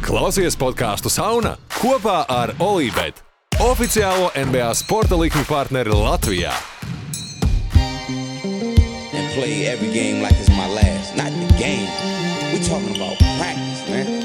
Klausies podcastu Sauna kopā ar Olībet, oficiālo NBA sporta likmi partneri Latvijā. And play every game like it's my last. Not the game. We're talking about practice, man.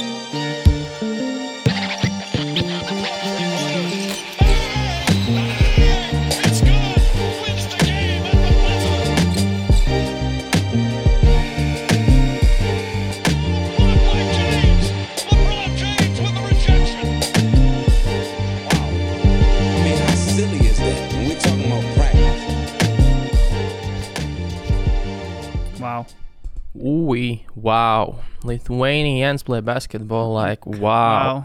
Wow. Lithuanians play basketball like wow.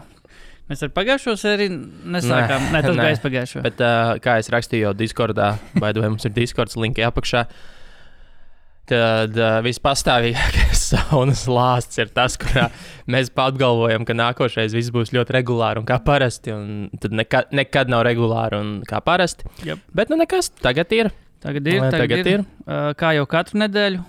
Mēs ar pagājušo sēriju nesākām. Nē, tas bija pagājušo. Bet kā es rakstīju jau Discordā, vai mums ir Discords linki apakšā, tad vispastāvīgākais saunas lāsts ir tas, kurā mēs apgalvojam, ka nākošais viss būs ļoti regulāri un kā parasti, un tad nekad nav regulāri un kā parasti. Yep. Bet nekas, tagad ir. Tagad ir. Kā jau katru nedēļu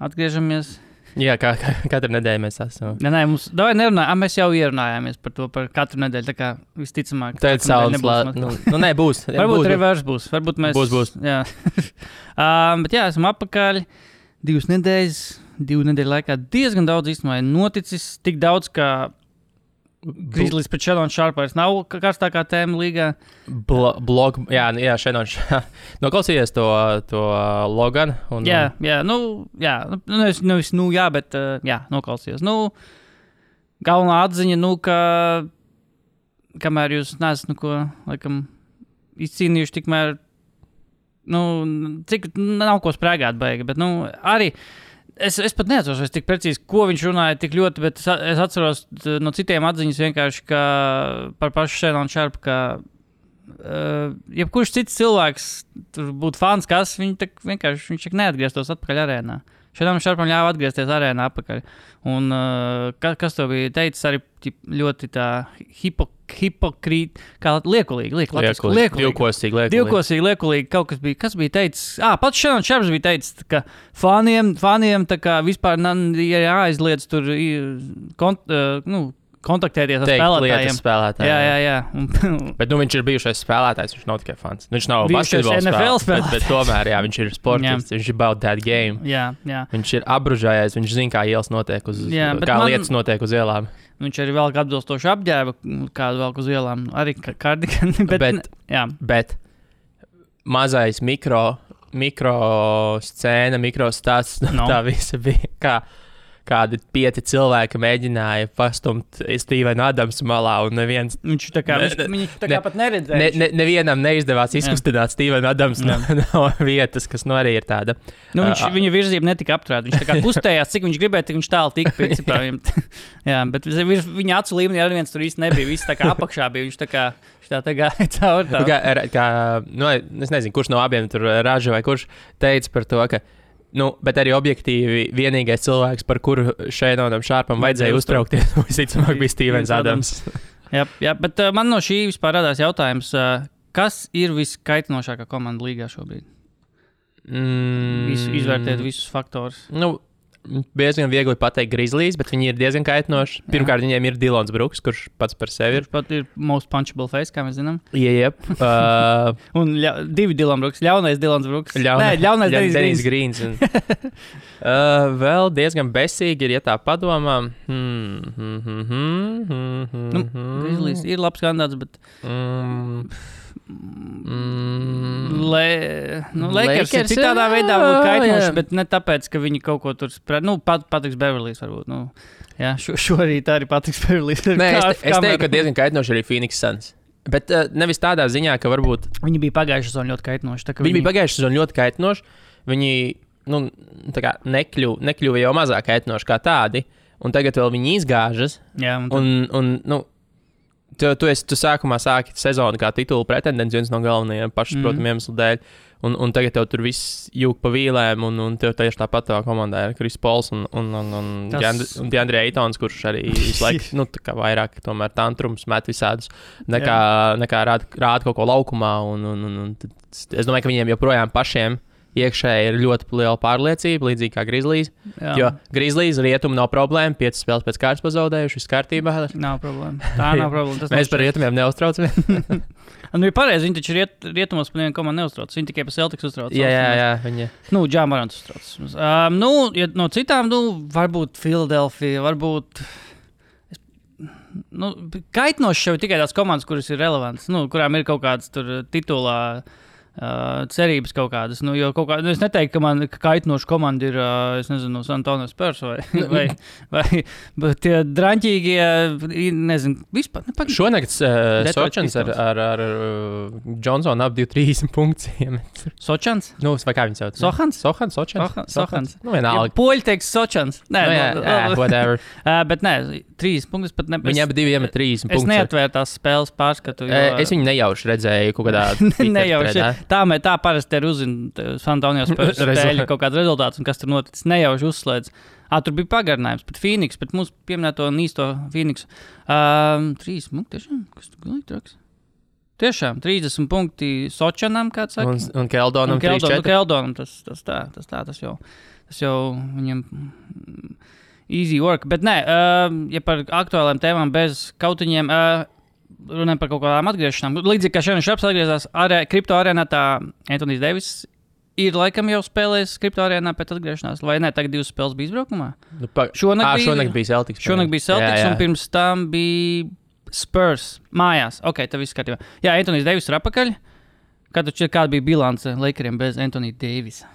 atgriežamies. Jā, kā katru nedēļu mēs esam. Nē, mēs jau ierunājāmies par to par katru nedēļu, tā kā visticamāk. Tad saules lāsts. Būs. Varbūt reverse būs. Varbūt mēs... Būs. Jā. Bet jā, esam apakaļ 2 nedēļu laikā. Diezgan daudz īstenībā noticis. Tik daudz, ka Grizzlies pret Shannon Sharp vairs nav karstākā tēma līgā. Jā, Shannon Sharp. Noklausījies to Logan? Jā, bet noklausījos. Galvenā atziņa, ka kamēr jūs neesat, laikam, izcīnījuši tikmēr, cik nav ko sprēgāt baigi, bet, arī Es pat neatceros tik precīzi, ko viņš runāja tik ļoti, bet es atceros no citiem atziņas vienkārši, ka par pašu Shannon Sharp, ka jebkurš cits cilvēks tur būtu fans, kas viņš neatgrieztos atpakaļ arēnā. Shannon Sharpam ļāva atgriezties arēnā atpakaļ. Un kas to bija teicis arī ļoti tā hipokrīt, kā liekulīgi. Divkosīgi liekulīgi kaut kas bija. Kas bija teicis? Pats Shannon Sharps bija teicis, ka faniem tā kā vispār jāaizliedz tur kontaktēties ar spēlētājiem. Jā. Bet viņš ir bijušais spēlētājs, viņš nav tikai fans. Viņš nav basketbola spēlētājs, bet tomēr, viņš ir sportists, viņš ir about that game. Jā. Viņš ir apbružājies, viņš zina, kā ielas notiek lietas notiek uz ielām. Viņš arī velk atbilstošu apģērbu, kādu velk uz ielām, arī kardigani, bet mazais mikro scēna, mikro stāsts, tā visa bija kādi 5 cilvēki mēģināja pastumt Stevenu Adamsu malā, un neviens... Viņš tā kā pat neredzēja. Nevienam neizdevās izkustināt Stevenu Adamsu no vietas, kas arī ir tāda. Viņa virzība netika apturēta. Viņš tā kā kustējās, cik viņš gribēja, tik viņš tālu tika, principā. Jā, bet viņa acu līmenī arī viens tur īsti nebija. Viss tā kā apakšā bija. Viņš tā gāja cauri tā. Es nezinu, kurš no abiem tur Raža vai kurš teica par to, ka bet arī objektīvi vienīgais cilvēks, par kuru Shannonam Sharpam vajadzēja uztraukties, visticamāk bija Stevens Adams. Jā, bet man no šī vispār radās jautājums, kas ir viskaitinošākā komanda līgā šobrīd? Izvērtēt visus faktorus. Diezgan viegli pateikt Grizzlies, bet viņi ir diezgan kaitinoši. Pirmkārt, viņiem ir Dylans Brooks, kurš pats par sevi ir. Kurš pat ir most punchable face, kā mēs zinām. Jep. Un 2 Dylan Brooks. Ļaunais Dylans Brooks. Ļaunais Dennis Greens. Vēl diezgan besīgi ir, ja tā padomā. Grizzlies ir labs kandidāts, bet... Lakers ir citādā veidā kaitinoši, bet ne tāpēc, ka viņi kaut ko tur Patriks Beverlijs varbūt. Šorīt arī Patriks Beverlijs. Es teiktu, ka diezgan kaitinoši arī Phoenix Suns. Bet nevis tādā ziņā, ka varbūt... Viņi bija pagājušā sezona ļoti kaitinoši. Viņi bija pagājušā sezona ļoti kaitinoši. Viņi nekļuva jau mazāk kaitinoši kā tādi. Un tagad vēl viņi izgāžas. Jā, Tu sākumā sāki sezonu kā titula pretendents, viens no galvenajiem pašsaprotamiem iemeslu dēļ, un tagad tev tur viss jūg pa vīlēm, un tev tieši tāpat tavā komandā ir Chris Pauls un DeAndre Aytons, kurš arī visu laiku, vairāk tomēr tantrums met visādus, nekā rāda kaut ko laukumā, un es domāju, ka viņiem joprojām pašiem iekšēji ir ļoti liela pārliecība, līdzīgi kā Grizzlies. Jā. Jo Grizzlies rietumu nav problēma, 5 spēles pēc kārtas pazaudējuši, viss kārtībā. Nav problēma. Tā nav problēma. Mēs par rietumiem neuztraucamies. Nu, ir pareizi, viņi taču rietumos par nevienu komandu neuztrauc. Viņi tikai par Celtics uztrauc. Jā, viņi. Nu, Džāmarants uztrauc. Ja no citām, varbūt Philadelphia, varbūt... Kaitnoši jau tikai tās komandas, kuras ir relevantas, kurām ir kaut kādas tur titulā cerības kaut kādas. Jo kaut kāda, es neteiktu, ka kaitnoša komanda ir, es nezinu, San Antonio Spurs vai tie draņķīgie, nezinu, vispār. Šonakt Sočans ar Johnsonu ap 30 punktiem. Sočans? Vai kā viņi sauc? Sochans. Vienalga. Ja poļi teiks Sočans. Nē, whatever. Bet nē, 3 punktus pat ne. Viņi abi divi iemet 30 punktus. Es neatvēru tās spēles pārskatu. Es viņu nejauši redzēju kaut kādā nejauši. Tā parasti ir uzzina San Antonio Spurs spēļu kaut kāds rezultāts un kas tur noticis. Nejauši uzslēdz. Tur bija pagarinājums pret Phoenix, pret mūsu pieminēto nīsto Phoenix. 3 punkti, tiešām? Kas tu gulīgi traks? Tiešām, 30 punkti Sočanam, kāds saka. Un Keldonam 3-4. Keldonam, tas jau viņam easy work. Bet nē, ja par aktuāliem tēmām bez kautiņiem, runājam par kaut kādām atgriešanām. Līdzīgi kā Šerons Šraps atgriezās kripto arēnā, tā Anthony's Davis ir laikam jau spēlējis kripto arēnā pēc atgriešanās, vai ne? Tagad 2 spēles bija izbraukumā? Šonakt bija Celtics. Šonakt bija Celtics, un pirms tam bija Spurs mājās. Ok, tā viss kārtībā. Jā, Anthony's Davis ir apakaļ. Kāda bija bilance Lakeriem bez Anthony Davisa?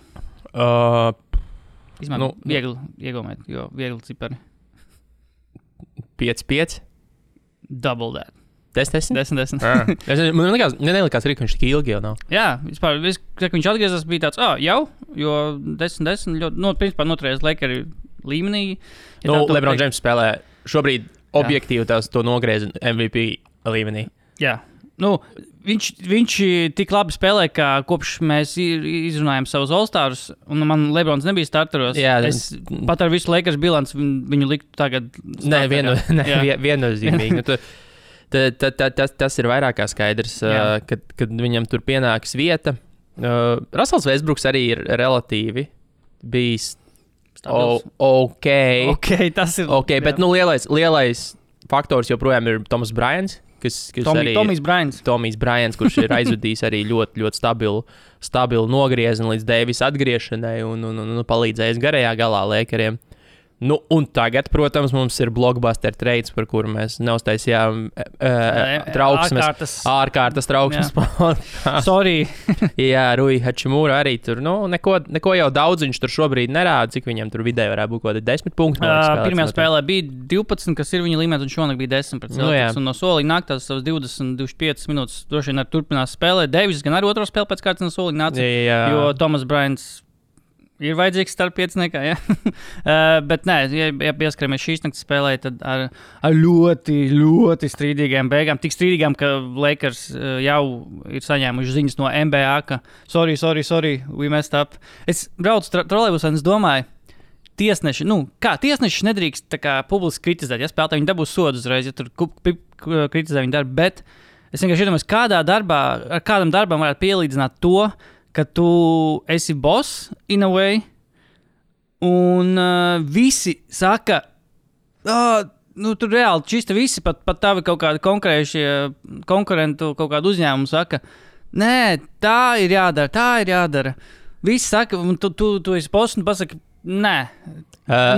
Viegli iegūmēt, jo viegli cipari. 5-5? Double that. 10? 10. Man nelikās arī, ka viņš tik ilgi jau nav. Jā, vispār, kad viņš atgriezās, bija tāds, jau, jo 10, ļoti, principā noturējās Lakeri līmenī. Ja LeBron James spēlē šobrīd objektīvi to nogriez MVP līmenī. Jā, viņš tik labi spēlē, ka kopš mēs izrunājam savus All-Stars, un man LeBrons nebija starteros. Jā, es pat ar visu Lakers bilanci viņu liktu tagad. Viennozīmīgi. Tas ir vairāk kā skaidrs, kad viņam tur pienāks vieta. Russells Westbrooks arī ir relatīvi bijis ok, tas ir. Okay, bet lielais faktors joprojām ir Toms Bryants, Tomijs Bryants, kurš ir aizvadījis arī ļoti, ļoti stabilu nogriezienu līdz Davisa atgriešanai un palīdzējis garajā galā Lakeriem. Un tagad, protams, mums ir blockbuster trades, par kuru mēs neuztaisījām ārkārtas trauksmes. Sorry. Jā, Rui Hachimura arī tur. Neko jau daudz viņš tur šobrīd nerāda, cik viņam tur vidēji varētu būt kaut kādi 10 punkti. Pirmajā spēlē bija 12, kas ir viņa līmenis, un šonakt bija 10 pret Celtics. Un no soliņa nāk tās savas 20-25 minūtes. Droši vien arī turpinās spēlēt. Davis gan arī otro spēli pēc kārtas no soliņa nāca, jo Tomas Bryants ir vajadzīgs starp pieciniekā, ja? Bet nē, ja pieskaramies šīs naktas spēlē, tad ar ļoti, ļoti strīdīgām beigām. Tik strīdīgām, ka Lakers jau ir saņēmuši ziņas no NBA, ka sorry, we messed up. Es braucu trolejbusā un es domāju, tiesneši nedrīkst tā kā publiski kritizēt, ja spēlētāji viņi dabūs sodu uzreiz, ja tur kritizē viņu darbu, bet es vienkārši iedomājos, kādam darbam varētu pielīdzināt to, ka tu esi boss in a way, un visi saka, tur reāli čista visi, pat tavi kaut kādi konkurentu kaut kādu uzņēmumu saka, nē, tā ir jādara. Visi saka, un tu esi boss, un pasaka, nē,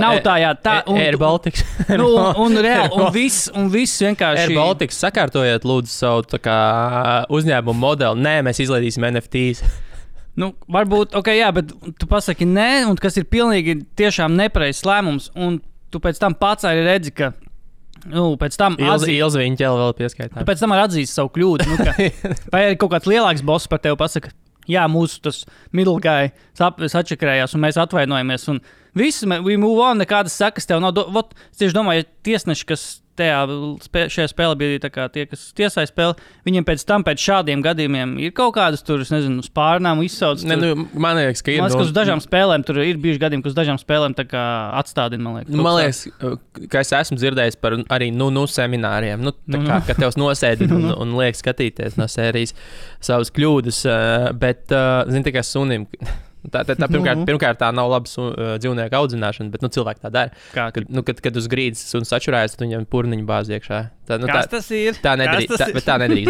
nav tā jādara. Air Baltics. Un reāli, un viss vienkārši. Air Baltics, sakārtojiet lūdzu savu tā kā uzņēmumu modeli. Nē, mēs izlaidīsim NFTs. Varbūt, jā, bet tu pasaki nē, un kas ir pilnīgi tiešām nepareizs lēmums, un tu pēc tam pats arī redzi, ka, pēc tam Ilzi viņa ķēla vēl pieskaitā. Tu pēc tam arī atzīsti savu kļūdu, vai arī kaut kāds lielāks boss par tevi pasaka, jā, mūsu tas middle guy sačakrējās, un mēs atvainojamies, un viss, we move on, nekādas sekas tev nav. Es tieši domāju, ja tiesneši, kas šajā spēlē bija tā kā tie, kas tiesāja spēli, viņiem pēc šādiem gadījumiem ir kaut kādas tur, es nezinu, spārnām izsauc. Man liekas, ka ir. Man liekas, ka uz dažām spēlēm tur ir bijuši gadījumi, ka uz dažām spēlēm tā kā atstādina, man liekas. Man liekas, ka es esmu dzirdējis par arī semināriem, tā kā, ka tevs nosēdina un liek skatīties no sērijas savas kļūdas, bet, zini, tikai sunim Pirmkārt, tā nav labas dzīvnieku audzināšana, bet cilvēki tā dara. Kad uz grīdas suns atšurājas, tad viņam purniņu bāz iekšā. Tas ir? Tā nedrīkst darīt.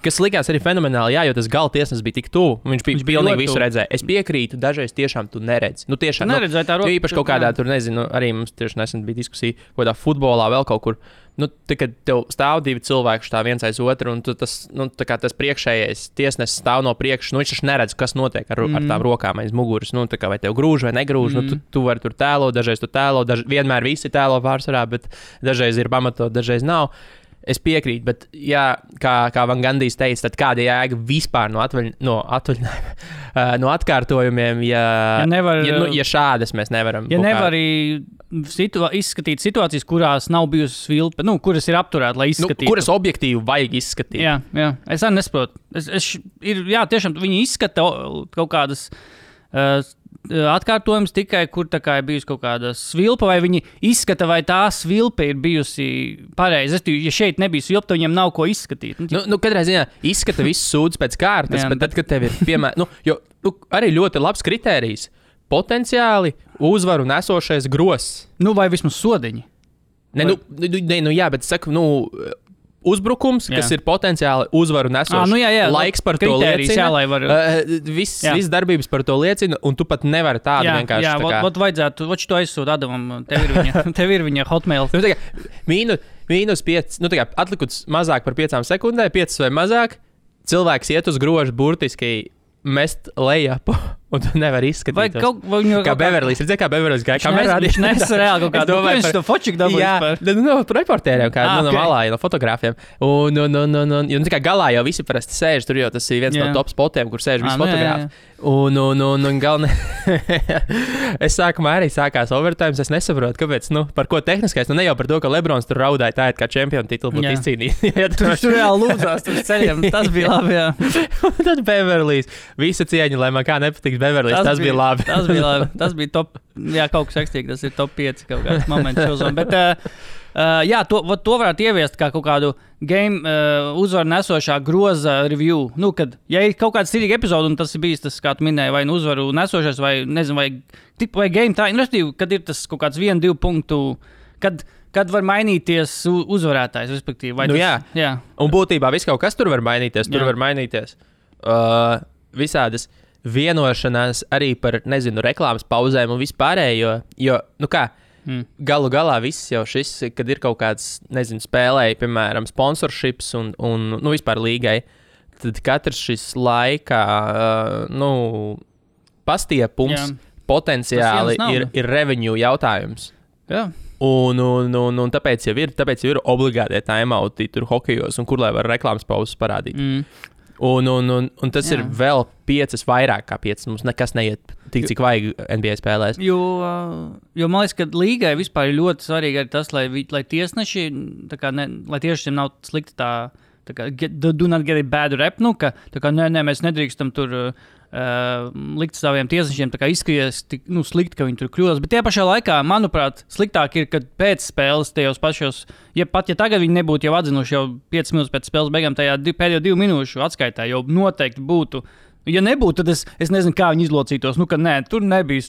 Kas likās arī fenomenāli, jo tas gala tiesnesis bija tik tuvu. Viņš pilnīgi visu redzēja. Es piekrītu, dažreiz tiešām tu neredzi. Tiešām neredzēji tā roka. Īpaši kaut kādā, tur nezinu, arī mums tieši nesen bija diskusija, kaut kādā futbolā vēl kaut kur. Kad tev stāv divi cilvēki tā viens aiz otru, un tas priekšējais tiesnesis stāv no priekšas, viņš taču neredz, kas notiek ar tām rokām aiz muguras. Vai tev grūž vai negrūž, tu vari tur tēlot, dažreiz tu tēlo, vienmēr visi tēlo pārsvarā, bet dažreiz ir pamatot, dažreiz nav. Es piekrītu, bet, jā, kā Van Gandijs teica, tad kāda jēga vispār no atkārtojumiem, ja šādas mēs nevaram. Ja nevar izskatīt situācijas, kurās nav bijusi svilpe, kuras ir apturēta, lai izskatītu. Kuras objektīvi vajag izskatīt. Jā. Es arī nesaprotu. Tiešām viņi izskata kaut kādas atkārtojums tikai, kur ir bijusi kaut kāda svilpa, vai viņi izskata, vai tā svilpe ir bijusi pareizi. Ja šeit nebija svilpa, tad viņiem nav ko izskatīt. Katrā ziņā izskata visu sūdzu pēc kārtas, bet tad, kad tev ir piemēram, arī ļoti labs kritērijs, potenciāli uzvaru nesošais gross. Vai vismaz sodiņi. Bet saku, uzbrukums, kas ir potenciāli uzvaru nesošs. Laiks par to liecina. Viss darbības par to liecina, un tu pat nevari tādu vienkārši. Jā, vajadzētu, to aizsūt Adamam, tev ir viņa hotmail. Mīnus 5, atlikuts mazāk par 5 sekundēm, 5 vai mazāk, cilvēks iet uz grožu burtiski mest lejapu, un tu nevari izskatīt. Kā Beverlijs. Redzēji, kā Beverlijs gāja kamerā? Viņš nesa reāli kaut kādu. Viņš to fočiku dabūja. No reportēriem, no malā, no fotogrāfiem. Un galā jau visi parasti sēž, tur jau tas ir viens no top spotiem, kur sēž visi fotogrāfi. Un galvenā. Es sākumā arī sākās overtime, es nesaprotu, kāpēc, par ko tehniskais, ne jau par to, ka Lebrons tur raudāja tā, kā čempionu titulu būtu izcīnījis. Tur reāli lūdzās, tur ceļiem, tas bija labi, jā. Tad Beverlijs, visa cieņa, lai man kā nepatiks Beverlijs, tas bija labi. Tas bija top, kaut kas ekstīgi, tas ir top 5 kaut kāds moments šozom, bet to varētu ieviest kā kaut kādu game uzvaru nesošā groza review. Kad, ja ir kaut kāda stilīga epizode, un tas ir bijis tas, kā tu minēji, vai uzvaru nesošais, vai nezinu, vai game tā, kad ir tas kaut kāds 1-2 punktu, kad var mainīties uzvarētājs, respektīvi. Jā. Un būtībā viss kaut kas tur var mainīties. Tur var mainīties visādas vienošanās arī par, reklāmas pauzēm un vispārējo, jo, galu galā viss jau šis, kad ir kaut kāds, spēlēji, piemēram, sponsorships un vispār līgai, tad katrs šis laikā, pastiepums potenciāli ir revenue jautājums. Jā. Un tāpēc jau ir obligātie timeouti tur hokejos, un kur lai var reklāmas pauzes parādīt. Un tas ir vēl 5 vairāk kā 5. Mums nekas neiet tik, cik vajag NBA spēlēs. Jo man liekas, ka līgai vispār ir ļoti svarīgi arī tas, lai tiesneši, lai tiešām nav slikti tā kā do not get a bad rep, mēs nedrīkstam tur likt saviem tiesnešiem izskaties slikti, ka viņi tur kļūdās. Bet tajā pašā laikā, manuprāt, sliktāk ir, kad pēc spēles tajos pašos, ja tagad viņi nebūtu jau atzinuši jau 5 minūtes pēc spēles beigām, tajā pēdējo 2 minūšu atskaitā jau noteikti būtu. Ja nebūtu, tad es nezinu, kā viņi izlocītos. Tur nebija.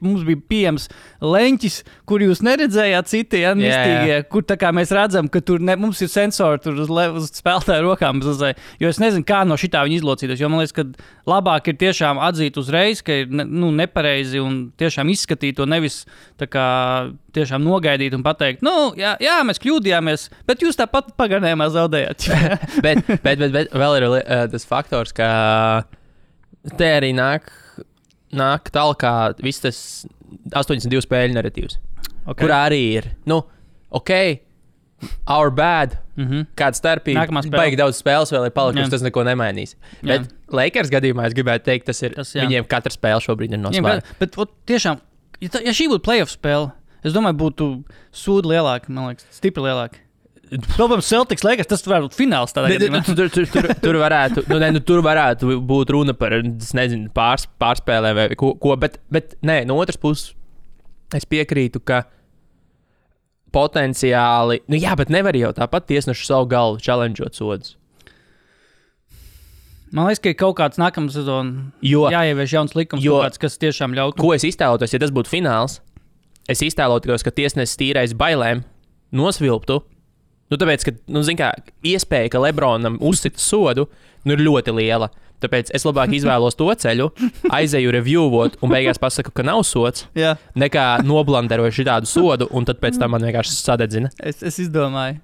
Mums bija pieejams leņķis, kur jūs neredzējāt citi, mistīgie, kur mēs redzam, ka tur mums ir sensori tur uz spēlētāju rokām. Jo es nezinu, kā no šitā viņi izlocītos. Jo man liekas, ka labāk ir tiešām atzīt uzreiz, ka ir nepareizi un tiešām izskatīt to nevis tiešām nogaidīt un pateikt, jā, mēs kļūdījāmies, bet jūs tāpat pagarnējumā zaudējāt. bet vēl ir tas faktors, ka te arī nāk tālāk viss tas 82 spēļu narratīvs, kurā arī ir, our bad, kāda starpība, baigi daudz spēles vēl ir palikusi, tas neko nemainīs. Bet Lakers gadījumā es gribētu teikt, tas ir, viņiem katra spēle šobrīd ir nosvērta. Bet tiešām, ja šī būtu playoff spēle, es domāju, būtu sūdi lielāki, man liekas, stipri lielāki. Protams, Celtics Lakers, tas varētu būt fināls tādā gadījumā. Tur varētu būt runa par, pārspēlēm vai ko, bet nē, no otras puses es piekrītu, ka potenciāli, bet nevar jau tāpat tiesnešu savu galvu challengeot sodus. Man liekas, ka ir kaut kāds nākamā sezona jāievieš jauns likums, kas tiešām ļautu. Ko es iztēlotos, ja tas būtu fināls? Es iztēlotos, ka tiesnesis tīrais bailēm nosvilptu. Tāpēc, ka, iespēja, ka Lebronam uzsit sodu, ir ļoti liela. Tāpēc es labāk izvēlos to ceļu, aizeju reviewot un beigās pasaku, ka nav sods, nekā noblanderoju šitādu sodu, un tad pēc tam man vienkārši sadedzina. Es izdomāju,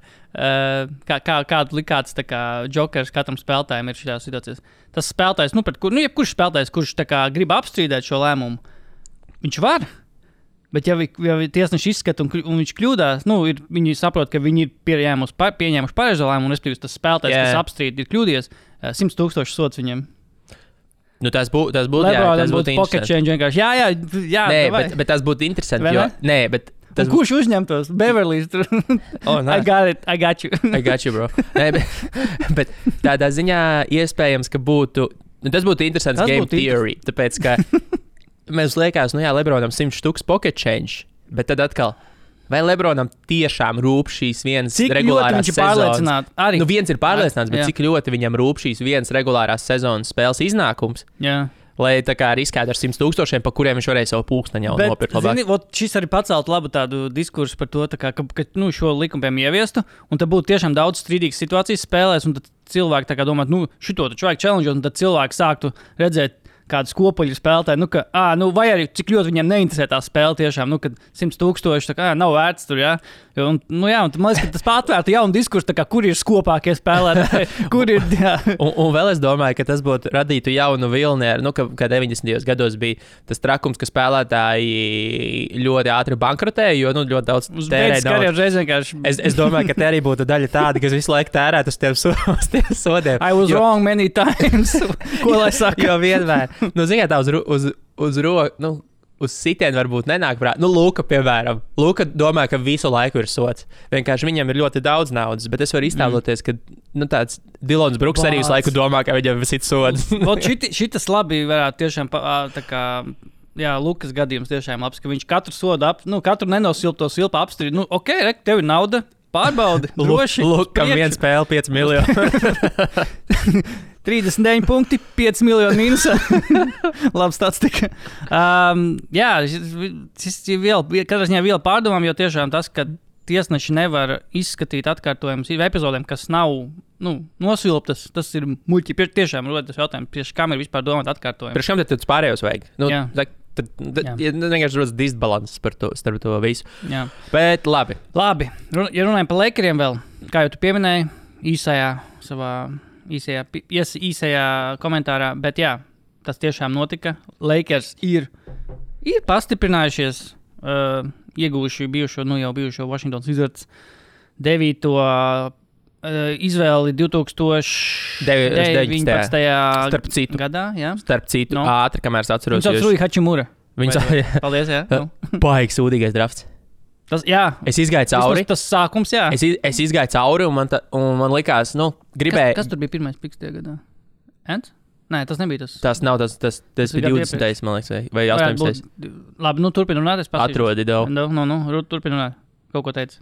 kādu likāts jokers katram spēlētājam ir šajā situācijā. Tas spēlētājs, jebkurš spēlētājs, kurš grib apstrīdēt šo lēmumu, viņš var. Bet, ja tiesneši izskata un viņš kļūdās, viņi saprot, ka viņi ir pieņēmuši pareizo lēmumu, un respektīvi tas spēlētājs, kas apstrīd, ir kļūdījies, 100,000 sods viņiem. Tas būtu pocket change vienkārši. Jā. Bet tas būtu interesanti. Kurš uzņemtos? Beverlīs. I got you. I got you, bro. bet tādā ziņā iespējams, ka būtu. Tas būtu interesants game theory. Tāpēc, ka mēs liekas, Lebronam 100,000 pocket change, bet tad atkal, vai Lebronam tiešām rūp šīs vienas regulārās sezonas? Viens ir pārliecināts, bet cik ļoti viņam rūp šīs vienas regulārās sezonas spēles iznākums? Jā. Lai tā kā riskētu ar 100,000, pa kuriem viņš varēja savu pulksteņu jau nopirkt labāk. Šis arī pacelt labu tādu diskursu par to, ka šo likumu piemēram ieviestu, un tad būtu tiešām daudz strīdīgas situācijas spēlēs, un tad cilvēki domā, šito taču vajag challenge, un tad cilvēki sāktu redzēt kādas kopuļu spēlētāji, vai arī cik ļoti viņiem neinteresē tā spēle tiešām, kad 100,000 nav vērts tur, jā. Un man liekas, ka tas patvērtu jaunu diskursu, kur ir skopākie spēlētāji, kur ir, jā. Un vēl es domāju, ka tas būtu radītu jaunu vilni, kā 90. gados bija tas trakums, ka spēlētāji ļoti ātri bankrotēja, jo ļoti daudz tērēja. Es domāju, ka te arī būtu daļa tāda, kas visu laiku tērētu uz tiem sodiem. I was wrong many times. Ko lai saka? Jo vienmēr. Ziniet, tā uz sitienu varbūt nenāk prāt. Luka, piemēram. Luka domā, ka visu laiku ir sots. Vienkārši viņam ir ļoti daudz naudas, bet es varu iztēloties, ka tāds Dilons Bruks arī visu laiku domā, ka viņam ir sods. Šitas labi varētu tiešām Lukas gadījums tiešām labs, ka viņš katru sodu katru nenosilpto silpu apstrīd. Tev ir nauda, pārbaudi, droši. Lukam viena spēle 5 miljoni. 39 punkti, 5 miljoni mīnusā. Labi statistika. Šis ir katrā ziņā vēl pārdomām, jo tiešām tas, ka tiesneši nevar izskatīt atkārtojumus epizodēm, kas nav nosilptas, tas ir muļķi. Tiešām rodas jautājums, priekš kam ir vispār domāt atkārtojumi. Priekš kam tad pārējos vajag? Tad vienkārši rodas disbalanss starp to visu. Jā. Bet labi. Ja runājam par Lakeriem vēl, kā jau tu pieminēji, īsajā komentārā, bet jā, tas tiešām notika. Lakers ir pastiprinājušies, ieguvuši jau bijušo Washington Wizards 9. Izvēli 2019. gadā. Jā. Starp citu, ātri, kamēr es atceros. Viņš sauc Rui Hachimura. Paldies, jā. Baigs sūdīgais drafts. Es izgāju cauri. Tas sākums, jā. Es izgāju cauri, un man likās, gribēju. Kas tur bija pirmais piks tajā gadā? Ants? Nē, tas nebija tas. Tas nav tas bija 20. man liekas, vai 18. Labi, turpin runāt, es pasīšu. Atrodi daudz. Turpin runāt. Kaut ko teici.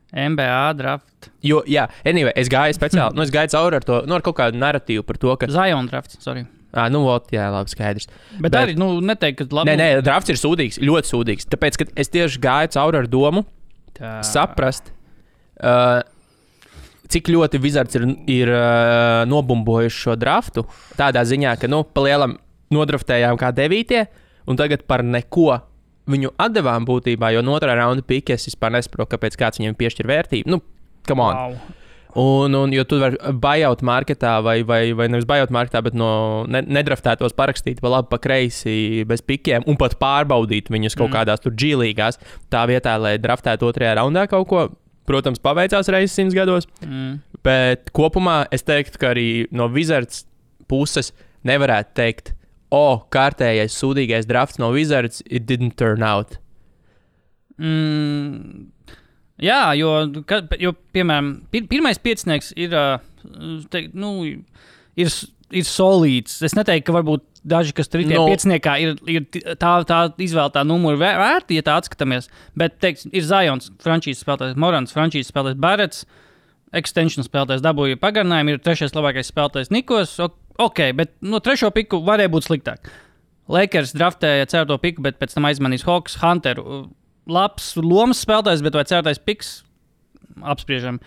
NBA draft. Jo, jā, anyway, es gāju speciāli, es gāju cauri ar to, ar kaut kādu narratīvu par to, ka... Zion drafts, sorry. Jā, labi, skaidrs. Bet arī, neteikt, ka labi... Nē, drafts ir sūdīgs, ļoti sūdīgs. Tāpēc, ka es tieši gāju cauri ar domu saprast, cik ļoti Wizards ir nobumbojuši šo draftu. Tādā ziņā, ka, pa lielam nodraftējām kā 9. un tagad par neko viņu atdevām būtībā, jo no otrā raunda pika es vispār nesaprotu, kāpēc kāds viņam piešķir vērtību. Come on. Wow. Un jo tu vari buyout marketā vai nevis buyout marketā, bet no nedraftētos parakstīt pa labi, pa kreisi bez pikiem un pat pārbaudīt viņus kaut kādās tur G-līgās. Tā vietā, lai draftētu 2. raundā kaut ko, protams, paveicās reizes 100 gados. Bet kopumā es teiktu, ka arī no Wizards puses nevarētu teikt, kārtējais sūdīgais drafts no Wizards, it didn't turn out. Jā, jo piemēram, pirmais piecinieks ir solīds. Es neteiktu, ka varbūt daži, kas tur ir pieciniekā, ir tā izvēlētā numura vērti, ja tā atskatāmies. Bet, ir Zions, frančīzes spēlētājs, Morants, frančīzes spēlētājs Barretts, extension spēlētājs dabūja pagarinājumu, ir 3. labākais spēlētājs Nikos, ok, bet no 3. piku varēja būt sliktāk. Lakers draftēja 4. piku, bet pēc tam aizmanīs Hawks, Hunteru. Labs lomas spēlētājs, bet vai 4. piks? Apspriežam.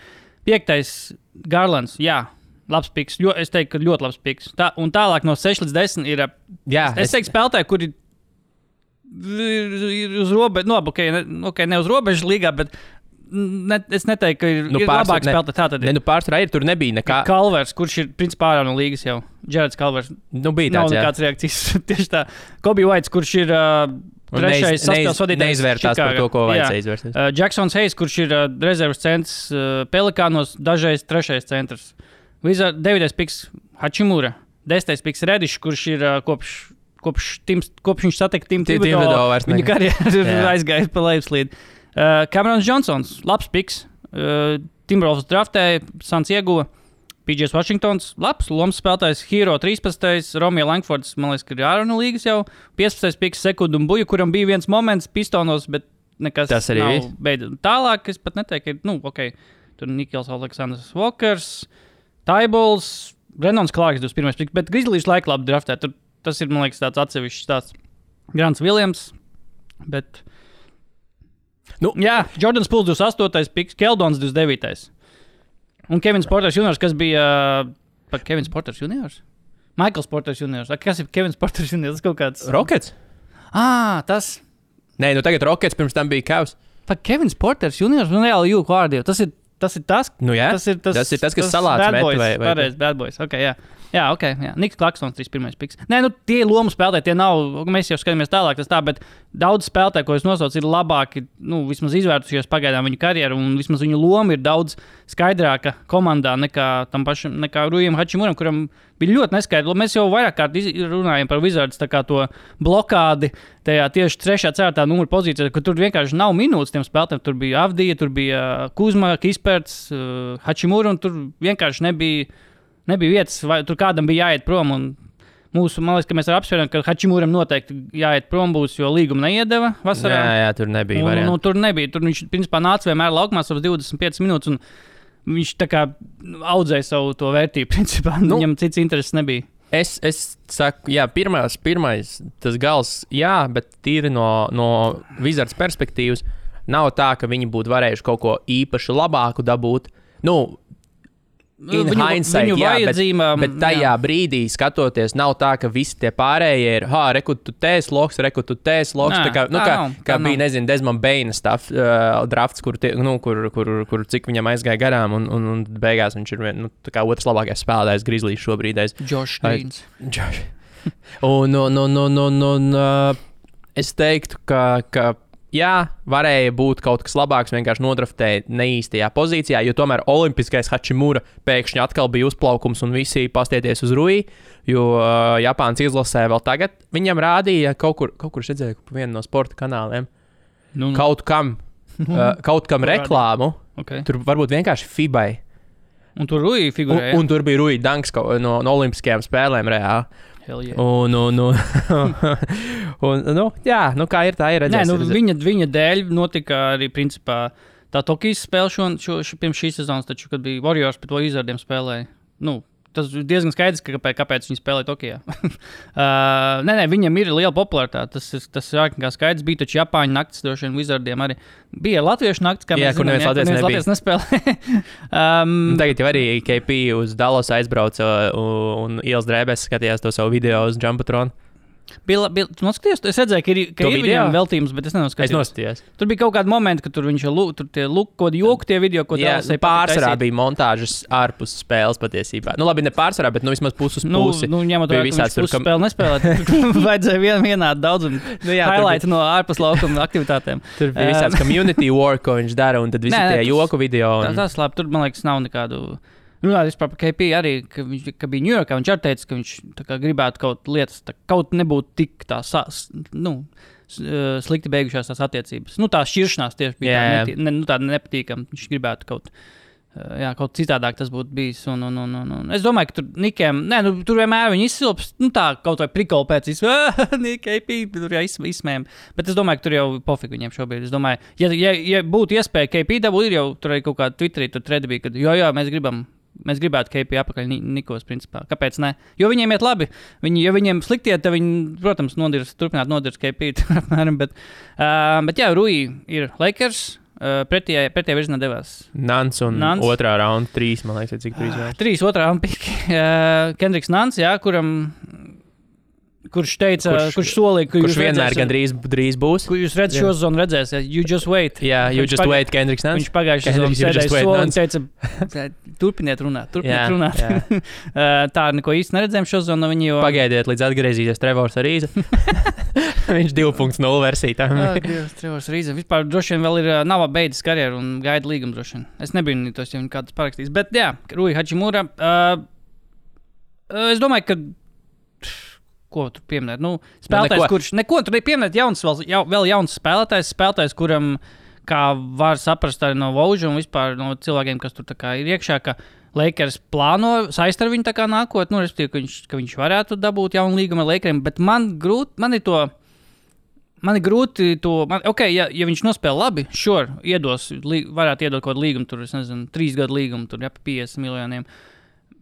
5. Garlands, jā. Labs piks, es teiktu, ka ļoti labs piks. Un tālāk no 6 līdz 10 ir. Es teiktu, spēlētāji, kuri ir uz robežas, ne uz robežas līgā, bet es neteiktu, ka ir labāk spēlētāji. Pārsvarā tur nebija nekā. Kalvers, kurš ir principā ārā no līgas jau. Jareds Kalvers. Bija tāds, nav nekāds reakcijas. Tieši tā. Kobe Whites, kurš ir trešais saspēles vadītājs. Neizvērtās par to, ko vajadzēja izvērst. Jacksons Hayes, kurš ir rezervas centrs Pelikānos, dažreiz 3. centrs. 9. piks Hachimura, 10. piks Redišs, kurš ir kopš viņš satika Tim Thibodeau, viņa karjera aizgāja pa lejupslīdi. Camerons Johnsons, labs piks. Timberwolves draftēja, Suns ieguva. PJs Washingtons, labs lomas spēlētājs. Hero 13. Romeo Langfords, man liekas, ka ir ārā no līgas jau. 15. piks Sekundu un Buju, kuram bija viens moments Pistonos, bet nekas tas arī nav beidzot. Tālāk es pat neteiktu, ka tur Nikels Aleksandrs Walkers. Taibols, Brennons Clarks 21. piks, bet Grizzlies laika labi draftē. Tas ir, man liekas, tāds atsevišķs tāds Grants Williams, bet... Jā, Jordans Pools 28. piks, Keldons 29. Un Kevins Porters Juniors, kas bija... Kevins Porters Juniors? Michaels Porters Juniors. Kas ir Kevins Porters Juniors? Tas kaut kāds... Rockets? Tas... Nē, tagad Rockets, pirms tam bija Cavs. Kevins Porters Juniors, reāli jūku vārdi. Tas ir tas, tas ir tas, kas salāts met vai... Pareiz, bad boys, jā. Jā. Niks Klaksons 31. piks. Nē, tie lomu spēlētāji, tie nav, mēs jau skatāmies tālāk, bet daudz spēlētāji, ko es nosaucu, ir labāki, vismaz izvērtušies pagaidām viņu karjeru, un vismaz viņu loma ir daudz skaidrāka komandā nekā Rujam Hachimuram, kuram bija ļoti neskaidrs. Mēs jau vairāk kārt runājam par Wizards, tā kā to blokādi tajā tieši 3. 4. numura pozīcijā, ka tur vienkārši nav minūtes tiem spēlētājiem. Tur bija Avdija, tur bija Kuzma, Kisperts, Hachimura, un tur vienkārši nebija vietas, vai tur kādam bija jāiet prom. Un man liekas, ka mēs apsvērām, ka Hachimuram noteikti jāiet prom būs, jo līgumu neiedeva vasarā. Jā, tur nebija variantu. Tur nebija. Tur viņš principā nāca vienmēr laukumā savas 25 minūtes, un viņš tā kā audzēja savu to vērtību. Principā viņam cits intereses nebija. Es saku, jā, pirmais tas gals, jā, bet tīri no Wizards perspektīvas nav tā, ka viņi būtu varējuši kaut ko īpaši labāku dabūt. Hindsight, bet tajā brīdī skatoties, nav tā, ka visi tie pārējie ir, reku tu tēs loks. Kā bija, nezinu, Desmond Baina drafts, kur cik viņam aizgāja garām, un beigās viņš ir otrs labākais spēlētājs Grizzlies šobrīd. Josh Greens. Un es teiktu, ka jā, varēja būt kaut kas labāks, vienkārši nodraftēja neīstajā pozīcijā, jo tomēr olimpiskais Hachimura pēkšņi atkal bija uzplaukums un visi pastieties uz Rui, jo Japānas izlasē vēl tagad viņam rādīja kaut kur redzēju pa vienu no sporta kanāliem, kaut kam reklāmu, tur varbūt vienkārši FIBai. Un tur Rui figurēja. Un tur bija Rui Danks no olimpiskajām spēlēm reāli. Yeah. Kā ir, tā ir redzēs. Viņa dēļ notika arī principā tā Tokijas spēle pirms šīs sezonas, taču, kad bija Warriors pret Wizardiem spēlēja. Tas ir diezgan skaidrs, kāpēc viņi spēlēja Tokijā. Viņam ir liela popularitāte. Tas ir ārkārtīgi skaidrs. Bija taču Japāņu naktis, droši vien Wizardiem arī. Bija latviešu naktis, kā mēs zinām, kur neviens Latvijas nespēlē. Tagad jau arī KP uz Dallas aizbrauca un ielas drēbēs skatījās to savu video uz Jumbotron. Tu noskaties? Es redzēju, ka ir viņam veltījums, bet es nenoskatījos. Es noskatījos. Tur bija kaut kādi momenti, ka tur viņš kaut joku tie video, ko Dallasai pārsvarā bija montāžas ārpus spēles patiesībā. Labi, ne pārsvarā, bet vismaz pusi uz pusi. Ņemot vērā, ka viņš pusi spēli nespēlēt. Vajadzēja vienādi daudz un highlight no ārpus laukuma aktivitātēm. Tur bija visāds community work, ko viņš dara, un tad visi tie joku video. Tas labi, tur, man liekas, nav nekādu... Runājot par KP arī, ka bija Ņujorkā, viņš arī teica, ka viņš gribētu kaut lietas, kaut nebūtu tik slikti beigušās tās attiecības. Tā šķiršanās tieši bija tāda nepatīkama. Viņš gribētu kaut citādāk tas būtu bijis. Un es domāju, ka tur Nikiem, tur vienmēr viņi izsilps, kaut vai prikolu pēc KP, tur jau izsmējam. Bet es domāju, ka tur jau pofīgi viņiem šobrīd. Es domāju, ja būtu iespēja KP dabūt, ir jau tur arī kaut kāda Twitterī, tur tredi bija, kad jā, mēs gribam mēs gribētu KP apakaļ Nikos, principā. Kāpēc ne? Jo viņiem iet labi. Ja viņiem slikti iet, tad viņi, protams, turpināt nodirs KP. Bet jā, Rui ir Lakers. Pretējā virzienā devās Nants un otrā raunda 3, man liekas, cik 3 vēl. 3 otrā raunda piki. Kendricks Nants, jā, kurš teica, kurš solīja, ka kurš vienmēr gan drīz būs. Jūs redzat šo sezonu redzēsiet, you just wait. Jā, you just wait, Kendricks Nants. Viņš pagājušajā sezonā sēdēja soli un teica, turpiniet runāt. Tā neko īsti neredzējām šo sezonu. Pagaidiet, līdz atgriezīsies Trevors Arīza. Viņš 2.0 versija. Trevors Arīza. Vispār droši vien vēl nav beidzis karjeru un gaida līgumu droši vien. Es nebiju tos, ja viņi kāds parakstīs. Bet jā, Rui Hachimura. Es domāju, ka ko tur pieminēt? Spēlētājs, kurš neko tur nepieminēt, vēl jauns spēlētājs, kuram, kā var saprast arī no Vauža un vispār no cilvēkiem, kas tur tā kā ir iekšā, ka Lakers plāno saist ar viņu tā kā nākot, respektīvi, ka viņš varētu dabūt jaunu līgumu ar Lakeriem, bet man ir grūti to, ja viņš nospēlē labi, varētu iedot kaut kādu līgumu, tur, es nezinu, 3 gadu līgumu, tur, pa 50 miljoniem.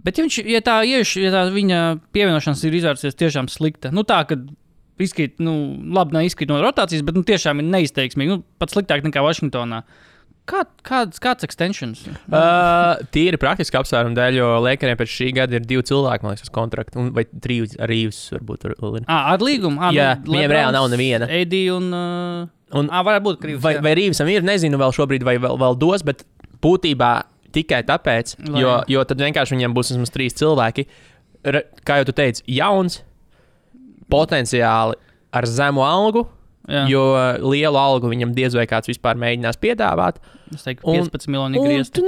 Bet ja tā viņa pievienošanās ir izvērsies tiešām slikta, tā, ka labi nav izkrīt no rotācijas, bet tiešām ir neizteiksmīgi, pat sliktāk nekā Vašingtonā. Kāds extensions? Tīri praktiski apsvērumu dēļ, jo Lakeriem pēc šī gada ir 2 cilvēki, man liekas, uz kontraktu, vai 3 ar Reeves varbūt vēl ir. Ar līgumu? Jā, viņiem reāli nav neviena. AD un varētu būt Reeves. Vai Reevesam ir, nezinu vēl šobrīd, vai vēl dos, bet būtībā tikai tāpēc, jo tad vienkārši viņiem būs vismaz 3 cilvēki. Kā jau tu teici, jauns, potenciāli ar zemu algu, jo lielu algu viņam diez vai kāds vispār mēģinās piedāvāt. Es teiktu, 15 miljoni griezt.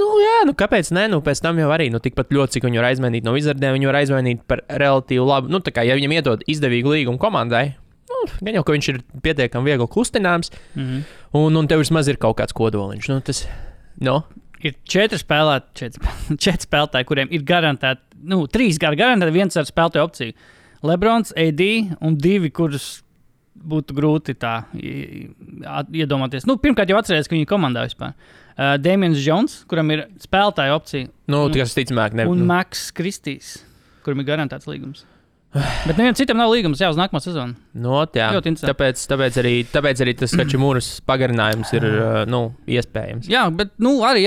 Kāpēc ne? Pēc tam jau arī, tikpat ļoti, cik viņi var aizmainīt no Wizardiem, viņi var aizmainīt par relatīvi labu, tā kā, ja viņam iedod izdevīgu līgumu komandai, gan jau, ka viņš ir pietiekami viegli kustināms, un tev vismaz ir kaut kāds kodoliņš. Ir 4 spēlētāji, kuriem ir garantēti, 3 garantēti, 1 ar spēlētāju opciju. Lebrons, AD un 2, kurus būtu grūti tā iedomāties. Pirmkārt jau atcerēties, ka viņi komandā vispār. Damians Jones, kuram ir spēlētāju opcija. Tas ticamāk ne. Un Max Kristīs, kuram ir garantēts līgums. Bet nevienam citam nav līgums uz nākamo sezonu. Tāpēc arī tas Hachimūras pagarinājums ir iespējams. Jā, bet arī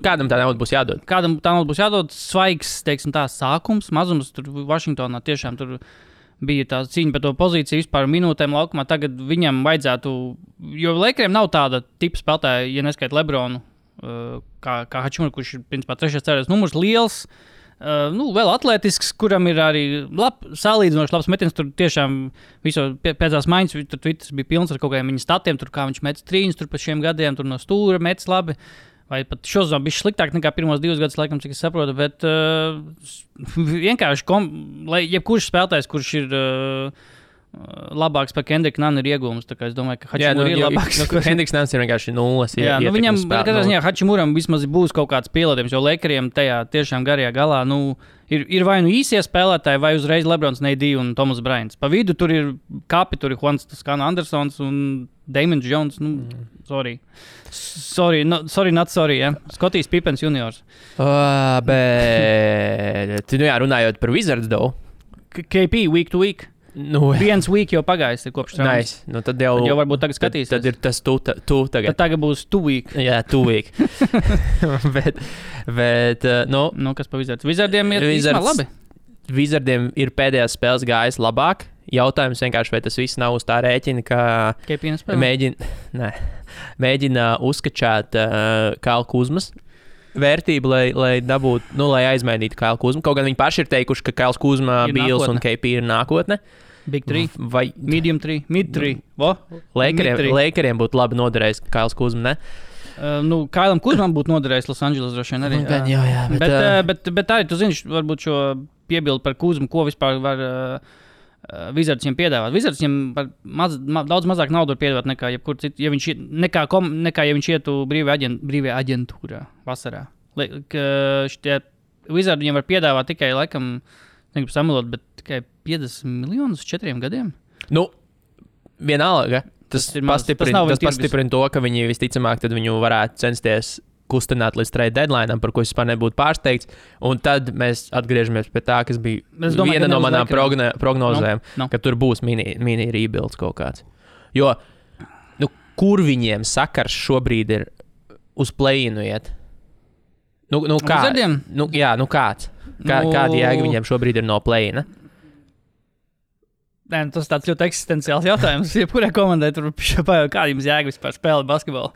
kādam tā nauda būs jādod. Kādam tā nauda būs jādod svaigs, teiksim tā, sākums, mazums. Tur Vašingtonā tiešām tur bija tā cīņa par to pozīciju vispār minūtēm laukumā. Tagad viņam vajadzētu, jo Lakeriem nav tāda tipa spēlētāja, ja neskait Lebronu, kā Hachimura, kurš ir principā 3. cēlējs numurs liels. Vēl atletisks, kuram ir arī salīdzinoši labs metiens. Tur tiešām pēdējās maiņas, tur Twitter bija pilns ar kaut kādiem viņa statiem, tur kā viņš met trīņus tur pa šiem gadiem, tur no stūra metis labi. Vai pat šozon bija sliktāk nekā pirmos 2 gadus, laikam, cik es saprotu, bet vienkārši, jebkurš spēlētājs, kurš ir labāks par Kendricku Nanu ir iegūms. Es domāju, ka Hachimura ir labāks. Kendricks Nans ir vienkārši 0. Viņam, katrā ziņā, Hachimuram vismaz būs kaut kāds pielādējums, jo Lakeriem tajā tiešām garajā galā, ir vai īsie spēlētāji, vai uzreiz Lebrons, AD un Thomas Bryants. Pa vidu tur ir kapi, tur ir Juans Toscano Andersons un Damians Jones. Sorry, ja. Skotijs Pippens juniors. Bet, runājot par Wizards, KP week to week. Viens week jau pagājis kopš traumas. Nice. Tad jau varbūt tagad skatīsies. Tad ir tas tu tagad. Tad tagad būs 2 week. Jā, 2 week. bet kas pa Wizards? Wizardiem ir īstenībā labi. Wizardiem ir pēdējās spēles gājis labāk. Jautājums vienkārši, vai tas viss nav uz tā rēķina, ka mēģina uzskačāt Kailu Kuzmas vērtību, lai dabūtu, lai aizmainītu Kailu Kuzmu. Kaut gan viņi paši ir teikuši, ka Kails Kuzma, Bīls un KP ir nākotne. Big 3, vai medium 3, mid 3. Lakeriem būtu labi noderējis Kails Kuzma, ne? Kailam Kuzmam būtu noderējis Los Angeles droši vien arī. Bet arī, tu zini, varbūt šo piebildu par Kuzmu, ko vispār var Wizards viņam piedāvāt. Wizards viņam daudz mazāk naudu var piedāvāt nekā jebkur citu, nekā ja viņš ietu brīvajā aģentūrā vasarā. Wizards viņam var piedāvāt tikai, laikam, negribu samalot, bet tikai 50 miljonus 4 gadiem. Vienalga. Tas pastiprina to, ka viņi visticamāk tad viņu varētu censties kustināt līdz trade deadline'am, par ko es vispār nebūtu pārsteigts. Un tad mēs atgriežamies pie tā, kas bija viena no manām prognozēm, ka tur būs mini rebuilds kaut kāds. Jo, kur viņiem sakars šobrīd ir uz play-inu iet? Kā? Kāds? Kādi jēga viņiem šobrīd ir no play-ina? Nē, tas tāds ļoti eksistenciāls jautājums. Jebkurai komandai tur pajaukt, kāda jums jēga vispār spēlēt basketbolu?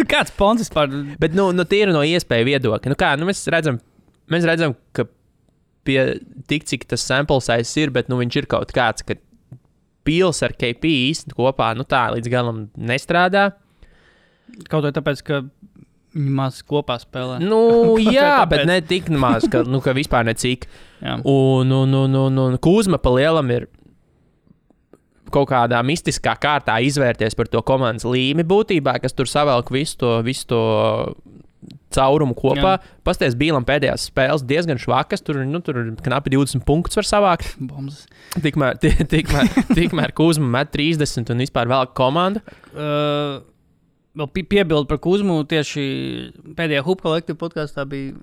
Kāds pons vispār? Bet, tīri no iespēju viedokļa. Mēs redzam, ka pie tik, cik tas sample size ir, bet viņš ir kaut kāds, ka Pils ar KP īsti kopā, tā līdz galam nestrādā. Kaut vai tāpēc, ka viņi maz kopā spēlē. Jā, bet ne tik maz, ka vispār necik. Un Kuzma pa lielam ir kaut kādā mistiskā kārtā izvērties par to komandas līmi būtībā, kas tur savelk visu to caurumu kopā. Pasties Bīlam pēdējās spēles diezgan švakas, tur knapi 20 punktus var savākt. Bombas. Tikmēr Kuzma met 30 un vispār velk komandu. Vēl piebildu par Kuzmu tieši pēdējā Hoop Collective podkastā bija,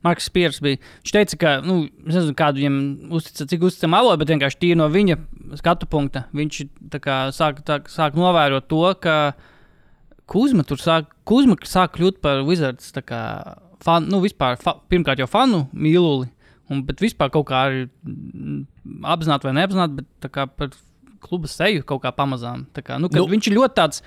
Marks Spears bija. Viņš teica, ka, es nezinu, kādu viņam cik uzticam avotu, bet vienkārši tīri no viņa skatu punkta. Viņš sāk novērot to, ka Kuzma sāk kļūt par Wizards vispār, pirmkārt jau fanu mīluli, bet vispār kaut kā arī apzināti vai neapzināti, bet tā kā par kluba seju kaut kā pamazām. Viņš ir ļoti tāds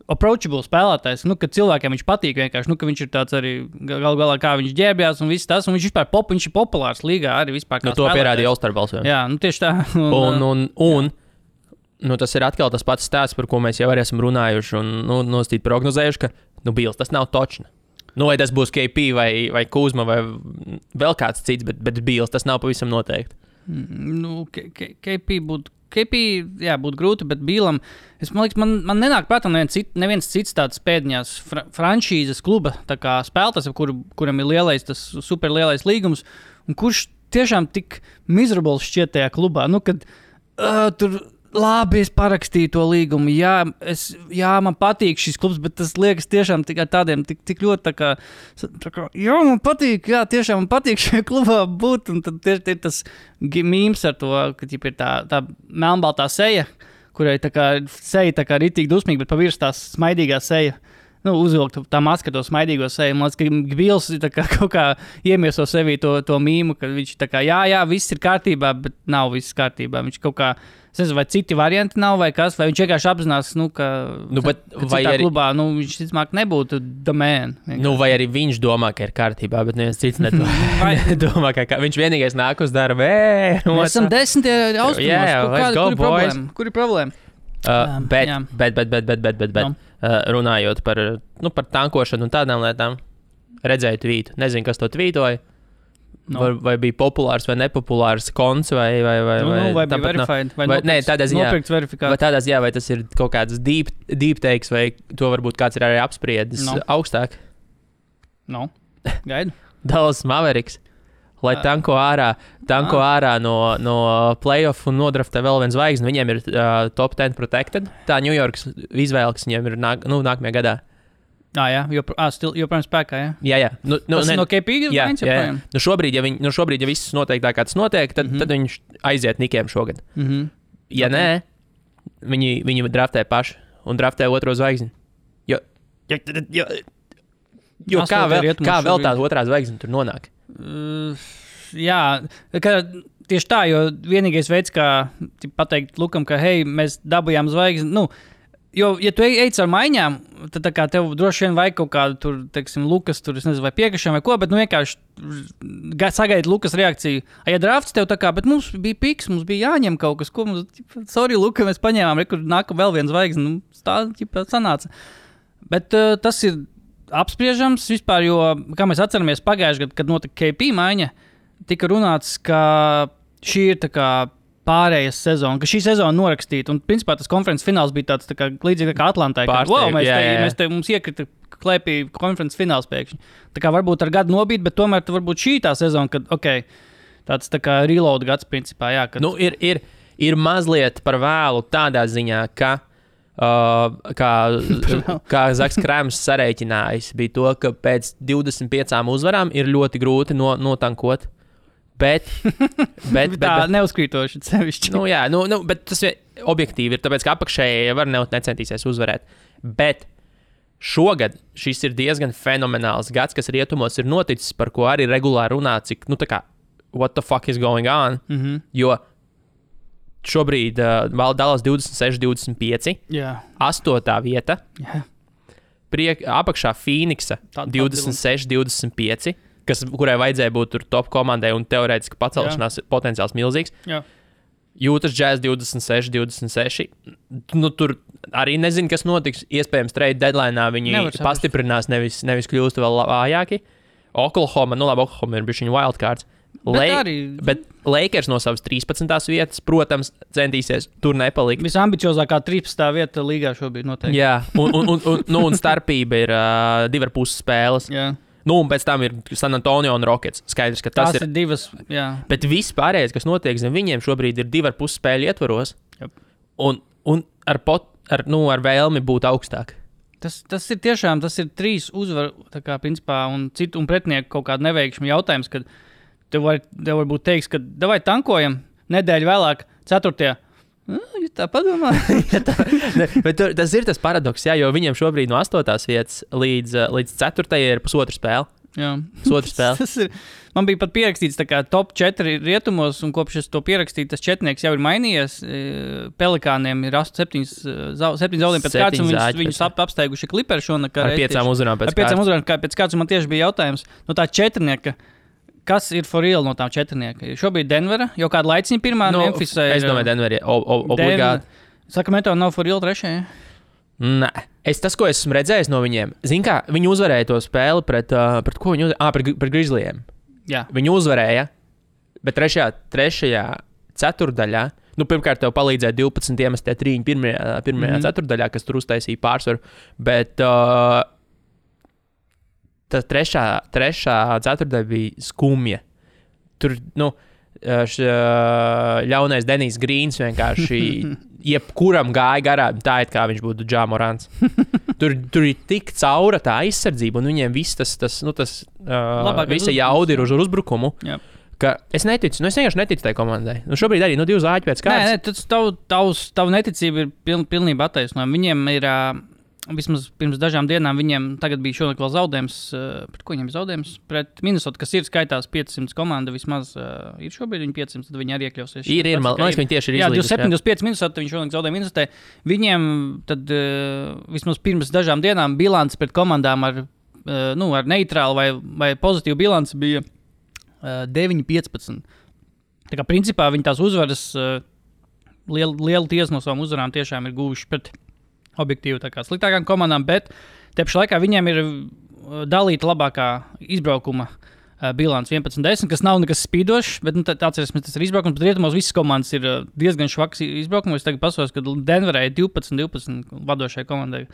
approachable spēlētājs, ka cilvēkiem viņš patīk vienkārši, ka viņš ir tāds arī galu galā, kā viņš ģērbjās un viss tas, un viņš vispār viņš ir populārs līgā arī vispār kā to pierādīja All-Star balsojumā. Jā, tieši tā. Tas ir atkal tas pats stāsts, par ko mēs jau arī esam runājuši un nostīt prognozējuši, ka, Bils, tas nav točna. Vai tas būs KP vai Kuzma vai vēl kāds cits, bet Bils, tas nav pavisam noteikti. KP būtu grūti, bet Bīlam, man liekas, man nenāk prātā neviens cits tāds pēdiņās franšīzes kluba spēlētājs, kuram ir tas superlielais līgums, un kurš tiešām tik miserable šķiet tajā klubā, kad tur labi, es parakstīju to līgumu, man patīk šis klubs, bet tas liekas tiešām tādiem tik ļoti man patīk, tiešām man patīk šajā klubā būt, un tad ir tas mīms ar to, ka ir tā melnbaltā seja, kurai seja ritīgi dusmīgi, bet pavirs tās smaidīgā seja. Uzvilkt tā maska to smaidīgo seju. Man liekas, ka Bils kaut kā iemieso sevī to mīmu, ka viņš viss ir kārtībā, bet nav viss kārtībā. Viņš kaut kā, es nezinu, vai citi varianti nav, vai kas, vai viņš vienkārši apzinās, ka citā klubā, viņš ticamāk nebūtu the man. Vai arī viņš domā, ka ir kārtībā, bet neviens cits nedomā, ka viņš vienīgais nāk uz darbu. Mēs esam 10. austrumos. Kur ir problēma? Bet runājot par tankošanu un tādām lietām, redzēju tvītu. Nezinu, kas to tvītoja. Vai bija populārs vai nepopulārs konts vai bija verified, vai nopirkts verifikāts. Vai tas ir kaut kāds deep takes, vai to varbūt kāds ir arī apspriedis augstāk? Gaidu. Dallas Mavericks. Lai tanko ārā no playoff un nodraftē vēl viens zvaigzni. Viņiem ir top 10 protected. Tā New Yorks izvēle, kas viņiem ir nākamajā gadā. Joprojām spēkā, jā? Jā. Tas no KP izmaiņas joprojām? Šobrīd, ja viss notiek tā, kā tas notiek, tad viņš aiziet Nikiem šogad. Ja nē, viņi draftē paši un draftē otro zvaigzni. Jo kā vēl tāda otrā zvaigzne tur nonāk? Tieši tā, jo vienīgais veids, kā pateikt Lukam, ka hei, mēs dabūjām zvaigzni, jo, ja tu ej ar maiņām, tad tā kā tev droši vien vajag kaut kādu tur, teiksim, Lukas tur, es nezinu, vai piekrišana vai ko, bet vienkārši sagaidi Lukas reakciju. Ja drafts tev tā kā, bet mums bija piks, mums bija jāņem kaut kas, ko mums, sorry, Luka, mēs paņēmām, kur nāk vēl viens zvaigzni, tā sanāca. Bet tas ir apspriežams vispār, jo, kā mēs atceramies pagājušajā gadā, kad notika KP maiņa, tika runāts, ka šī ir tā kā pārējas sezona, ka šī sezona norakstīta, un principā tas konferences fināls bija tāds tā kā līdzīgi kā Atlantai, ka mums iekrita klēpī konferences fināls pēkšņi. Tā kā varbūt ar gadu nobīt, bet tomēr varbūt šī tā sezona, kad, tāds tā kā reload gads principā, jā. Kad... Ir mazliet par vēlu tādā ziņā, ka kā Zaks Krēms sarēķinājis, bija to, ka pēc 25 uzvarām ir ļoti grūti notankot. Bet tā neuzkrītoši sevišķi. Bet tas objektīvi ir, tāpēc, ka apakšēji var necentīsies uzvarēt. Bet šogad šis ir diezgan fenomenāls gads, kas rietumos ir noticis, par ko arī regulāri runā, cik, what the fuck is going on, jo šobrīd Dallas 26-25, 8. vieta, apakšā Phoenixa 26-25, kurai vajadzēja būt tur top komandai un teorētiski pacelšanās potenciāls milzīgs. Jūtas Jazz 26-26. Tur arī nezinu, kas notiks. Iespējams, trade deadline'ā viņi pastiprinās, nevis kļūst vēl vājāki. Oklahoma ir bišķiņu wildcards. Bet Lakers no savas 13. vietas, protams, centīsies tur nepalikt. Visambiciozākā 13. vieta līgā šobrīd noteikti. Jā, un starpība ir 2,5 spēles. Jā. Un pēc tam ir San Antonio un Rockets. Skaidrs, ka tas ir divas. Jā. Bet viss pārējais, kas notiek zem viņiem šobrīd, ir 2,5 spēļu ietvaros. Un ar vēlmi būt augstāk. Tas ir tiešām, tas ir 3 uzvaru, principā, un pretinieku kaut kādu neveikšanu jautājums, kad tev varbūt teiks, ka davai tankojam nedēļu vēlāk, 4. Ja tā padomā. Bet tas ir tas paradoks, jo viņiem šobrīd no 8. vietas līdz 4. ir pusotru spēli. Jā. Pusotru spēli. Man bija pat pierakstīts top 4 rietumos, un kopš es to pierakstīju, tas četrnieks jau ir mainījies. Pelikāniem ir 7 zaudējumi pēc kārtas, un viņus apsteiguši Clippers šonakar. Ar 5 uzvarām pēc kārtas. Ar 5 uzvarām pēc kārtas, un man tieši bija jautājums, tā četrnieka, kas ir for real no tām četrnieka? Šobrīd Denvera, jau kādu laiciņu pirmā, Memphisā ir... Es domāju, Denvera obligāti. Sacramento nav for real 3. Nē. Tas, ko esmu redzējis no viņiem, zini kā, viņi uzvarēja to spēli pret ko viņi uzvarēja? Pret Grizzlyiem. Jā. Viņi uzvarēja, bet trešajā ceturdaļā, pirmkārt tev palīdzēja 12 iemestie 3 pirmajā ceturdaļā, kas tur uztaisīja pārsvaru, bet... Tā trešā ceturtdaļa bija skumja. Tur, ļaunais Denijs Grīns vienkārši jebkuram gāja garām, tā it kā viņš būtu Ja Morants. Tur ir tik caura tā aizsardzība, un viņiem viss visa jauda ir uz uzbrukumu. Jā. Ka es neticu, es vienkārši neticu tai komandai. Šobrīd arī 2 zāķi pēc kārtas. Tavu neticība ir pilnībā attaisnojama. Viņiem ir... Vismaz pirms dažām dienām viņiem tagad bija šonakt vēl zaudējums. Pret ko viņiem ir zaudējums? Pret Minnesota, kas ir skaitās 500 komanda, vismaz ir šobrīd viņi 500, tad viņi arī iekļausies. Man liekas, viņi tieši ir izlīdus. Jā, 27-25 Minnesota, viņi šonakt zaudēja Minnesotā. Viņiem tad vismaz pirms dažām dienām bilants pret komandām ar neitrālu vai pozitīvu bilanci bija 9-15. Tā kā principā viņi tās uzvaras, lielu tiesu no savām uzvarām tiešām ir guvuši pret objektīvi sliktākām komandām, bet te pašā laikā viņiem ir dalīta labākā izbraukuma bilants 11-10, kas nav nekas spīdošs, bet atcerēsimies, tas ir izbraukums, bet rietumos visas komandas ir diezgan švaks izbraukums. Es tagad pasaos, ka Denverai 12-12 vadošai komandai.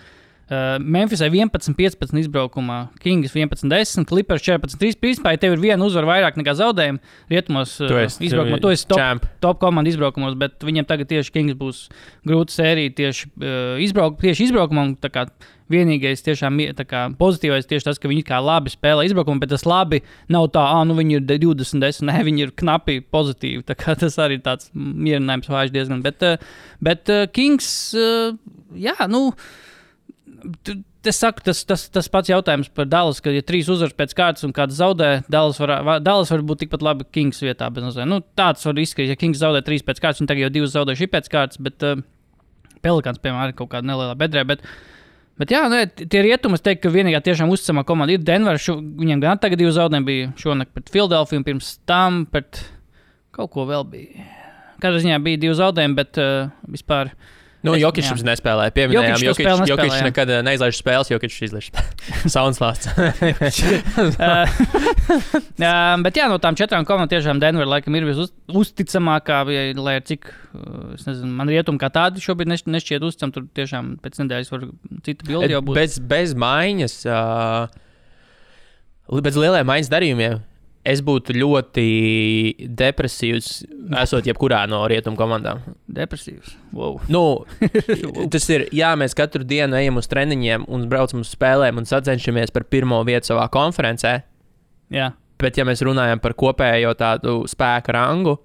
Memphisai 11-15 izbraukumā, Kings 11-10, Clippers 14-3. Principā, ja tev ir viena uzvara vairāk nekā zaudējumi rietumos izbraukumā, tu esi top komanda izbraukumos, bet viņiem tagad tieši Kings būs grūta sērija tieši izbraukumā. Tā kā vienīgais tiešām pozitīvais tieši tas, ka viņi kā labi spēlē izbraukumu, bet tas labi nav tā, viņi ir 20-10, ne, viņi ir knapi pozitīvi. Tā kā tas arī tāds mierinājums vājš diezgan. Bet Kings, Es saku, tas pats jautājums par Dallas, ka ja 3 uzvaras pēc kārtas un kāds zaudē, Dallas var būt tikpat labi Kings vietā. Tāds var izskatīt, ja Kings zaudē 3 pēc kārtas, un tagad jau 2 zaudējuši pēc kārtas, bet Pelikāns, piemēram, ir kaut kāda nelielā bedrē. Bet jā, tie rietumi, es teiktu, ka vienīgā tiešām uzticamā komanda ir Denver. Viņiem gan tagad 2 zaudējumi bija šonakt pret Philadelphiju, un pirms tam pret kaut ko vēl bija. Katrā ziņā bija 2 zaudējumi, bet vispār... Jokičs mums nespēlēja. Pieminējām, Jokičs nekad neizlaiž spēles, Jokičs izlaiž soundslāsts. Bet jā, no tām 4 komandām tiešām Denver laikam ir uzticamākā, lai ar cik, es nezinu, man rietumi kā tādi šobrīd nešķiet uzticam, tur tiešām pēc nedēļas var cita bildi jau būt. Bez maiņas, bez lielajiem maiņas darījumiem, Es būtu ļoti depresīvs, esot jebkurā no rietumu komandām. Depresīvs. Wow. Nu, tas ir, mēs katru dienu ejam uz treniņiem un braucam uz spēlēm un sacenšamies par pirmo vietu savā konferencē. Jā. Bet, ja mēs runājam par kopējo tādu spēka rangu,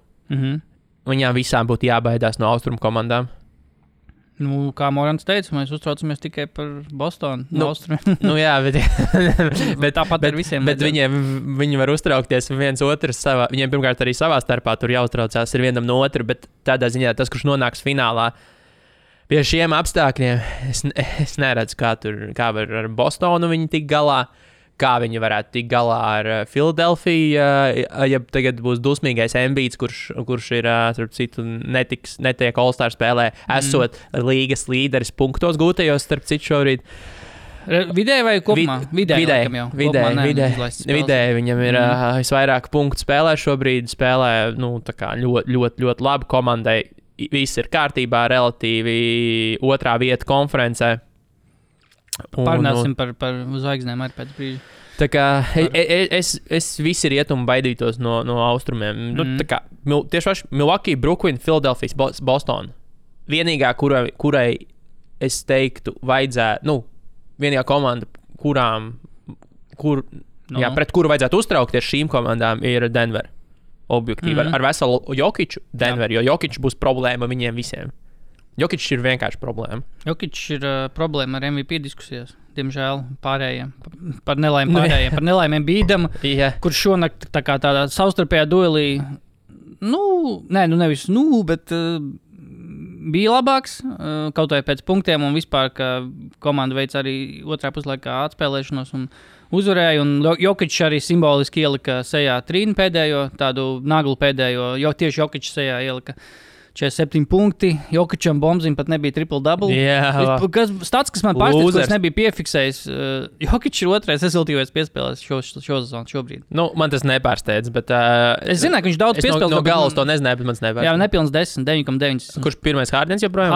viņām visām būtu jābaidās no austrumu komandām. Nu, kā Morants teica, mēs uztraucamies tikai par Bostonu. Bet tāpat ar visiem. Bet viņi var uztraukties viens otrs savā. Viņiem pirmkārt arī savā starpā tur jāuztraucās ir vienam no otra, bet tādā ziņā tas, kurš nonāks finālā pie šiem apstākļiem, es neredzu, kā var ar Bostonu viņi tik galā. Kā viņi varētu tikt galā ar Filadelfiju, ja tagad būs dusmīgais Embiids, kurš ir, starp citu, netiek All-Star spēlē, esot līgas līderis punktos gūtajos, starp citu šobrīd. Vidēji vai kopumā? Vidēji viņam ir visvairāk punktu spēlē šobrīd, tā kā ļoti labi komandai, viss ir kārtībā, relatīvi otrā vieta konferencē. Pārnāsim par zvaigznēm arī pēc brīža. Tā kā es visi rietumu baidītos no austrumiem. Tā kā tieši Milwaukee, Brooklyn, Philadelphia, Boston. Vienīgā, kurai es teiktu, vajadzētu, vienīgā komanda, pret kuru vajadzētu uztraukties šīm komandām, ir Denver. Objektīvi. Ar veselu Jokiču Denver, jo Jokičs būs problēma viņiem visiem. Jokičs ir vienkārši problēma. Jokičs ir problēma ar MVP diskusijās. Diemžēl pārējiem. Par nelaimēm bīdam, kurš šonakt tādā savstarpējā duelī, bet bija labāks, kaut vai pēc punktiem un vispār, ka komanda veic arī otrā puslaikā atspēlēšanos un uzvarēja. Un Jokičs arī simboliski ielika sejā trīnu pēdējo, tādu naglu pēdējo, jo tieši Jokičs sejā ielika 47 punkti. Jokičam Bombzim pat nebija triple-double. Stats, kas man pārsteidz, ka es nebiju piefiksējis. Jokičs ir otrais rezultīvais piespēlēs šo sezonu šobrīd. Man tas nepārsteidz, bet... es zināju, ka viņš daudz piespēlēs. No galas to nezināju, bet man tas nepārsteidz. Jā, nepilns 10, 9,9. Kurš pirmais Hardens joprojām?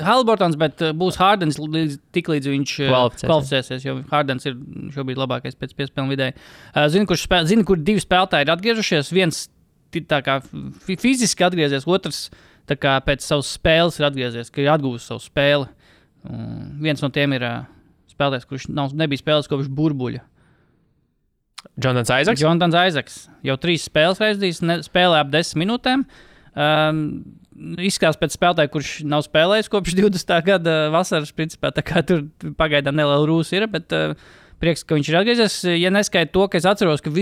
Haliburtons, bet būs Hardens tiklīdz viņš kvalificēsies, jo Hardens ir šobrīd labākais pēc piespēlēm vidēji. Zinu, kur divi spēlētāji ir atgriežušies. Viens tā kā fiziski atgriezies, otrs tā kā pēc savas spēles ir atgriezies, ka ir atgūst savu spēli. Viens no tiem ir spēlētājs, kurš nebija spēlējis kopš burbuļa. Jonatans Isaacs. Jau 3 spēles reizdīs, spēlē ap 10 minūtēm. Izskatās pēc spēlētāja, kurš nav spēlējis kopš 20. gada vasaras, principā, tā kā tur pagaidām neliela rūsa ir, bet prieks, ka viņš ir atgriezies. Ja neskaita to, ka es atceros, ka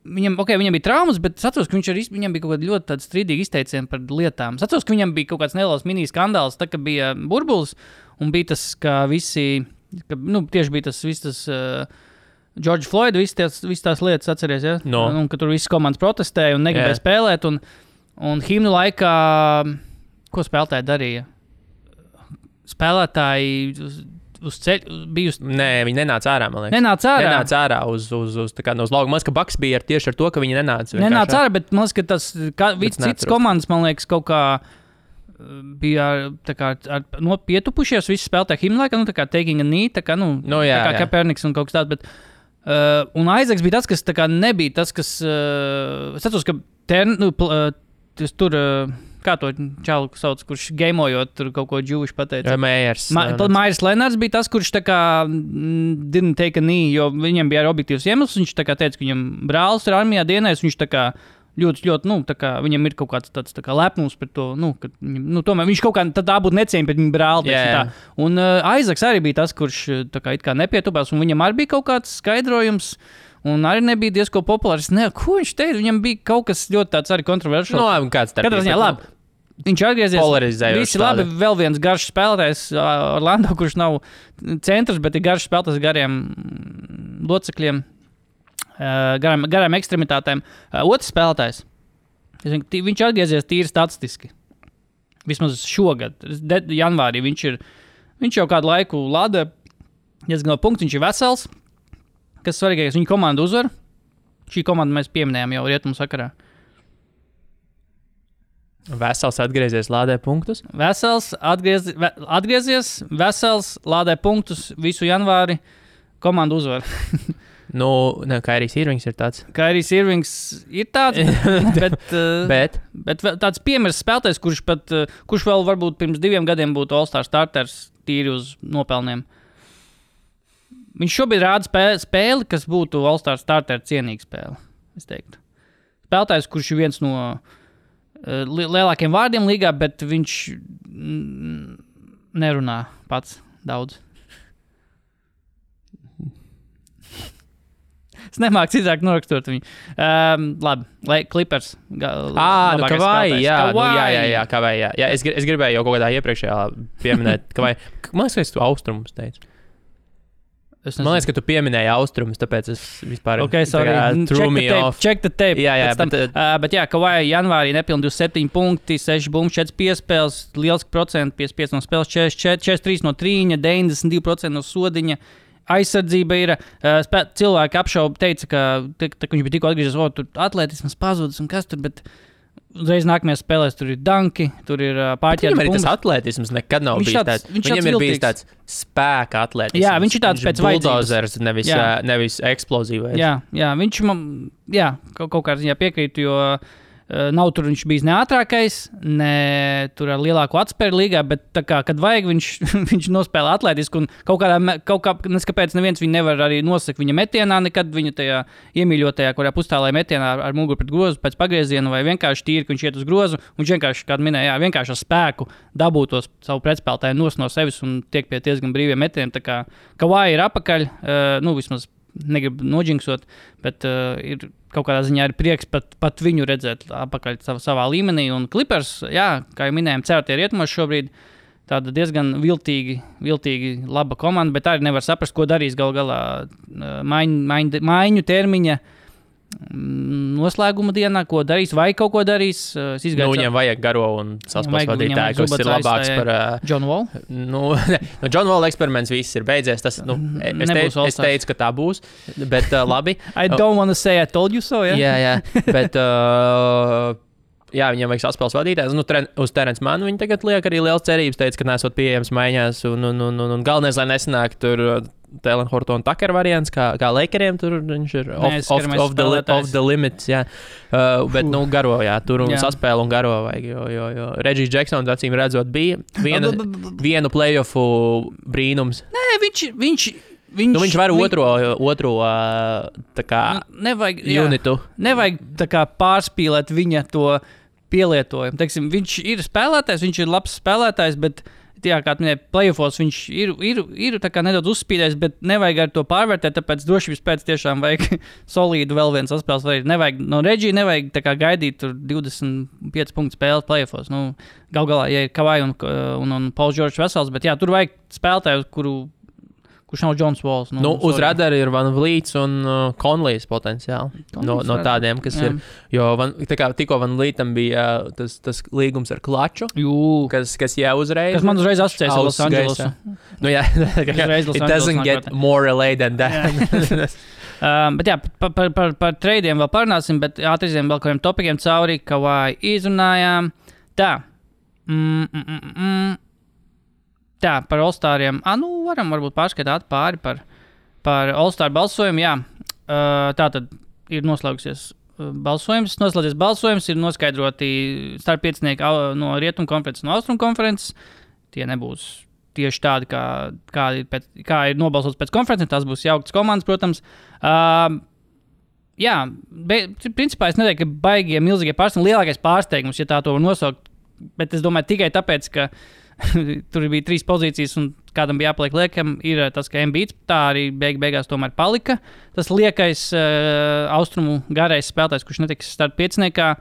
viņam bija traumas, bet es atceros, ka viņam bija kaut kāda ļoti strīdīga izteiciena par lietām. Es atceros, ka viņam bija kaut kāds neliels mini-skandāls, tā kā bija burbulis, un bija tas, ka tieši bija tas George Floyd, visas tās lietas atceries, ja? Un ka tur visas komandas protestēja un negribēja spēlēt, un himnu laikā, ko spēlētāji darīja? Spēlētāji uz ceļu bija Nē, viņi nenāca ārā, man liekas. Nenāca ārā uz lauka. Man liekas, ka Bucks bija tieši ar to, ka viņi nenāca. Nenāca ārā, bet man liekas, ka tas cits komandas, man liekas, kaut kā bija pietupušies visi spēlētāji himnu laikā, tā kā taking a knee, tā kā Kaepernicks un kaut kas tāds, bet un Isaacs bija tas, kas tā kā nebija tas, kas es atceros, ka tur kā to čalu sauc, kurš gamojot tur kaut ko džūviši pateica. Maiers Lenards bija tas, kurš tā kā didn't take a knee, jo viņam bija objektīvs iemesls. Viņš tā kā teica, ka viņam brālis ir armijā dienējis, viņš tā kā ļoti, tā kā viņam ir kaut kāds tāds tā kā lepnums par to, ka tomēr viņš kaut kā tā būtu necieņa pret viņu brāli. Un Isaacs arī bija tas, kurš tā kā it kā nepietupās, un viņam arī bija kaut kāds skaidrojums. Un arī nebija diezko populārs. Ko viņš teica? Viņam bija kaut kas ļoti tāds arī kontroversiāls. Kāds tāds? Katrā ziņā labi. Viņš atgriezies. Polarizējoši. Visi labi, vēl viens garš spēlētājs Orlando, kurš nav centrs, bet ir garš spēlētājs gariem locekļiem, garām ekstremitātēm. Otrs spēlētājs. Viņš atgriezies tīri statistiski. Vismaz šogad. Janvārī viņš jau kādu laiku lada. Diezgan no punkts, viņš ir vesels. Kas svarīgākais, viņa komanda uzvar. Šī komanda mēs pieminējām jau rietumu sakarā. Vesels atgriezies, lādē punktus? Vesels atgriezies, vesels lādē punktus visu janvāri. Komanda uzvar. Kairijs Irvings ir tāds. Kairijs Irvings ir tāds, bet tāds piemērs spēlētājs, kurš vēl varbūt pirms 2 gadiem būtu All-Star starters tīri uz nopelniem. Viņš šobrīd rāda spēli, kas būtu All-Star starter cienīga spēle, es teiktu. Spēlētājs, kurš ir viens no lielākiem vārdiem līgā, bet viņš nerunā pats daudz. Es nemāku citāk norakstot viņu. Labi, lai Clippers. Kavai, jā. Jā, es gribēju jau kaut kādā iepriekšējā pieminēt, Kavai. Man liekas, ka tu austrumus teici. Man liekas, ka tu pieminēji austrumus, tāpēc es vispār... Ok, sorry. Check the tape. Jā, bet jā, Kavai janvārī nepilni 27 punkti, 6 bumbi, 4 piespēles, liels procents, 55 no spēles, 43 no trīņa, 92% no sodiņa. Aizsardzība ir. Cilvēki apšauba, teica, ka viņš bija tikko atgriezies, tur atletisms pazudis un kas tur, bet uzreiz nākamajās spēlēs tur ir danki, tur ir pārķēdes bumbas. Viņam arī tas atletisms nekad nav bijis tāds. Viņam ir bijis tāds spēka atletisms. Jā, viņš ir tāds pēc vajadzības. Buldozers, nevis eksplozīvais. Jā, viņš man, kaut kā ziņā piekrītu, jo nav tur viņš bijis ne ātrākais, ne tur ar lielāku atspēru līgā, bet tā kā, kad vajag, viņš nospēlē atlētisku un kaut kā, neskapēc neviens viņu nevar arī nosakt viņa metienā, nekad viņa tajā iemīļotajā, kurā pustālē metienā ar muguru pret grozu pēc pagrieziena vai vienkārši tīri, ka viņš iet uz grozu, un viņš vienkārši, kā minēja, vienkārši ar spēku dabūtos savu pretspēlētāju no sevis un tiek pie diezgan brīviem metieniem, tā kā Kavai ir apakaļ, vismaz negribu noģinksot, bet ir kaut kādā ziņā ir prieks pat viņu redzēt apakaļ savā līmenī. Un Clippers, kā jau minējām, certie rietumos šobrīd tāda diezgan viltīgi laba komanda, bet arī nevar saprast, ko darīs gal galā maiņu termiņa noslēguma dienā, ko darīs, vai kaut ko darīs. Viņiem vajag garo un saspēles vadītāju, kas ir labāks par... John Wall? John Wall eksperiments viss ir beidzies. Tas, es teicu, ka tā būs, bet labi. I don't want to say I told you so, Jā, bet... viņiem vajag saspēles vadītājs. Uz Terence Mannu viņi tagad liek arī liels cerības, teica, ka nesot pieejams maiņās. Un galvenais, lai nesanāk tur Talen Horton Tucker variants, kā Lakeriem, tur viņš ir off the limits. Jā. Bet, garo, tur un saspēle un garo vajag. Jo Reggie Jacksons, acīm redzot, bija vienu playoffu brīnums. Nē, viņš var otro tā kā unitu. Nevajag tā kā pārspīlēt viņa to pielietojumu. Teiksim, viņš ir spēlētājs, viņš ir labs spēlētājs, bet, kā minēja, playoffos viņš ir tā kā nedaudz uzspīdējis, bet nevajag ar to pārvērtēt, tāpēc drošības pēc tiešām vajag solīdu vēl viens saspēles varīt. Nevajag no Reggie, nevajag tā kā gaidīt tur 25 punktu spēles playoffos. Gal galā, ja ir Kavai un Pauls Džordžs vesels, bet tur vajag spēlētāju, kurš nav Johns Walls. Uz radara ir Van Vliets un Conleys potenciāli. No tādiem, kas ir. Jo tikko Van Vlietam bija tas līgums ar Klaču, kas jau uzreiz. Kas man uzreiz asociēs ar Los Andželosu. It doesn't get more LA than that. Bet par treidiem vēl parunāsim, bet ātriziem vēl kādiem topikiem cauri, Kavai izrunājām. Tā, par All-Stariem. Varam varbūt pārskatāt pāri par All-Star balsojumu. Jā, tā tad ir noslēdzies balsojums, ir noskaidroti starppiecinieki no Rietumu konferences, no Austrumu konferences. Tie nebūs tieši tādi, kā ir nobalsots pēc konferences. Tās būs jauktas komandas, protams. Principā es neteiktu, ka baigie, milzīgie pārsteigumi, lielākais pārsteigums, ja tā to var nosaukt, bet es domāju tikai tāpēc, ka tur bija 3 pozīcijas un kādam bija jāpaliek liekam, ir tas, ka Embiids tā arī beigās tomēr palika. Tas liekais austrumu garais spēlētājs, kurš netiks startpieciniekā.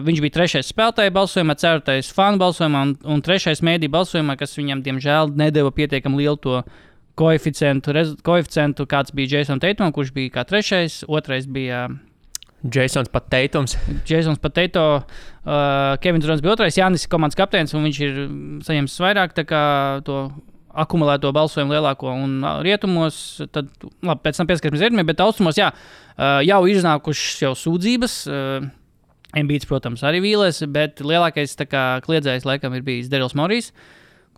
Viņš bija 3. spēlētāja balsojumā, 4. fanu balsojumā un 3. mēdī balsojumā, kas viņam, diemžēl, nedeva pietiekami lielu to koeficientu, kāds bija Jason Tatum, kurš bija kā 3. 2. bija... Jasons Tatum, Kevins Durants bija 2. Jānis komandas kapteinis, un viņš ir saņēmis vairāk tā kā to akumulēto balsojumu lielāko un rietumos. Tad, labi, pēc tam pieskarsimies rietumiem, bet austrumos, jau ir iznākušas jau sūdzības. Embiids, protams, arī vīlēs, bet lielākais tā kā kliedzējs laikam ir bijis Darryls Morrijs,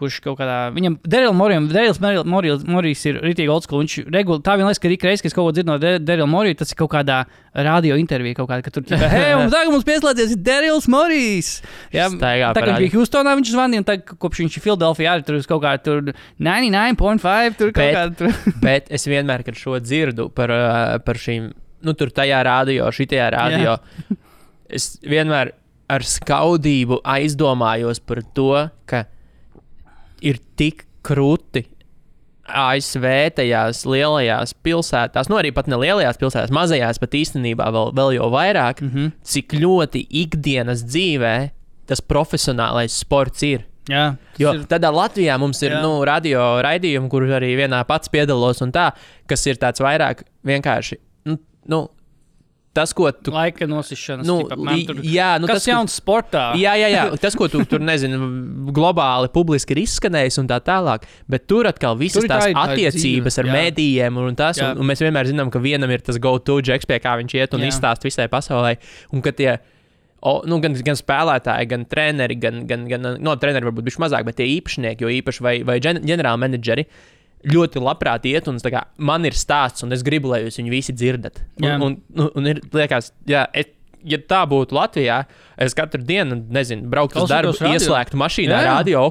kurš kaut kādā, viņam Darryl Morrijs ir ritīgi old school, viņš tā vien liekas, ka ik reiz, kad es kaut ko dzirdu no Darryl Morrija, tas ir kaut kādā radio intervija kaut kāda, ka tur ķipā, hei, un tagad mums pieslēdzies Darryls Morrijs. Jā, tā kā bija Houstonā viņš zvanīja, un tagad, kopš viņš ir Philadelphia, arī tur kaut kādā tur 99.5, tur kaut kādā tur. Bet es vienmēr, kad šo dzirdu par šīm, tur tajā radio, šitajā radio, es vienmēr ar skaudību aizdomājos par to, ka ir tik krūti ASV tajās lielajās pilsētās, arī pat ne lielajās pilsētās, mazajās pat īstenībā vēl jau vairāk, cik ļoti ikdienas dzīvē tas profesionālais sports ir. Jā, jo tādā Latvijā mums ir radio raidījumi, kur arī vienā pats piedalos un tā, kas ir tāds vairāk vienkārši, tas, ko tu... Laika nosišanas. Tas jauns sportā. Jā. Tas, ko tu tur, globāli publiski ir izskanējis un tā tālāk. Bet tur atkal visas tās attiecības ar mēdījiem un tas. Un mēs vienmēr zinām, ka vienam ir tas go-to džeks, pie kā viņš iet un izstāst visai pasaulē. Un ka tie, gan spēlētāji, gan treneri, treneri varbūt bišķi mazāk, bet tie īpašnieki, jo īpaši vai ģenerāli menedžeri, ļoti labprāt iet, un man ir stāsts, un es gribu, lai jūs viņu visi dzirdat. Un ir, liekas, ja tā būtu Latvijā, es katru dienu, brauktu uz darbu, ieslēgtu mašīnā radio,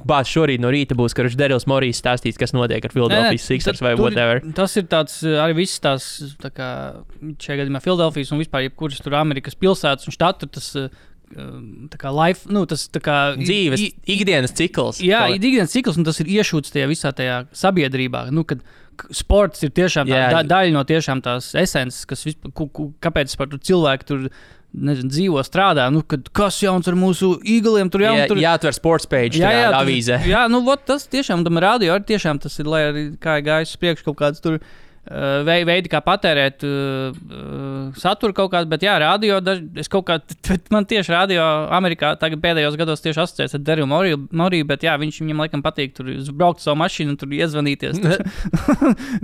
šorīt no rīta būs, ka Darryls Morrijs stāstīs, kas notiek ar Philadelphia Sixers vai whatever. Tas ir tāds, arī viss tās, tā kā šajā gadījumā Philadelphijas un vispār jebkuras tur Amerikas pilsētas un štatu, tas tā kā life, tas tā kā dzīves, ikdienas cikls. Jā, ikdienas cikls, un tas ir iešūts tajā visā tajā sabiedrībā, kad sports ir tiešām daļa no tiešām tās esences, kas kāpēc par cilvēku tur dzīvo, strādā, kas jauns ar mūsu Eagliem, tur jāatver sports page tajā avīzē. Jā, tas tiešām, tam radio arī tiešām tas ir, lai arī kā gājis priekš kaut kāds tur veidi, kā patērēt saturu kaut kādu, bet radio, man tieši radio Amerikā tagad pēdējos gados tieši asociēts ar Darryl Morriju, bet viņam laikam patīk tur braukt savu mašīnu un tur iezvanīties.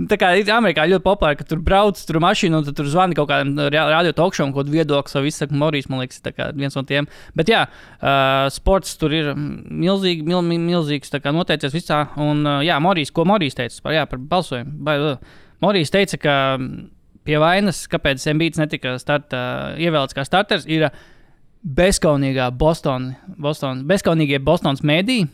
Tā kā ir Amerikā ļoti populāri, ka tur brauc tur mašīnu un tur zvani kaut kādam radio talkšovam, kaut viedokli savu izsaka Morrijs, man liekas, tā kā viens no tiem. Bet sports tur ir milzīgs, tā kā noteicies visā, un Morrijs, ko Morrijs teica par balsojumu, Morrijs teica, ka pie vainas, kāpēc Embiids netika ievēlēts kā starters, ir bezkaunīgie Bostonas mēdī.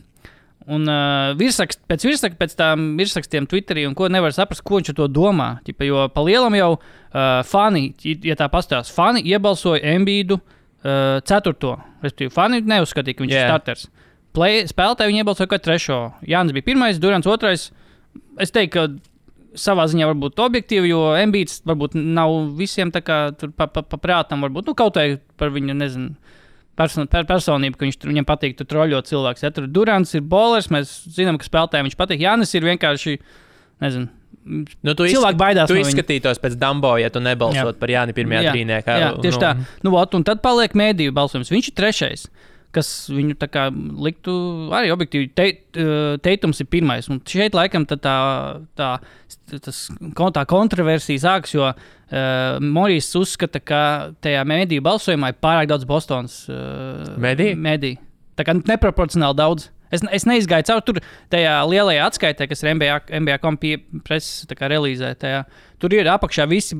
Un pēc tām virsrakstiem Twitterī, un ko nevar saprast, ko viņš ar to domā. Jo pa lielam jau fani, ja tā pastāstās, fani iebalsoja Embiidu 4. Respektīvi, fani neuzskatīja, ka viņš ir starters. Spēlētāji viņi iebalsoja kā 3. Jānis bija 1, Durants 2. Es teiktu, ka savā ziņā varbūt objektīvi, jo Embiids varbūt nav visiem tā kā tur paprātam, varbūt, kaut vai par viņu, personību, ka viņam patīk tur troļot cilvēks. Ja tur Durants ir bowlers, mēs zinām, ka spēlētājiem viņš patīk. Jānis ir vienkārši, cilvēki baidās no viņa. Tu izskatītos pēc Dumbo, ja tu nebalsot par Jāni pirmajā trīniekā. Jā, tieši tā. Un tad paliek mēdīju balsojums. Viņš ir 3. Kas viņu tā kā liktu arī objektīvi. Teitums ir 1. Un šeit laikam tā kontroversija sākas, jo Morrijs uzskata, ka tajā mēdīju balsojumā ir pārāk daudz Bostonas mēdīju. Tā kā neproporcionāli daudz. Es neizgāju cauri tur tajā lielajā atskaitē, kas ir NBA.com preses relīzē. Tur ir apakšā visi,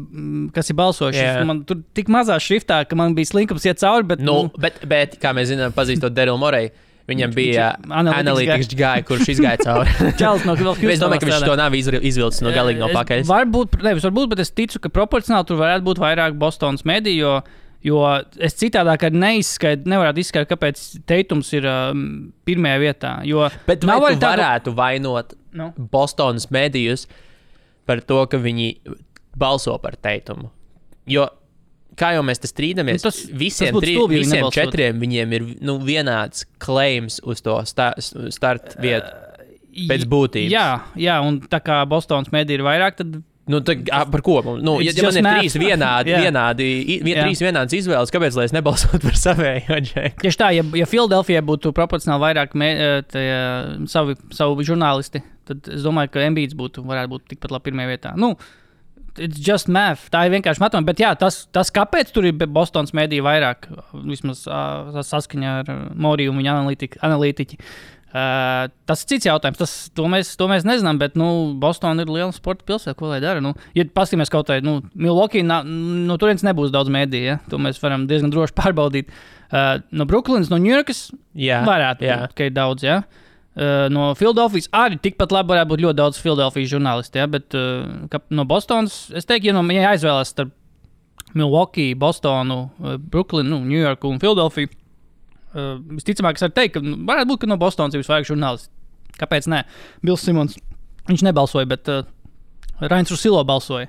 kas ir balsojuši. Man tur tik mazā šriftā, ka man bija slinkums iet cauri. Bet kā mēs zinām, pazīstot Darryl Morriju, viņam bija analītikas gāja, kurš izgāja cauri. Es domāju, ka viņš to nav izvilcis no galīgi no pakaļas. Varbūt, bet es ticu, ka proporcionāli tur varētu būt vairāk Bostonas mēdīju, jo es citādāk nevarētu izskaidrot, kāpēc Teitums ir 1. vietā. Bet vai tu varētu vainot Bostonas mēdījus par to, ka viņi balso par Teitumu? Jo, kā jau mēs te strīdamies, visiem 4 viņiem ir viņiem claims uz to start vietu pēc būtības. Jā, un tā kā Bostonas mēdī ir vairāk, tad par ko? Ja man ir 3 vienādas izvēles, kāpēc lai es nebalsotu par savējo džeku? Tieši tā, ja Philadelphia būtu proporcionāli vairāk savu žurnālisti, tad es domāju, ka Embiids varētu būt tikpat labi 1. vietā. It's just math. Tā ir vienkārši matemātika. Bet tas kāpēc tur ir Bostonas mēdī vairāk, vismaz saskaņā ar Moriju un viņa analītiķi, Tas ir cits jautājums. To mēs nezinām, bet Bostonā ir liela sporta pilsēta. Ko lai dara? Ja paskatīsimies kaut kā, Milwaukee, no turienes nebūs daudz mēdīju. Ja? To mēs varam diezgan droši pārbaudīt. No Brooklynas, no Ņujorkas varētu būt, ka ir daudz. Ja? No Filadelfijas arī tikpat labi varētu būt ļoti daudz Filadelfijas žurnālisti. Ja? Bet no Bostonas, es teiktu, ja aizvēlēs starp Milwaukee, Bostonu, Brooklynu, Ņujorku un Filadelfiju, visticamāk, es varu teikt, ka varētu būt, ka no Bostonas ir visvairāk žurnālisti. Kāpēc ne? Bills Simons, viņš nebalsoja, bet Rains Rusilo balsoja.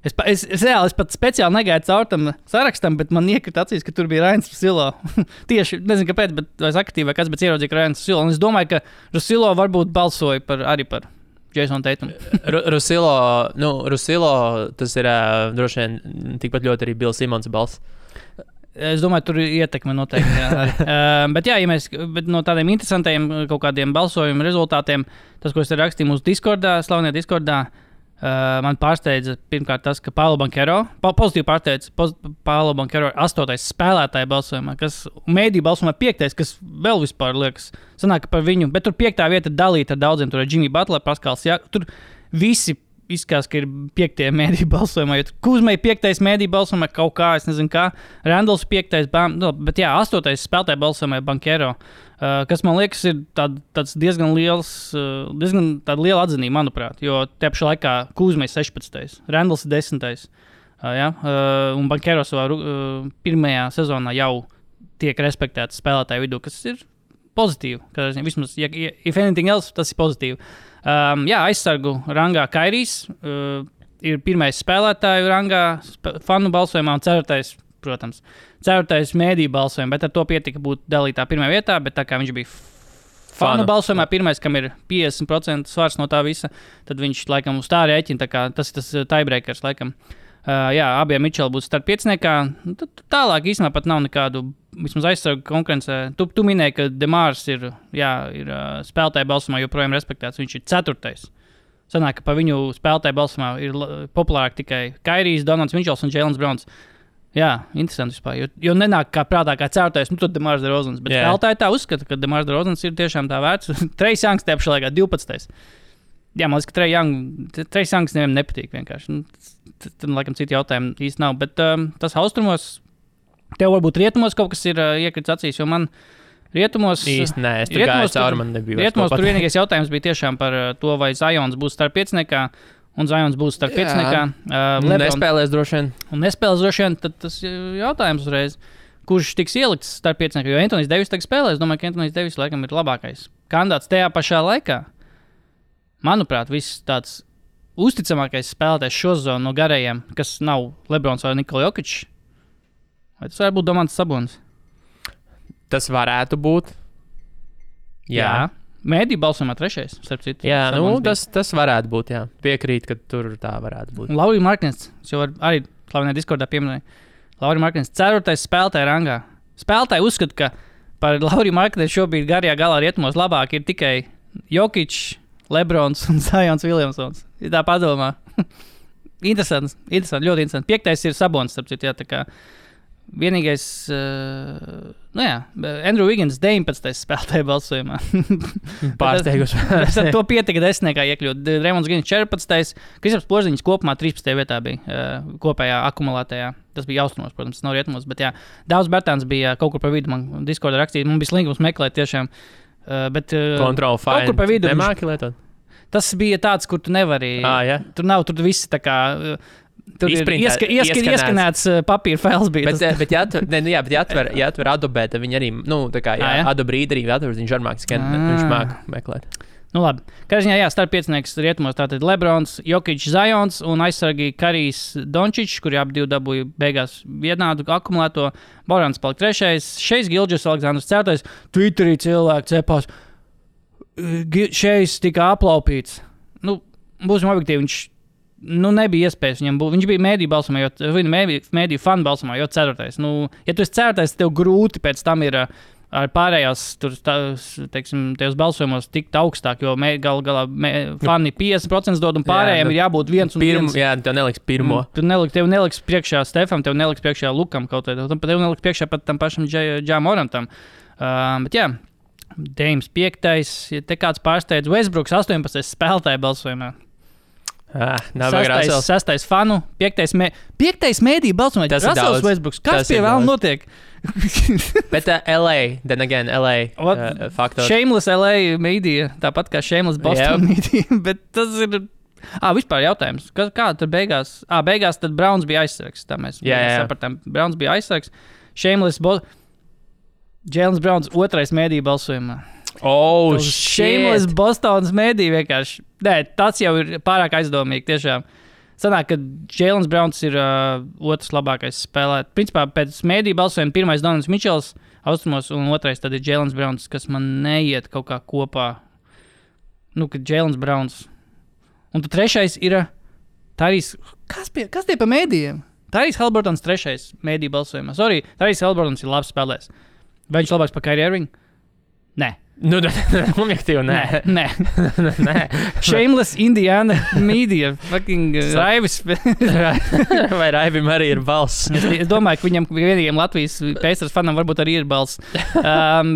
Es pat speciāli negaidu caur tam sarakstam, bet man iekrita acīs, ka tur bija Rains Rusilo. Tieši, nezinu kāpēc, bet es aktīvi vai kas, bet ieraudzīju, ka Rains Rusilo. Un es domāju, ka Rusilo varbūt balsoja arī par Jason Tatum. Rusilo, tas ir droši vien tikpat ļoti arī Bills Simons balss. Es domāju, tur ir ietekme noteikti. Bet no tādiem interesantiem kaut kādiem balsojumu rezultātiem, tas, ko es rakstīju mūsu Discordā, slavenajā Discordā, man pārsteidza pirmkārt tas, ka Paolo Banchero, pozitīvi pārsteidza Paolo Banchero 8. spēlētāja balsojumā, kas mēdīju balsojumā 5. kas vēl vispār liekas, sanāk par viņu, bet tur 5. vieta dalīta ar daudziem, tur ir Jimmy Butler, Paskals, tur visi izskatās, ka ir 5. mēdīju balsojumā, jo Kuzmai 5. mēdīju balsojumā kaut kā, es nezinu kā, Randalls 5. Bet 8. spēlētāja balsojumā ir Banchero, kas man liekas ir tāds diezgan liela atzinība, manuprāt, jo te pašā laikā Kuzmai 16. Randalls 10. Un Banchero savā pirmajā sezonā jau tiek respektēts spēlētāju vidū, kas ir pozitīvi, vismaz, if anything else, tas ir pozitīvi. Aizsargu rangā Kairijs ir pirmais spēlētāju rangā fanu balsojumā un 4. protams, 4. mēdīju balsojumā, bet ar to pietika būt dalītā pirmajā vietā, bet tā kā viņš bija fanu balsojumā pirmais, kam ir 50% svars no tā visa, tad viņš laikam uz tā rēķina, tā kā tas ir tas tiebreakers laikam. Abiem Mičeli būs starp 5. Tālāk īstenībā pat nav nekādu vismaz aizsargu konkurencē. Tu minēji, ka Demārs ir spēlētāju balsumā joprojām respektēts. Viņš ir 4. Sanāk, ka pa viņu spēlētāju balsumā ir populārāk tikai Kairijs, Donalds Mičels un Jēlens Browns. Jā, interesanti vispār, jo nenāk kā prātā kā 4. Tad Demārs DeRozans. Bet spēlētāji tā uzskata, ka Demārs DeRozans ir tiešām tā vērts. Trejs Youngs tajā pašā laikā 12. Jā, man liekas, ka Trejs Youngs nevienam nepatīk vienkārši. Tad, laikam, citi jautājumi īsti nav. Bet tas austrumos, tev varbūt rietumos kaut kas ir iekritis acīs, jo man rietumos... Īsti nē, es tur gāju cauri, man nebija. Rietumos tur vienīgais jautājums bija tiešām par to, vai Zions būs starp 5. un Zions būs starp 5. Nespēlēs droši vien. Un nespēlēs droši vien, tad tas jautājums uzreiz, kurš tiks ielikts starp 5. Jo Anthony's Davis tagad spēlēs, domāju, ka Anthony's Davis laikam ir labākais kandidāts tajā pašā laikā. Manuprāt, viss tāds uzticamākais spēlētājs šo zonu no garējiem, kas nav Lebrons vai Nikola Jokic. Vai tas varētu būt Domantas Sabonis? Tas varētu būt. Jā. Mēdī balsojumā 3. starp citu. Jā, tas varētu būt, jā. Piekrīt, ka tur tā varētu būt. Lauri Marknens, jau arī slavenajā Discordā pieminēja. Lauri Marknens 4. spēlētāja rangā. Spēlētāji uzskata, ka par Lauri Marknenu šobrīd garajā galā rietumos labāk ir tikai Jokic, Lebrons un Zions Williamsons. Ir tā padomā. Interesanti, ļoti interesanti. 5. ir Sabonis, starp citu, jā, tā kā vienīgais, Andrew Wiggins 19. spēlētāja balsojumā. Pārsteiguši. Ar to pietika 10. iekļūt. Raymons Grīns 14. Kristaps Porziņš kopumā 13. vietā bija kopējā akumulētajā. Tas bija austrumos, protams, tas nav rietumos, bet jā. Daudz Bertāns bija kaut kur pa vidu, man Discordā rakstīt. Man bija slinkums meklēt tiešām. Bet Control kaut kur pa vidu nemāki lietot. Tas bija tāds, kur tu nevari. Tur nav, tur viss tā kā. Tur ieskanēts papīra fails bija. Bet jāatver Adobe, tad viņi arī, tā kā, Adobe Reader arī atver, viņš arī viņš māk meklēt. Labi. Karžņā, starp 5. rietumos tātad Lebrons, Jokic, Zions un aizsargi Karijs Dončičs, kuri abi divi dabūja beigās vienādu akumulēto. Borans palika 3. Šeis Gilģis Aleksandrs 4. Twitterī cilvēki cepās. Šeis tika aplaupīts. Būsim objektīvi, viņš nebija iespējas viņam būt. Viņš bija mēdīju balsumā, mēdīju fanu balsumā, jo 4. Ja tu esi 4. tev grūti pēc tam ir ar pārējās, tajos balsojumos tikt augstāk, jo galā fani 50% dod un pārējiem ir jābūt 1 un 1. Jā, tev neliks pirmo. Tev neliks priekšā Stefam, tev neliks priekšā Lukam kaut vai. Tev neliks priekšā pat tam pašam Džā Morantam. Bet jā, Dēms 5. Ja te kāds pārsteidz Westbrooks 18. spēlētāju balsojumā. Nav vajag 6. fanu, 5. mēdī balsojumā. Tas ir daudz. Westbrooks. Kas pie vēl notiek? Bet LA, then again, LA faktors. Shameless LA media, tāpat kā Shameless Boston media, bet tas ir... vispār jautājums. Kā tad beigās? Beigās tad Browns bija aizsargs. Tā mēs sapratām. Browns bija aizsargs. Shameless Jalen Browns 2. mēdī balsojumā. Shameless Bostonas mēdī vienkārši. Nē, tas jau ir pārāk aizdomīgi tiešām. Sanāk, ka Jalen Browns ir otrs labākais spēlētājs. Principā pēc mēdī balsojuma 1. Donalds Mičels austrumos un 2. tad ir Jalen Browns, kas man neiet kaut kā kopā. Kad Jalen Browns. Un tad 3. ir Tyrese. Kas tie pa mēdījiem? Tyrese Haliburtons 3. mēdī balsojumā. Sorry, Tyrese Haliburtons ir labs spēlētājs. Vai viņš labāks par Kyrie Irving? Nē. Objektīvi, nē. Shameless Indiana media. Fucking Raivis. Vai Raivim arī ir balss? Es domāju, ka viņam vienīgiem Latvijas Pacers fanam varbūt arī ir balss.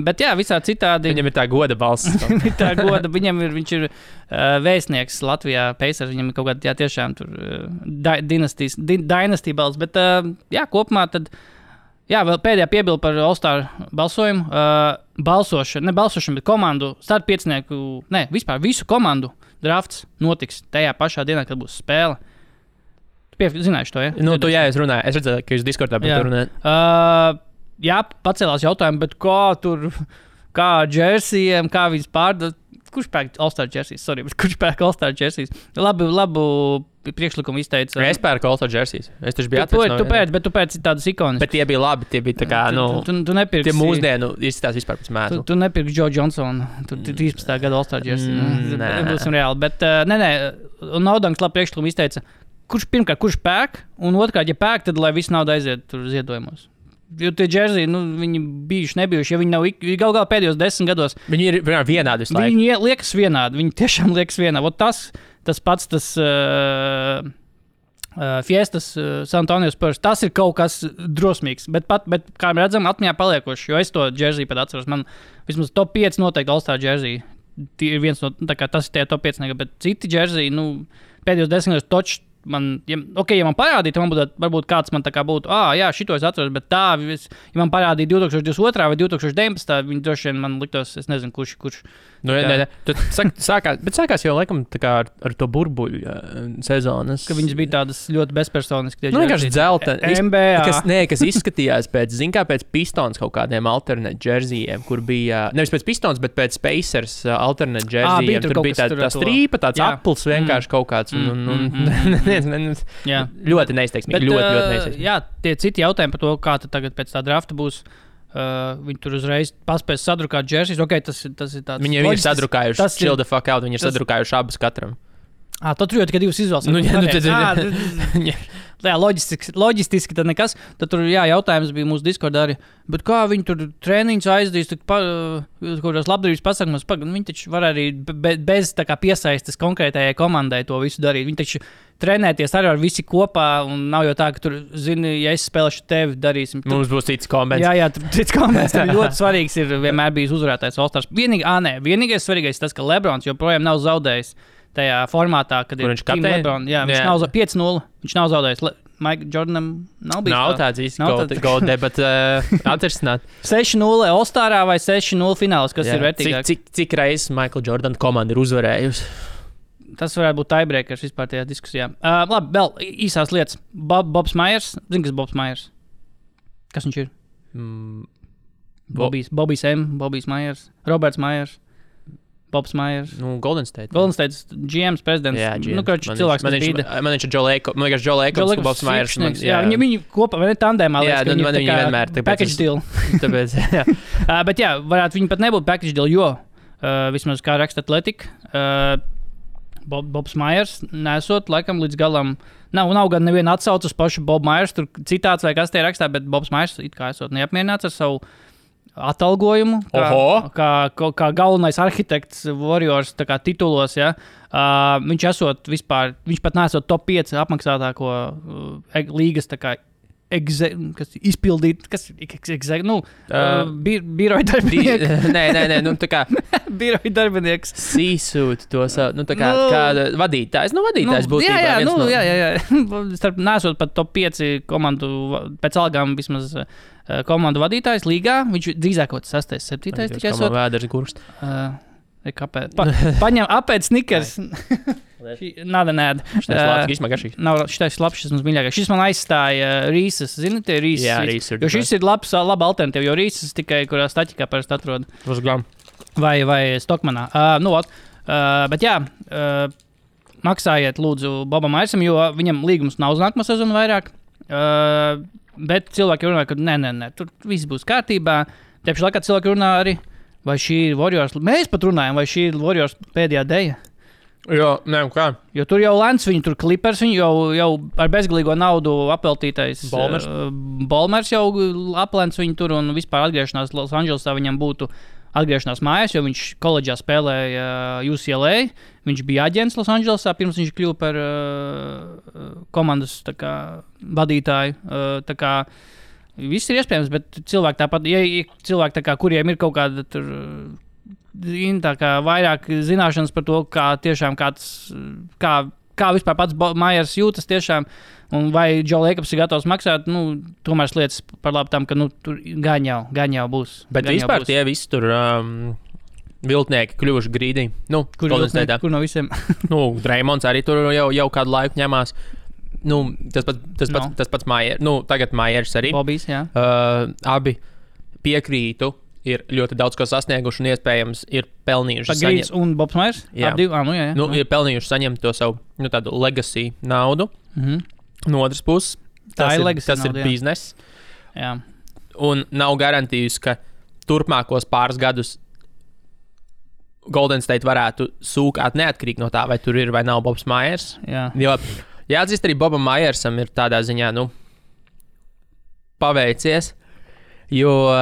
Bet jā, visā citādi. Viņam ir tā goda balss. Viņš ir vēstnieks Latvijā Pacers. Viņam ir kaut kāda tiešām tur dynasty balss. Bet jā, kopumā tad. Jā, vēl pēdējā piebilde par All-Star balsojumu. Ne balsošanu, bet komandu, starp 5. Vispār visu komandu drafts notiks tajā pašā dienā, kad būs spēle. Tu zināji to, ja? Es runāju. Es redzēju, ka jūs Discordā par to runājat. Jā, pacēlās jautājumu, bet kā džersijiem, kā viņas pārdod. Kurš pērk All-Star jerseys? Sorry, bet kurš pērk All-Star jerseys? Labu priekšlikumu izteica. Es pērku All-Star jerseys. Es taču biju bet tu pērci tādas ikonas. Bet tie bija labi, tie bija tā kā, tu nepirksi. Tie mūsdienu izstās vispār pēc mēslu. Tu nepirksi Joe Johnsonu. Tu 13. gada All-Star jersey. Būsim reāli. Bet, un Naudanks labi priekšlikumu izteica. Kurš pērk? Un otrkārt, ja pērk, tad lai viss nauda aiziet tur ziedojumos. Jo tie džersiji, viņi bijuši, nebijuši, ja viņi nav galā pēdējos 10 gados. Viņi ir vienādi visu laiku. Viņi liekas vienādi, viņi tiešām liekas vienādi. Tas pats, Fiestas San Antonio Spurs, tas ir kaut kas drosmīgs, bet kā redzam, atmiņā paliekoši, jo es to džersiju pat atceros. Man vismaz top 5 noteikti All-Star džersiji. Ir viens no, tas ir tie top 5, bet citi džersiji, pēdējos 10 gados točs. Ja man parādīja, man būtu, varbūt kāds man tā kā būtu, jā, šito es atceros, bet ja man parādīja 2022. vai 2019. Viņi droši vien man liktos, es nezinu, kurš. Sākās jau laikam tā kā ar to burbuļu sezonas. Ka viņas bija tādas ļoti bezpersoniskas. Vienkārši dzelta. NBA. Kas izskatījās pēc Pistons kaut kādiem alternate džersijiem, kur bija, nevis pēc Pistons, bet pēc Pacers alternate džersijiem. Tur bija tā strīpa, tāds apels vienkārši kaut kāds. Ļoti neizteiksmīgi. Ļoti neizteiksmīgi. Jā, tie citi jautājumi par to, kā tagad pēc tā drafta būs. Viņi tur uzreiz paspēs sadrukāt džersijas. Okay, tas ir tāds. Viņi ir sadrukājuši. Chill the fuck out. Viņi ir sadrukājuši abas katram. Tad tur jau tikai divas izvēles. Loģistiski tad nekas. Tad tur jautājums bija mūsu Discordā arī. Bet kā viņi tur treniņus aizdīs, kaut kādās labdarības pasākumos, viņi taču var arī bez tā kā piesaistes konkrētajai komandai to visu darīt. Viņi taču trenēties arī ar visi kopā, un nav jau tā, ka tur, zini, ja es spēlēšu tevi, darīsim. Mums būs cits kombināts. Jā, cits kombināts. Ļoti svarīgs ir vienmēr bijis uzvarētājs All-Stars. Vienīgais svarīgais tas, ka Lebrons joprojām nav zaudējis tajā formātā, kad kur ir Team Lebron. Jā, viņš nav 5-0. Viņš nav zaudējis. Mike Jordanam nav bijis. Nav tāds īsti gold debats atrisināt. 6-0 All-Starā vai 6-0 fināls, kas ir vērtīgāk? Cik reizes Michael Jordan komanda ir uzvarējusi? Tas varētu būt tiebreakers vispār tajā diskusijā. Labi, vēl īsās lietas. Bobs Myers. Zini, kas Bobs Myers? Kas viņš ir? Bobijs M. Bobijs Myers. Roberts Myers. Bobs Myers. Golden State. Golden State GM's prezidents. Jā, GM. Cilvēks, kas bija. Man viņš ir Joe Lacob, Bobs Myers. Jā, viņi kopā, vai ne tandēmā. Jā, viņi vienmēr. Package deal. Tāpēc, jā. Bet jā, varētu viņi pat nebūt package deal, jo vismaz kā raksta Athletic, Bobs Myers nesot laikam līdz galam. Nav gan neviena atsauca uz pašu Bobu Myers, tur citāts vai kas tie rakstā, bet Bobs Myers it kā esot neapmierināts ar savu atalgojumu, kā galvenais arhitekts Warriors titulos. Ja? Viņš pat nesot top 5 apmaksātāko līgas izpildīt, biroja darbinieks. Nē, tā kā biroja darbinieks. Sīsūt to savu, tā kā kāda vadītājs. Vadītājs būtu jā. Starp nesot pat top 5 komandu, pēc algām vismaz komandu vadītājs līgā, viņš drīzāk kaut 6, 7 tikai esot. Vēders gurst. Kāpēc? Paņem apēc snikers. Nāda. Šitais labs, šis mums mīļākais. Šis man aizstāja Rīsas. Zini, tie Rīsas? Jā, Rīsas. Jo šis ir laba alternatīva, jo Rīsas tikai, kurā staķikā parasti atrod. Vai Stokmanā. Bet jā, maksājiet lūdzu Bobam Myersam, jo viņam līgums nav uz nākamā sezonu vairāk. Bet cilvēki runā, ka nē, tur viss būs kārtībā. Tieši laikā cilvēki runā arī, vai šī ir Warriors. Mēs pat runājam, vai šī ir Warriors pēdējā deja. Jo, kā? Jo tur jau Lens, viņi tur Clippers, viņi jau ar bezgalīgo naudu apveltītais Bolmers jau aplēns viņu tur un vispār atgriešanās Los Andželesā viņam būtu atgriešanās mājās, jo viņš koledžā spēlēja UCLA, viņš bija aģents Los Andželesā, pirms viņš kļuva par komandas vadītāju. Tā kā viss ir iespējams, bet cilvēki tāpat, ja cilvēki tā kā, kuriem ir kaut kāda tur tā kā vairāk zināšanas par to, kā tiešām kā vispār pats Myers jūtas tiešām, un vai Joe Jacobs ir gatavs maksāt, tomēr lietas par labu tam, ka tur gan jau būs. Bet vispār tie visi tur viltnieki kļuvuši grīdī. Kur no visiem? Draymonds arī tur jau kādu laiku ņemās. Tas pats Myers. Tagad Myers arī. Bobijs, jā. Abi piekrītu. Ir ļoti daudz ko sasnieguši un iespējams ir pelnījuši saņemt. Un Bobs Myers? Jā. Jā. Ir pelnījuši saņemt to savu tādu legacy naudu. No otras puses, tas ir bizness. Jā. Un nav garantijas, ka turpmākos pāris gadus Golden State varētu sūkāt neatkarīgi no tā, vai tur ir vai nav Bobs Myers. Jā. Jo jāatzīst, arī Bobam Myersam ir tādā ziņā, paveicies. Jo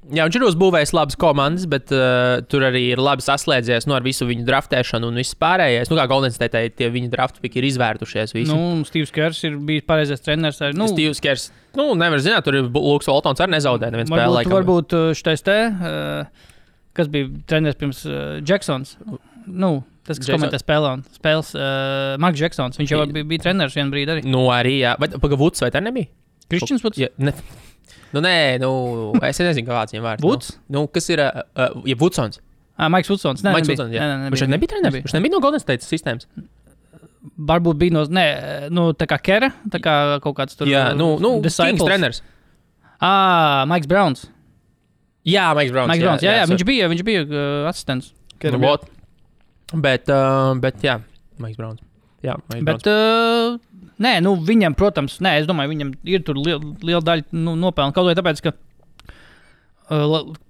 viņš ir uzbūvējis labas komandas, bet tur arī ir labi saslēdzies ar visu viņu draftēšanu un viss pārējais. Kā Golden State tie viņu draftu piki ir izvērtušies visi. Steve's Kers ir bijis pareizais treneris. Steve's Kers, nevar zināt, tur ir Luks Waltons arī nezaudēja neviens spēlē. Varbūt šitais kas bija treneris pirms Jacksons. Tas, kas komentē spēles, Marks Jacksons. Viņš jau bija treneris vienu brīdi arī. Arī, jā. Vuds vai tā nebija? Kristians Vuds? Es nezinu, kāds viņam vārds. Vuds? Kas ir, Vudsons. Maiks Vudsons. Maiks Vudsons, jā. Viņš nebija treneris? Viņš nebija no Golden State sistēmas? Varbūt bija tā kā Kera, tā kā kaut kāds tur. Jā, Kings treneris. Maiks Browns. Jā, Maiks Browns. Jā, viņš bija asistents. Bet jā, Maiks Browns. Jā, bet, viņam, protams, es domāju, viņam ir tur liela daļa nopelna. Kaut vai tāpēc, ka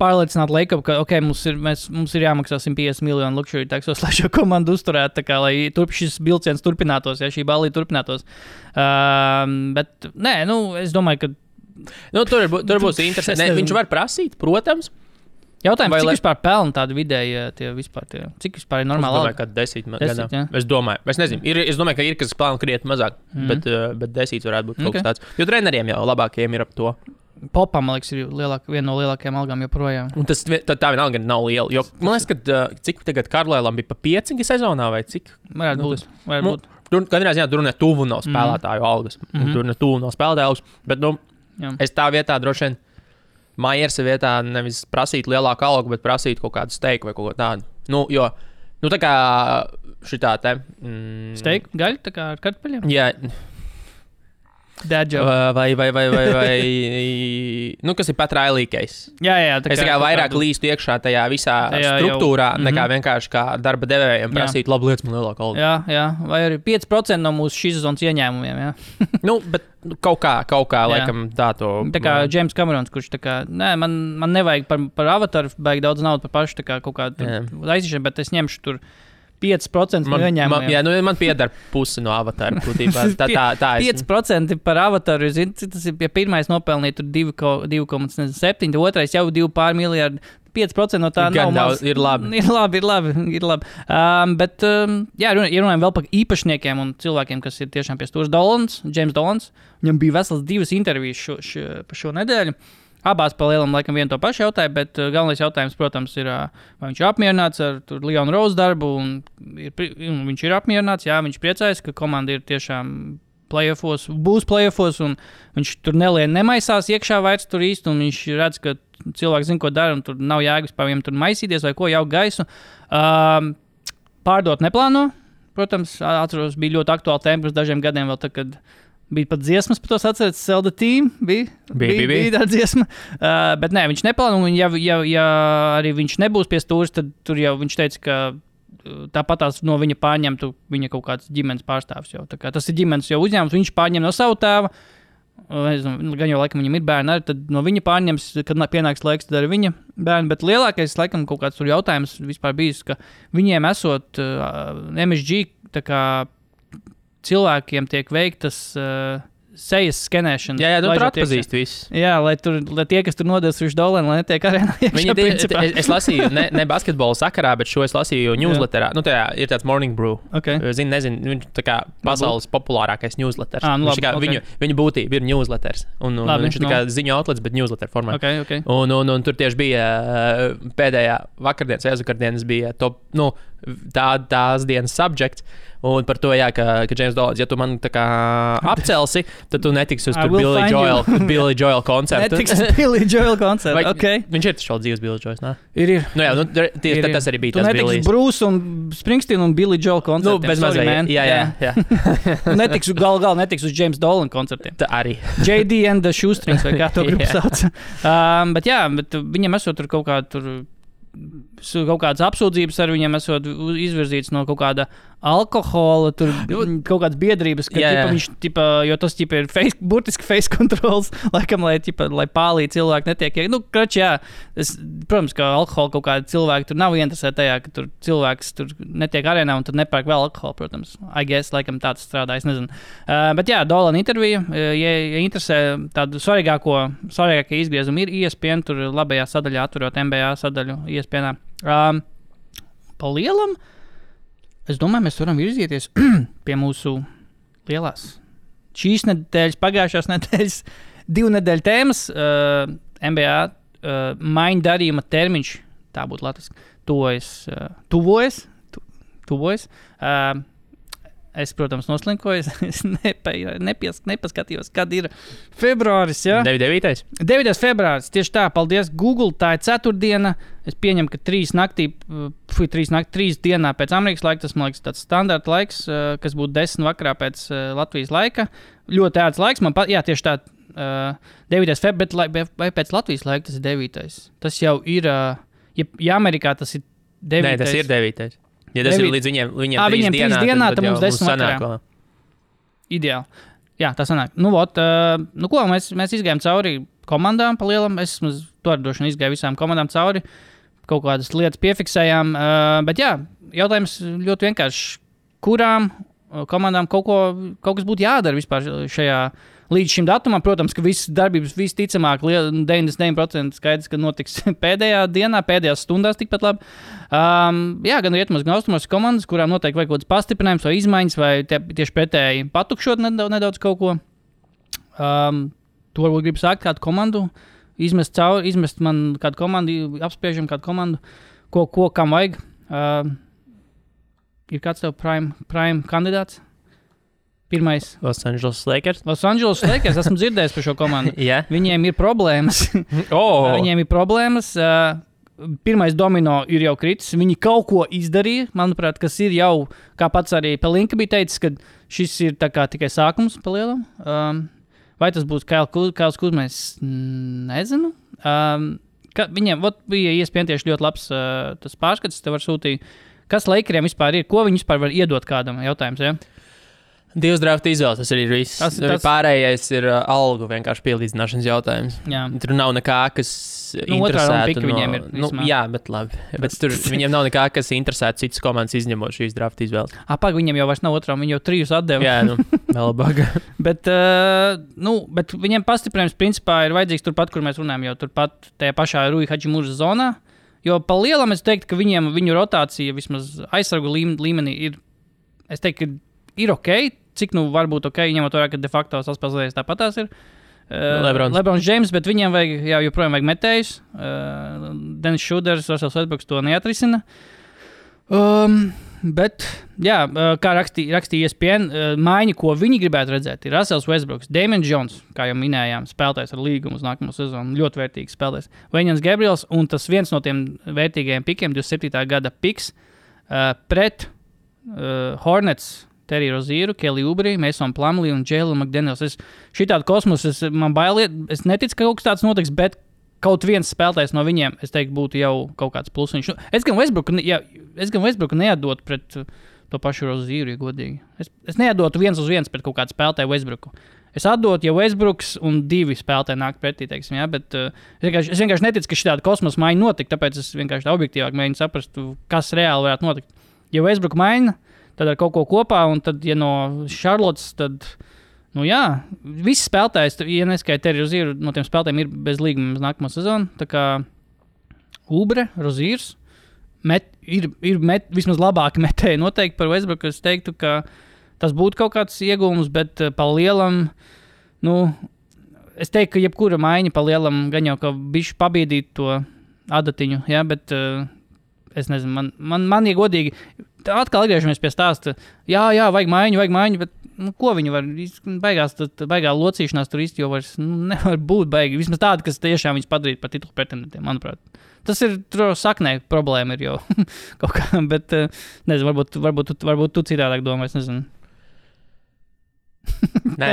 pārliecināt Lakeru, ka mums ir jāmaksā 150 miljonu luxury taxos, lai šo komandu uzturētu, lai šis vilciens turpinātos, ja šī balīte turpinātos. Bet, es domāju, ka tur būs interesanti. Viņš var prasīt, protams. Jautājums, cik vispār pelna tādu vidēji, cik vispār ir normāli? Es domāju, ka 10 gadā. Es nezinu, es domāju, ka ir, kas pelna krietni mazāk, bet 10 varētu būt kaut kas tāds. Jo treneriem jau labākajiem ir ap to. Popam, man liekas, ir viena no lielākajām algām joprojām. Un tā vienalga nav liela, jo man liekas, ka cik tagad Karlēlam bija pa 5 sezonā vai cik? Varētu būt. Katrā ziņā tur ne tuvu nav spēlētāju algas. Tur ne tuvu nav spēlētāju algas, bet es tā vietā droši vien Myersa vietā nevis prasīt lielāku algu, bet prasīt kaut kādu steiku vai kaut ko tādu. Jo, tā kā šitā te... Steiku, gaļu, tā kā ar kartupeļiem? Jā. Dad joke. Vai, kas ir pat railīgais. Jā. Es tikai vairāk līstu iekšā tajā visā struktūrā, nekā vienkārši kā darba devējiem prasīt labu lietas man lielāku algu. Jā, vai arī 5% no mūsu šīs sezonas ieņēmumiem, jā. Bet kaut kā laikam tā to... Tā kā James Camerons, kurš tā kā, man nevajag par avataru, baigi daudz naudu par pašu, tā kā kaut kādu aiziešu, bet es ņemšu tur 5% no ieņēmumiem. Man pieder pusi no avatāra. Tā 5% par avataru. Tas ir, ja pirmais nopelnīja 2,7, otrais jau 2 pār miljardi. 5% no tā Gan nav daudz, ir labi. Ir labi. Bet, ja runājam vēl par īpašniekiem un cilvēkiem, kas ir tiešām pie stūras, James Dolans, viņam bija vesels 2 intervijas par šo nedēļu. Abās pa lielam laikam vienu to pašu jautāju, bet galvenais jautājums, protams, ir, vai viņš ir apmierināts ar Leonu Rose darbu, un viņš ir apmierināts, jā, viņš priecājas, ka komanda ir tiešām būs playoffos, un viņš tur nemaisās iekšā vairs tur īsti, un viņš redz, ka cilvēki zina, ko dara, un tur nav jēgas par viņiem tur maisīties vai ko, jau gaisu. Pārdot neplāno, protams, atceros, bija ļoti aktuāla tēma pirms dažiem gadiem vēl tā, kad bija pat dziesmas par to atceries, Sell the Team, bija tā dziesma, bet nē, viņš neplāno, un ja arī viņš nebūs pie stūras, tad tur jau viņš teica, ka tāpatās no viņa pārņemtu viņa kaut kāds ģimenes pārstāvs jau. Tā kā tas ir ģimenes jau uzņēmums, viņš pārņem no savu tēva, gan jau laikam viņam ir bērni arī, tad no viņa pārņems, kad pienāks laiks, tad arī viņa bērni, bet lielākais laikam kaut kāds tur jautājums vispār bijis, ka viņiem esot MSG, tā kā cilvēkiem tiek veiktas sejas skenēšana. Jā, tur atpazīst visus. Jā, lai tie, kas tur nodevis uz $1, lai netiek arēnā iekšā. Es lasīju, ne basketbola sakarā, bet šo es lasīju newsletterā. Nu, tajā ir tāds Morning Brew. Okay. Nezinu, viņš tā kā pasaules populārākais newsletters. Viņa būtība ir newsletters. Un viņš ir tā kā ziņu outlets, bet newsletter formā. Okay. Un tur tieši bija pēdējā vakardienas, aizvakardienas bija top, tās dienas subject. Un par to, jā, ka James Dolans, ja tu man tā kā apcelsi, tad tu netiksi uz Billy Joel koncertu. Netiksi uz Billy Joel koncertu, okay. Viņš ir taču vēl dzīves Billy Joels, nē? Ir. Nu jā, tas arī bija tas Billy. Tu netiksi Bruce un Springsteen un Billy Joel koncertiem. Nu, bez mazai, jā. Netiksi uz James Dolan koncertiem. Tā arī. JD and the Shoestrings, vai kā to grupu sauc. Bet viņam esot tur kaut kādas apsūdzības ar viņiem esot izvirzīts no kaut kāda alkohola, tur kaut kādas biedrības, ka viņš, jo tas ir burtiski face controls, laikam, lai pālī cilvēki netiek. Protams, ka alkohola kaut kādi cilvēki tur nav interesēti tajā, ka tur cilvēks tur netiek arēnā un tad nepērk vēl alkoholu, protams. I guess, laikam tāds strādā, es nezinu. Bet jā, Dolan intervija, ja interesē tādu svarīgākie izgriezumi ir ESPN, tur labajā sadaļā atverot NBA sadaļu ESPN-ā. Pa lielam, es domāju, mēs varam virzīties pie mūsu lielās šīs nedēļas, pagājušās nedēļas 2 nedēļu tēmas. NBA maiņu darījuma termiņš, tā būtu latviski, tuvojas. Es, protams, noslinkoju, es nepaskatījos, kad ir februāris, jā? 9. februāris, tieši tā, paldies Google, tā ir ceturtdiena, es pieņemu, ka 3 dienā pēc Amerikas laika, tas, man liekas, tāds standarta laiks, kas būtu 10 vakarā pēc Latvijas laika, ļoti ērts laiks, tieši tā, 9. februāris, bet vai pēc Latvijas laika tas ir 9. Tas jau ir, ja Amerikā tas ir 9. Nē, tas ir 9. Ja tas ir līdz viņiem 3 dienā, tad mums 10 vakarā. Ideāli. Jā, tā sanāk. Mēs izgājām cauri komandām pa lielam. Es to arī droši vien izgāju visām komandām cauri. Kaut kādas lietas piefiksējām. Bet jā, jautājums ļoti vienkārši. Kurām komandām kaut kas būtu jādara vispār šajā līdz šim datumam? Protams, ka visas darbības visticamāk 99% skaidrs, ka notiks pēdējā dienā, pēdējās stundās tikpat labi. Gan rietumos, gan austrumos komandas, kurām noteikti vajag kaut kāds pastiprinājums vai izmaiņas, vai tieši pretēji patukšot nedaudz kaut ko. To varbūt gribu sākt kādu komandu, izmest man kādu komandu, apspriežam kādu komandu, ko kam vajag. Ir kāds tev prime kandidāts? Pirmais. Los Angeles Lakers, esmu dzirdējis par šo komandu. Yeah. Viņiem ir problēmas. Pirmais domino ir jau kritis. Viņi kaut ko izdarīja, manuprāt, kas ir jau, kā pats arī Pelinka bija teicis, ka šis ir tā kā tikai sākums pa lielam. Vai tas būs Kails Kuzmais? Nezinu. Viņiem bija iespējams tieši ļoti labs tas pārskats, te var sūtīt. Kas Lakeriem vispār ir? Ko viņi vispār var iedot kādam? Jautājums, ja? 2 drafta izvēles, tas arī ir viss. Pārējais ir algu vienkārši pielīdzināšanas jautājums. Jā. Tur nav nekā, kas interesētu. Viņiem ir, jā, bet labi. Bet tur viņiem nav nekā, kas interesētu citas komandas izņemot šīs drafta izvēles. Viņiem jau vairs nav otrām, viņi jau 3 atdeva. Jā, vēl baga. bet viņiem pastiprinājums principā ir vajadzīgs turpat, kur mēs runājam, jau turpat tajā pašā Rui Hadžimūras zonā. Jo pa lielam es teiktu, ka viņu rotācija vismaz aizsargu līmenī ir, es teiktu, ka ir ok, cik varbūt ok, ņemot vērā, ka de facto saspēlēs tāpatās ir. Lebrons James, bet viņiem joprojām vajag metējus. Dennis Šuders, Russell Westbrooks to neatrisina. Bet, jā, kā rakstīja ESPN, maiņa, ko viņi gribētu redzēt, ir Russell Westbrooks, Damian Jones, kā jau minējām, spēlētājs ar līgumu uz nākamo sezonu, ļoti vērtīgs spēlētājs. Wenjans Gabriels, un tas viens no tiem vērtīgajiem pikiem, 27. gada piks, pret Hornets, Terry Rozieru, Kelly Oubre, Mason Plumlee un Jalen McDaniels. Šitādu kosmosu man bailiet, es neticu, ka kaut kas tāds notiks, bet kaut viens spēlētājs no viņiem, es teiktu, būtu jau kaut kāds plusiņš. Es gan Westbrooku neatdotu pret to pašu Rozieru, ja godīgi. Es neatdotu 1-1 pret kaut kādu spēlētāju Westbrooku. Es atdotu, ja Westbrooks un 2 spēlētāji nāk pretī, teiksim, jā, bet es vienkārši neticu, ka šitāda kosmosa maiņa notika, tāpēc es vienkārši tā objektīvāk mēģinu saprast, kas reāli varētu notikt. Ja Westbrooku maiņa, tad ar kaut ko kopā, un tad, ja no Charlottes, tad, jā, visi spēlētājs, ja neskaita Terry Rozieru, no tiem spēlētājiem ir bez līguma uz nākamo sezonu, tā kā Oubre, Roziers, ir vismaz labāki metēji noteikti par Westbrooku, es teiktu, ka tas būtu kaut kāds iegūms, bet pa lielam, es teiktu, ka jebkura maiņa pa lielam gan jau, ka bišķi pabiedīt to adatiņu, jā, bet es nezinu, man ja godīgi, atkal atgriežamies pie stāsta, jā, vajag maiņu, bet ko viņi var, baigā locīšanās tur īsti jau vairs nevar būt baigi, vismaz tāda, kas tiešām viņus padarīt par titulu pretendentiem, manuprāt. Tas ir saknē problēma ir jau kaut kā, bet nezinu, varbūt tu citādāk domā, es nezinu. Nē.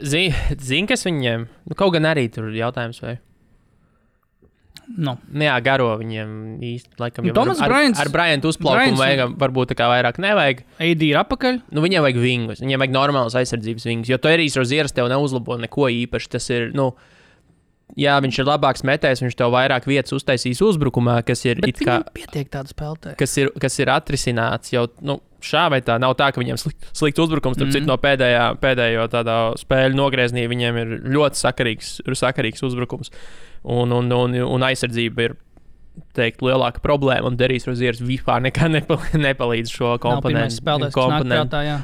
Zini, kas viņiem, kaut gan arī tur jautājums vai? No. Jā, garo viņiem īsti, laikam jau ar Bryantu uzplaukumu vajag, varbūt tā kā vairāk nevajag. AD ir apakaļ. Viņiem vajag vingus, viņiem vajag normālas aizsardzības vingus, jo Terrijs Rozieris tev neuzlabo neko īpaši, tas ir, jā, viņš ir labāks metējs, viņš tev vairāk vietas uztaisīs uzbrukumā, kas ir bet it kā pietiek tādu spēlētāju. Kas ir atrisināts jau, šā vai tā, nav tā, ka viņiem slikts uzbrukums, starp citu no pēdējo tādā spēļu nogrieznī viņiem ir ļoti sakarīgs uzbrukums. Un aizsardzība ir, teikt, lielāka problēma, un Terrijs Rozieris vispār nekā nepalīdz šo komponentu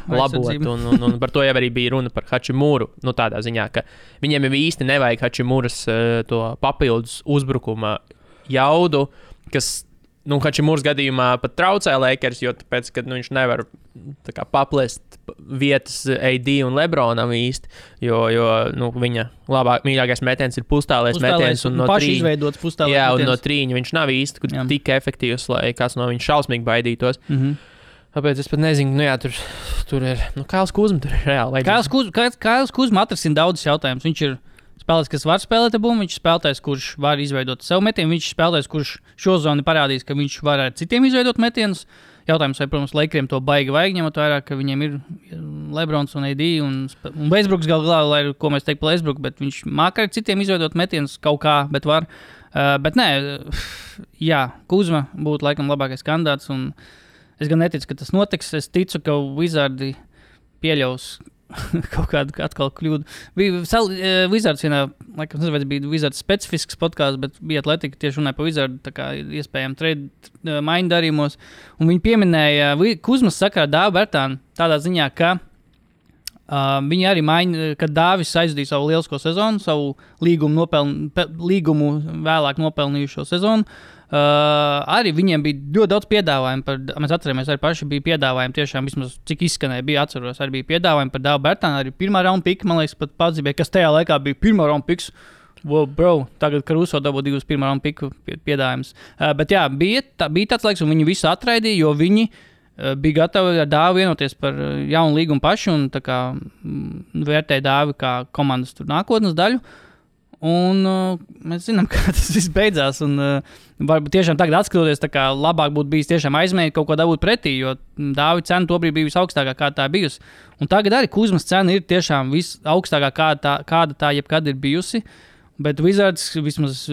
labot, un par to jau arī bija runa par Hachimuru, tādā ziņā, ka viņiem jau īsti nevajag Hachimuras to papildus uzbrukuma jaudu, kas, Hachimuras gadījumā pat traucē Lakers, jo tāpēc, ka viņš nevar tā kā paplest vietas AD un Lebronam īsti, jo viņa mīļākais metiens ir pustālais metiens, un no paši izveidots pustālais metiens. Jā, un no trīņa viņš nav īsti tik efektīvs, lai kāds no viņa šausmīgi baidītos. Tāpēc es pat nezinu, tur ir, Kails Kuzma tur ir reāli. Kails Kuzma atrisina daudzus jautājumus. Viņš ir spēlētājs, kas var spēlēt abumu, viņš ir spēlētājs, kurš var izveidot sev metienu, viņš ir spēlētājs, kurš šo zonu parādīs, ka viņš var ar citiem izveidot metienus. Jautājums, vai, protams, Lakeriem to baigi vajag, ņemot vērā, ka viņiem ir Lebrons un AD un Westbrooks galā, ko mēs teiktu par Westbrooku, bet viņš māca ar citiem izveidot metienus kaut kā, bet var. Bet nē, jā, Kuzma būtu laikam labākais kandidāts, un es gan neticu, ka tas notiks. Es ticu, ka Wizardi pieļaus kaut kādu atkal kļūdu. Bija Wizards vienā, laikam, nezinu, vai tas bija Wizards specifisks podkāsts, bet bija Atletika tieši runāja par Wizardu, tā kā iespējami trade maiņu darījumos. Un viņi pieminēja Kuzmas sakarā Dāvu Bertānu tādā ziņā, ka viņi arī maiņa, kad Dāvis aizdīja savu lielisko sezonu, savu līgumu vēlāk nopelnījušo sezonu. Arī viņiem bija ļoti daudz piedāvājumu mēs atceramies, arī paši bija piedāvājumi tiešām vismaz, cik izskanēja, atceros, arī bija piedāvājumi par Dāvu Bertānu, arī pirmā raunda pika, man liekas, pat pazīmēja, kas tajā laikā bija pirmā raunda piks. Wow, bro, tagad Caruso dabū 2 pirmā raunda piku piedāvājums. Bet jā, bija tāds laiks, un viņi visu atraidīja, jo viņi bija gatavi ar Dāvu vienoties par jaunu līgumu paši, un tā kā vērtēja Dāvi kā komandas tur nākotnes daļu. Un mēs zinām, kā tas viss beidzās. Un, varbūt tiešām tagad atskatoties, tā kā labāk būtu bijis tiešām aizmēģināt kaut ko dabūt pretī, jo Dāvi cena tobrīd bija visaugstākā, kāda tā bijusi. Un tagad arī Kuzmas cena ir tiešām visaugstākā, kāda tā jebkad ir bijusi. Bet Wizards, vismaz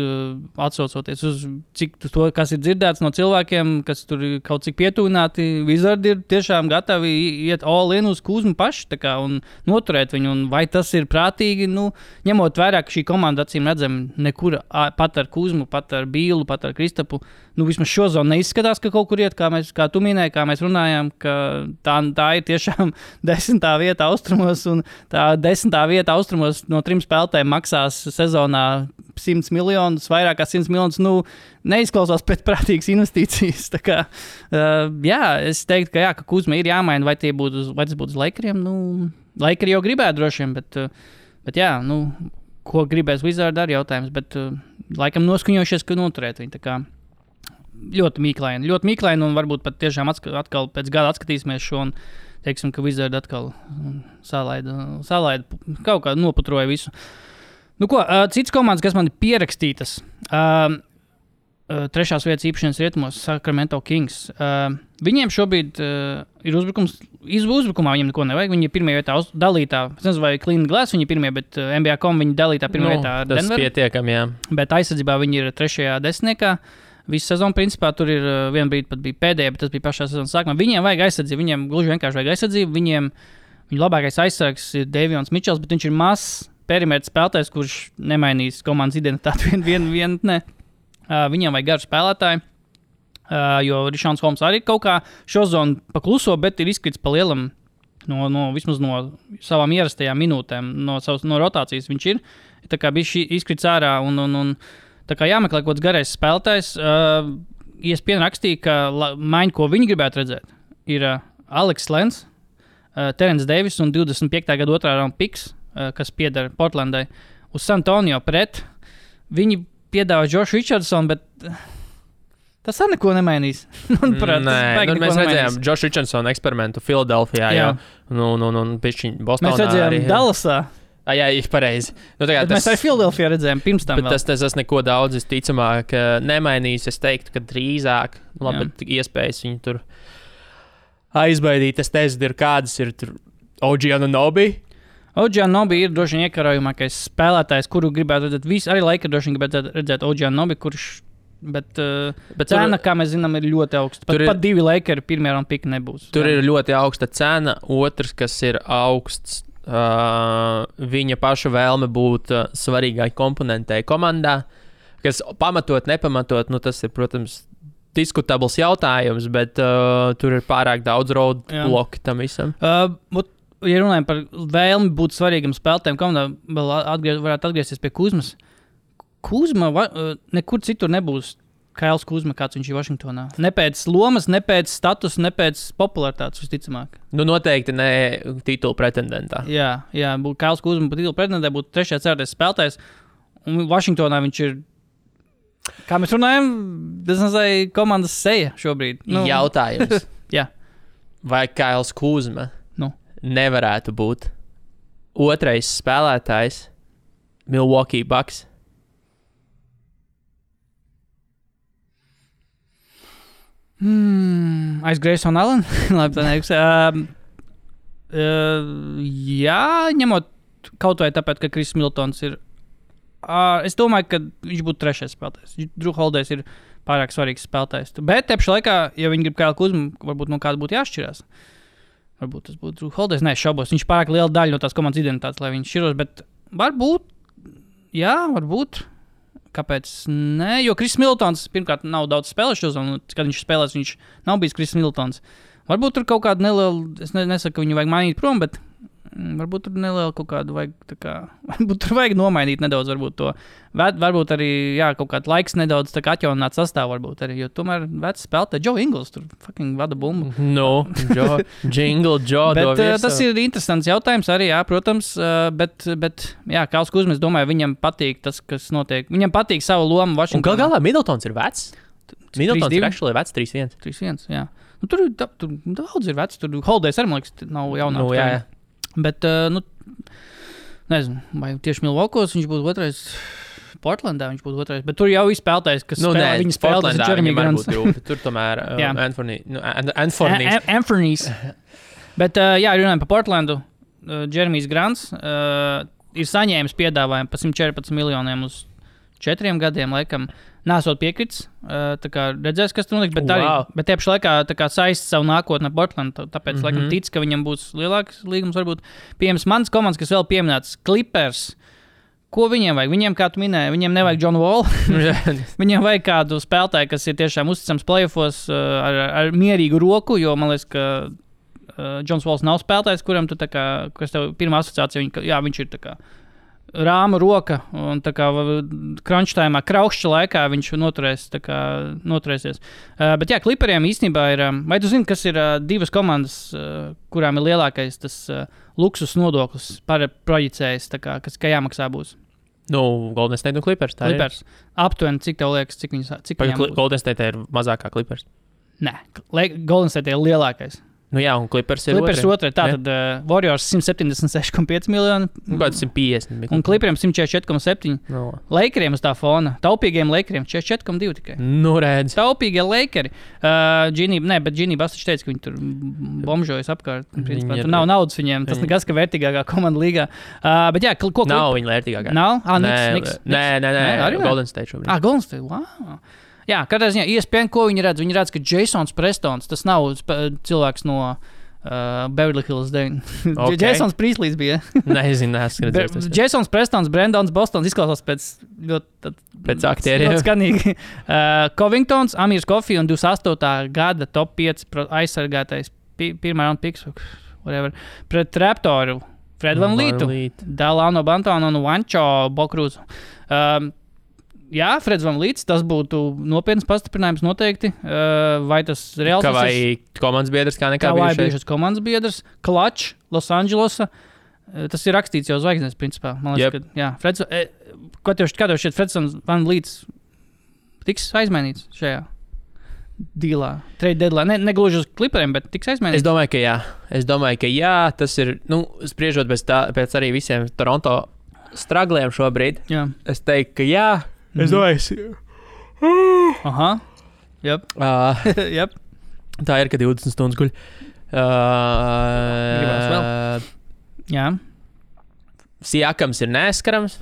atsaucoties uz cik to, kas ir dzirdēts no cilvēkiem, kas tur ir kaut cik pietuvināti, Wizards ir tiešām gatavi iet all in uz Kuzmu paši un noturēt viņu. Un vai tas ir prātīgi, ņemot vērā, ka šī komanda acīm redzam nekur pat ar Kuzmu, pat ar Bīlu, pat ar Kristapu, vismaz šo zonu neizskatās, ka kaut kur iet, kā tu minēji, kā mēs runājām, ka tā ir tiešām 10. vieta austrumos, un tā 10. vieta austrumos no 3 spēlētājiem maksās sezonā 100 miljonus, vairāk kā 100 miljonus, neizklausās pēc prātīgas investīcijas. Tā kā, es teiktu, ka Kuzma ir jāmaina, vai tas būtu uz Lakeriem. Lakeri jau gribētu droši vien, bet jā, ko gribēs Wizards ar jautājums, bet laikam noskuņojušies, ka noturēt viņu. Tā kā ļoti mīklaini, un varbūt pat tiešām atkal pēc gada atskatīsimies šo un teiksim, ka Wizards atkal salaida kaut kā noputroja visu. Cits komandas, kas man ir pierakstītas, 3. vietas īpašanas rietumos, Sacramento Kings. Viņiem šobrīd ir uzbrukums. Uzbrukumā viņiem neko nevajag. Viņi ir pirmajā vietā dalītā. Es nezinu, vai Clean Glass viņi ir pirmie, bet NBA.com viņi dalītā pirmajā vietā ar Denveru. Tas pietiekami, jā. Bet aizsardzībā viņi ir 3. desmitniekā. Visu sezonu, principā, tur ir viena brīdi pat bija pēdējā, bet tas bija pašā sezonas sākumā. Viņiem vajag aizsardzību, viņiem gluži vienkārši vajag aizsardzību. Viņu labākais aizsargs ir Davions Mičels, bet viņš ir mazs perimetrs spēlētājs, kurš nemainīs komandas identitāti vienatnē. Viņiem vajag garu spēlētāju, jo Rišons Holmes arī kaut kā šo zonu pakluso, bet ir izkrits pa lielam vismaz no savām ierastajām minūtēm, no rotācijas viņš ir. Tā kā bija izkrits ārā un tā kā jāmeklē kaut kāds garais spēlētājs. ESPN rakstīja, ka maiņa, ko viņi gribētu redzēt, ir Alex Lens, Terence Davis un 25. gada 2. raunda piks, kas pieder Portlandai, uz San Antonio pret. Viņi piedāvā Jošu Richardsonu, bet tas arī neko nemainīs. Manuprāt, mēs redzējām Jošu Richardsonu eksperimentu Filadelfijā, un pišķiņ Bostonā. Mēs redzējām Dallasā. Jā, ir pareizi. Mēs arī Filadelfijā redzējām pirms tam. Bet tas neko daudz, visticamāk, nemainīs. Es teiktu, ka drīzāk, bet iespējas viņu tur aizbaidīt. Es nezinu, kādas ir tur OG Anunoby. OG Anunoby ir droši vien iekarojumākais spēlētājs, kuru gribētu redzēt. Visi arī Lakers droši vien gribētu redzēt OG Anunoby, kurš, bet cena, kā mēs zinām, ir ļoti augsta. Pat 2 Lakers pirmajā raunda pika nebūs. Tur ir ļoti augsta cena. Otrs, kas ir augsts, viņa paša vēlme būt svarīgai komponentei komandā, kas pamatot, nepamatot, tas ir, protams, diskutabls jautājums, bet tur ir pārāk daudz roadbloki tam visam. Ja runājam par vēlmi būt svarīgam spēlētājam, komandā vēl varētu atgriezties pie Kuzmas. Kuzma nekur citur nebūs Kails Kuzma, kāds viņš ir Vašingtonā. Ne pēc lomas, ne pēc status, ne pēc popularitātes, visticamāk. Noteikti ne titulu pretendentā. Jā, Kails Kuzma pa titulu pretendentā būtu 3. 4. spēlētājs, un Vašingtonā viņš ir, kā mēs runājam, tas nezinu, komandas seja šobrīd. Jautājums. Jā. Vai Kails Kuzma nevarētu būt 2. spēlētājs Milwaukee Bucks? Aiz Grayson Allen? Labi, tā neiks. Jā, ņemot kaut vai tāpēc, ka Kris Miltons ir. Es domāju, ka viņš būtu 3. spēlētājs. Drew Holidays ir pārāk svarīgs spēlētājs. Bet te pašā laikā, ja viņi grib Kailu Kuzmu, varbūt no kāda būtu jāšķirās. Varbūt tas būtu Drew Holidays. Nē, šaubos. Viņš pārāk liela daļa no tās komandas identitātes, lai viņš šķiros. Bet varbūt, jā, varbūt. Kāpēc? Nē, jo Kris Miltons pirmkārt nav daudz spēlējuši, un kad viņš spēlēs, viņš nav bijis Kris Miltons. Varbūt tur kaut kāda neliela, es nesaku, ka viņu vajag mainīt prom, bet varbūt tur neliela kaut kādu vajag, tā kā, varbūt tur vajag nomainīt nedaudz, varbūt to. Varbūt arī, jā, kaut kāds laiks nedaudz tā kā atjaunināt sastāvu, varbūt arī, jo tomēr vecs spēlētāji, Joe Ingles tur fucking vada bumbu. Joe bet tas ir interesants jautājums arī, jā, protams, bet jā, Kails Kuzma, es domāju, viņam patīk tas, kas notiek. Viņam patīk savu lomu Vašingtonā. Un galā Middletons ir vecs? Middletons ir actually vecs 3-1. 3-1, jā. Tur daudz ir vecs, tur Holidays arī, man liekas, nav jaunāks. Jā. Bet, nezinu, vai tieši Milwaukos viņš būtu 2. Portlandā viņš būtu 2. Bet tur jau ir spēlētājs, kas spēlē, viņa spēlētājs ir Jeremy Grants. Tur tomēr Anthony's. Bet, jā, runājam par Portlandu. Jeremijs Grants. ir saņēmis piedāvājumu par 114 miljoniem uz 4 gadiem, laikam, nesot piekritis. Tā kā redzēs, kas tur notiks, bet tie pašā laikā tā kā saist savu nākotni ar Portlandu, tāpēc, laikam, tic, ka viņam būs lielāks līgums, varbūt pieejams mans komandas, kas vēl pieminēts, Clippers. Ko viņiem vajag? Viņiem, kā tu minēji, viņiem nevajag John Wall. Viņiem vajag kādu spēlētāju, kas ir tiešām uzticams playoffos ar mierīgu roku, jo man liekas, ka Johns Walls nav spēlētājs, kuram tu tā kā, kas tev pirmā asociācija, viņš ir tā kā rāma roka, un tā kā crunch time, kraukšķa laikā viņš noturēsies. Bet jā, Clipperiem īstenībā ir, vai tu zini, kas ir divas komandas, kurām ir lielākais tas luksus nodoklis projicējis, tā kā, kas jāmaksā būs? Golden State un Clippers. Clippers. Aptuveni, cik tev liekas, cik viņiem būs? Golden State ir mazākā Clippers. Nē, Golden State ir lielākais. Jā, un Clippers ir otrai. Tātad Warriors 176,5 miljoni. Kāds 150. Un Clipperiem 144,7. Lakeriem uz tā fona. Taupīgiem Lakeriem 44,2 tikai. Redz. Taupīgie Lakeri. Bet Ginny Bastiņš teica, ka viņi tur bomžojas apkārt. Principā, tur nav naudas viņiem. Tas nekas, ka vērtīgākā komanda līgā. Bet jā, ko nav viņa vērtīgākā. Nav? Niks. Nē. Golden State šobrīd. Golden State, wow. Jā, katrā ziņā ESPN, ko viņi redz? Viņi redz, ka Jasons Prestons, tas nav cilvēks no Beverly Hills 9. Okay. Jasons Priestlīs bija. Nezinu, Jasons Prestons, Brandons Bostons izklausās pēc aktieriem. Ļoti skanīgi. Covingtons, Amirs Coffey un 28. gada top 5 aizsargātais pirmā round picks, whatever, pret Raptoru, Fred VanVleetu, Dalano Bantonu un Juancho Bokruzu. Jā, Freds VanVleets, tas būtu nopietns pastiprinājums noteikti. Vai tas reāls? Vai komandas biedrs kā nekā bijušais? Vai bijušais komandas biedrs, Clutch, Los Andželosa. Tas ir rakstīts jau zvaigznēs, principā. Man liekas, ka, jā, Freds, kā tev šķiet, Freds VanVleets tiks aizmainīts šajā dīlā, trade deadline? Negluži uz Clipperiem, bet tiks aizmainīts? Es domāju, ka jā. Tas ir, spriežot pēc arī visiem Toronto stragliem šobrīd. Jā. Es teiktu, ka jā. Es domāju, Aha. Yep. Yep. Tā ir, ka 20 stundas guļ. Gribās vēl. Jā. Siakams ir neskarams.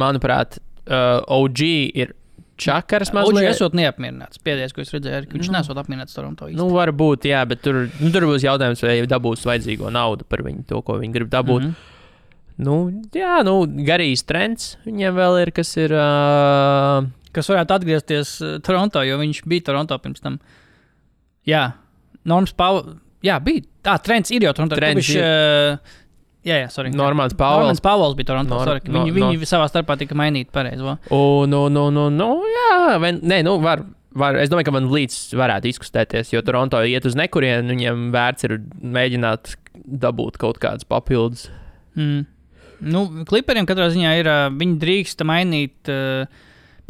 Manuprāt, OG ir čakars mazliet. OG esot neapmierināts. Pēdējais, ko es redzēju, ka viņš nesot apmierināts Toronto īsti. Varbūt, jā, bet tur būs jautājums, vai dabūs vajadzīgo naudu par viņu, to, ko viņi grib dabūt. Garīs trends viņiem vēl ir, kas ir... Kas varētu atgriezties Toronto, jo viņš bija Toronto pirms tam. Jā, Norms Pauls... Jā, bija. Trends ir jau Toronto. Trends ir... sorry. Normāls Pauls bija Toronto. Viņi savā starpā tika mainīti pareizi. Var. Es domāju, ka VanVleets varētu izkustēties, jo Toronto iet uz nekurienu, viņiem vērts ir mēģināt dabūt kaut kādas papildus. Clipperiem katrā ziņā ir, viņi drīksta mainīt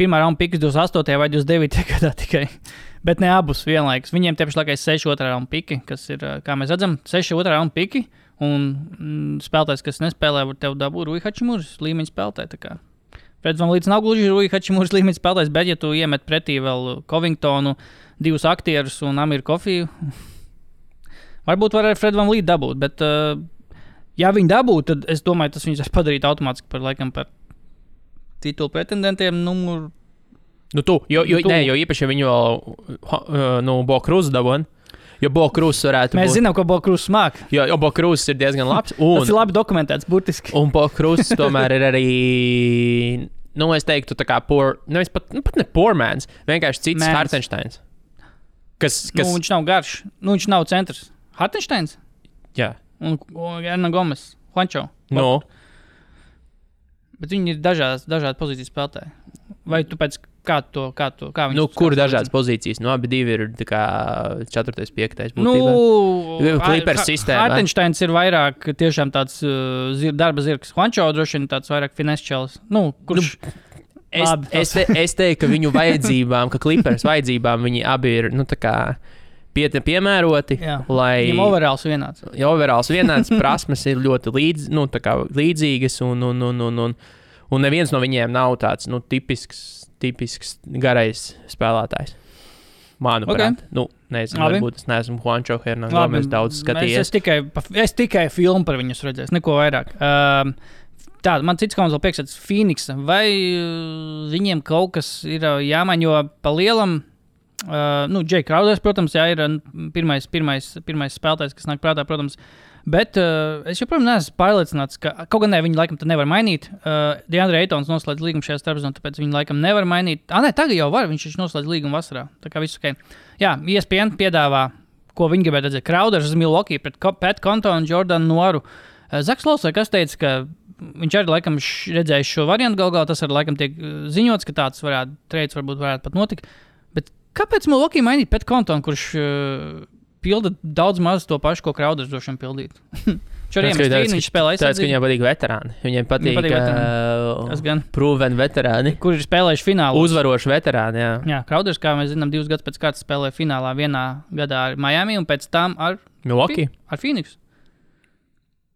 pirmā raunda pikas 28. vai 29. gadā tikai, bet ne abus vienlaikus. Viņiem tie pašlaik ir 6 otrā raunda piki, kas ir, kā mēs redzam, 6 otrā raunda piki, un spēlētājs, kas nespēlē, var tev dabūt Rui Hachimuras līmeņa spēlētāji. Freds VanVleets nav gluži Rui Hachimuras līmeņa spēlētājs, bet ja tu iemet pretī vēl Covingtonu, 2 aktierus un Amiru Coffeyu, varbūt var ar Fred VanVleet dabūt, bet... Ja viņi dabūtu, tad es domāju, tas viņus padarītu automātiski par titulu pretendentiem numur... Jo īpaši viņi vēl Bokruzu dabūtu. Jo Bokruzus varētu Mēs zinām, ko Bokruzs māk. Jo Bokruzs ir diezgan labs. Tas ir labi dokumentēts, burtiski. Un Bokruzs tomēr ir arī... es teiktu tā kā pat ne poor mans, vienkārši cits Hartensteins. Viņš nav garš. Viņš nav centrs. Hartensteins? Jā. Un Erna Gomes, Juancho. Bet viņi ir dažādi pozīcijas spēlētāji. Vai tu pēc kā viņi... Kur dažādas pozīcijas? Abi divi ir tā kā 4. 5. būtībā. Clippers sistēma. Hartensteins ir vairāk tiešām tāds darba zirgs. Juancho droši vien tāds vairāk finesčels. Kurš... Es teiktu, ka viņu vajadzībām, ka Clippers vajadzībām viņi abi ir, tā kā... piemēroti, lai... Viņam overalls vienāds. Ja overalls vienāds, prasmes ir ļoti līdzīgas, un neviens no viņiem nav tāds, tipisks garais spēlētājs. Manuprāt. Nezinu, varbūt es neesmu Juancho Hernan Gomes daudz skatījies. Es tikai filmu par viņus redzēju, neko vairāk. Tā, man cits komandas vēl priekšstats Phoenix. Vai viņiem kaut kas ir jāmaina, jo pa lielam, Jay Crowders, protams, jā, ir pirmais spēlētājs, kas nāk prātā, protams. Bet es joprojām neesmu pārliecināts, ka kaut gan viņi laikam nevar mainīt. DeAndre Aytons noslēdz līgumu šajā starpzonā, tāpēc viņi laikam nevar mainīt. Tagad jau var, viņš noslēdz līgumu vasarā. Tā kā viss ok. Jā, ESPN piedāvā, ko viņi gribētu redzēt. Crowders uz Milwaukee pret Pat Connaughton un Jordanu Noiru. Zaks Lols, kas teica, ka viņš arī laikam redzējis šo variantu galā. Tas arī laikam tiek ziņots, ka tāds trades varbūt varētu pat notikt. Bet kāpēc Milwaukee mainīt Pat Connaughton, kurš pilda daudz maz to pašu, ko Crowders droši vien pildīt? Viņš spēlē aizsardzību. Tāds, ka viņiem patīk veterāni. Viņiem patīk proven veterāni. Kur ir spēlējuši finālā. Uzvaroši veterāni, jā. Jā, Crowders, kā mēs zinām, 2 gadus pēc kārtas spēlēja finālā vienā gadā ar Miami un pēc tam ar Milwaukee. Ar Phoenix.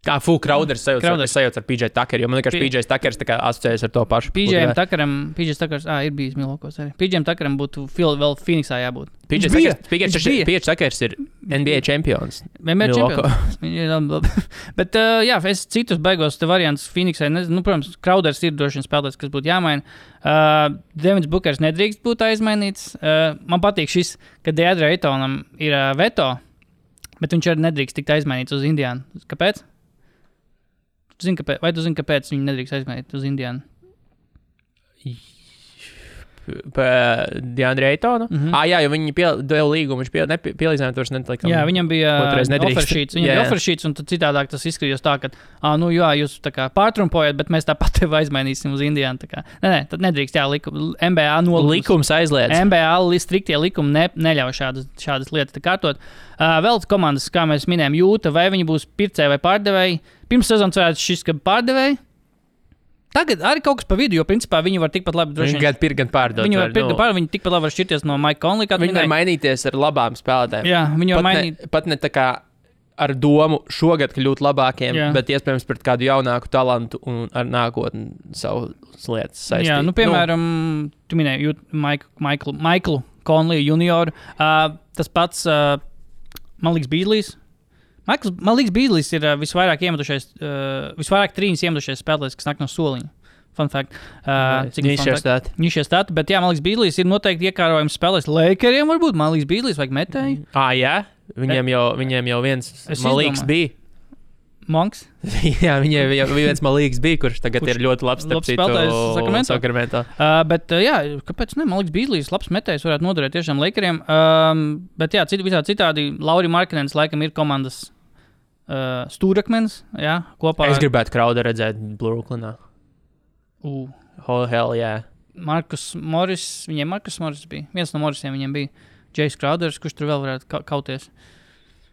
Crowders sajauc ar PJ Tucker, jo man liekas, PJ Tuckers asociējas ar to pašu. PJ Tuckers, ir bijis Milwaukee arī. PJ Tuckeram būtu vēl Phoenixā jābūt. PJ Tuckers ir NBA čempions. Bet, jā, es citus beigos te variants Phoenixai, protams, Crowders ir droši vien spēlētājs, kas būtu jāmaina. Devins Bookers nedrīkst būt aizmainīts. Man patīk šis, ka DeAndre Aytonam ir veto, bet viņš arī nedrīkst tikt aizmainīts uz Indiānu. Kāpēc? Vai tu zini, kāpēc viņi nedrīkst aizmainīt uz Indiānu? DeAndre Aytonu? Jā, jo viņi deva līgumu, viņš pielīdzināja, to nelikam. Jā, viņam bija offersheets, un tad citādāk tas izskatījās tā, ka, jā, jūs tā kā pārtrumpojat, bet mēs tāpat tevi aizmainīsim uz Indiānu. Nē, tad nedrīkst, jā, NBA likums aizliedz. NBA striktie likumi neļauj šādas lietas kārtot. Vēl komandas, kā mēs minējām, Jūta, vai viņi būs pircēji vai pārdevēji. Pirms sezonas varētu šis, ka pārdevēji. Tagad arī kaut kas pa vidu, jo principā viņi var tikpat labi droši. Viņi gan pirkt, gan pārdot. Viņi var pirkt, gan pārdot, viņi tikpat labi var šķirties no Mike Conley. Viņi var mainīties ar labām spēlētājiem. Jā, viņi var mainīt. Pat ne tā kā ar domu šogad kļūt labākiem, bet iespējams pret kādu jaunāku talantu un ar nākotni savas lietas saistīt. Jā, piemēram, tu minēji Michaelu Conley junioru. Tas pats, man liekas, Beasley's. Man liekas, Beasley's ir visvairāk trīņas iemetušies spēlētājs, kas nāk no soliņa. Fun fact. Nišie stati, bet jā, man liekas, Beasley's ir noteikti iekārojams spēlēs Lakeriem varbūt. Man liekas, Beasley's vajag metēju. Jā? Viņiem jau viens malīgs bija. Monks? Jā, viņiem jau viens malīgs bija, kurš tagad ir ļoti labs spēlētājs Sacramento. Bet jā, kāpēc ne? Man liekas, Beasley's labs metējs varētu noderēt tiešām Lakeriem. Bet jā, visā citādi Lauri Markkanens laikam ir komandas stūrakmenis, jā, kopā. Es gribētu Crowder redzēt Brooklynā. Oh, hell, jā. Marcus Morris bija. Viens no Morrisiem viņiem bija. Jace Crowders, kurš tur vēl varētu kauties.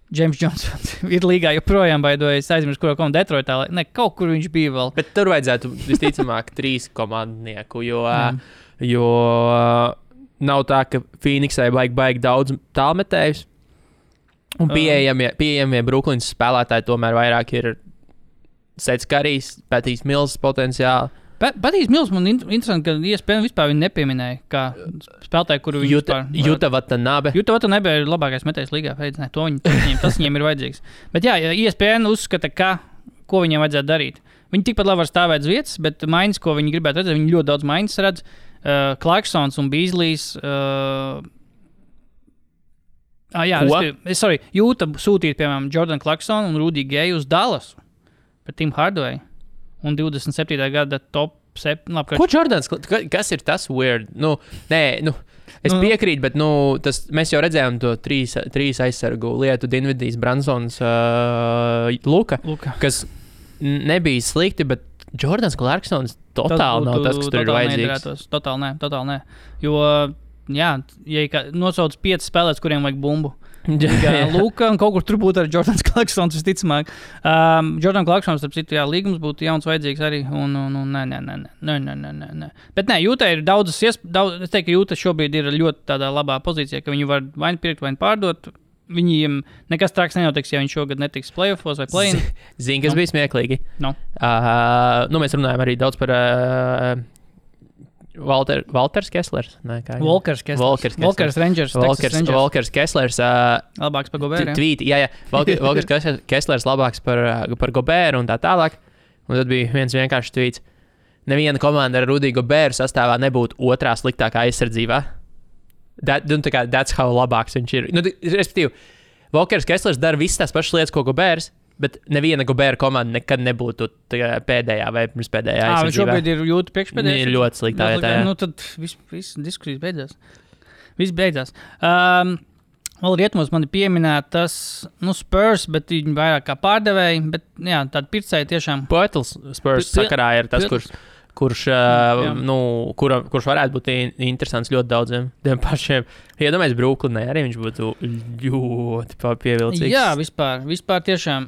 James Johnson ir līgā joprojām baidojas. Aizmirst, kuro komandu Detroitā. Ne, kaut kur viņš bija vēl. Bet tur vajadzētu visticamāk 3 komandnieku, jo nav tā, ka Phoenixai baigi daudz tālmetējus. Un pieejamie Brooklynas spēlētāji tomēr vairāk ir Sets Karijs, Patijs Mills potenciāli. Patijs Mills man interesanti, ka ESPN vispār viņu nepieminēja, kā spēlētāji, kuru viņi Juta Watanabe. Juta Watanabe ir labākais metējs līgā. Tas viņiem ir vajadzīgs. Bet jā, ESPN uzskata, ko viņiem vajadzētu darīt. Viņi tikpat labi var stāvēt uz vietas, bet maiņas, ko viņi gribētu redzēt, viņi ļoti daudz maiņas redz. Clarksons un Beasley's. Jūta sūtīt, piemēram, Jordan Clarksonu un Rudy Gayu uz Dallasu par Tim Hardaway un 27. gada top 7. Ko Jordans? Kas ir tas weird? Es piekrītu, bet mēs jau redzējām to trīs aizsargu lietu, Dinvidijs, Bransons, Luka, kas nebija slikti, bet Jordans Clarksons totāli nav tas, kas tur ir vajadzīgs. Totāli nē. Jo jā, ja nosauc 5 spēlēs, kuriem vajag bumbu. Luka un kaut kur tur būtu arī Jordans Clarksons visticamāk. Jordan Clarksons, starp citu, jā, līgums būtu jauns vajadzīgs arī. Nē. Bet nē, Jūtai ir daudzas es teiktu, ka Jūta šobrīd ir ļoti tādā labā pozīcijā, ka viņi var vai pirkt, vai pārdot. Viņiem nekas traks nenotiks, ja viņš šogad netiks playoffos vai play-in. Zini, kas bija smieklīgi? Mēs runājam arī daudz par Walters Kesslers. Walkers Rangers. Walkers Kesslers. Labāks par Goberu. Jā. Walkers Kesslers labāks par Goberu un tā tālāk. Un tad bija viens vienkārši tweets. Neviena komanda ar Rudiju Goberu sastāvā nebūtu otrā sliktākā aizsardzībā. That's how labāks viņš ir. Respektīvi, Walkers Kesslers dara visas tās pašas lietas, ko Gobers, bet neviena Gobera komanda nekad nebūtu pēdējā vai pirmspēdējā aizsardzībā. Viņš šobrīd ir jūtu priekšpēdējā. Ir ļoti sliktā vietā. Nu, tad viss diskusijas beidzās. Viss beidzās. Vēl rietumos man ir pieminētas Spurs, bet viņi vairāk kā pārdevēji, bet jā, tādi pircēji tiešām. Poetls Spurs sakarā ir tas, kurš varētu būt interesants ļoti daudziem tiem pašiem. Iedomājies Brooklynai, arī viņš būtu ļoti pievilcīgs. Jā, vispār tiešām.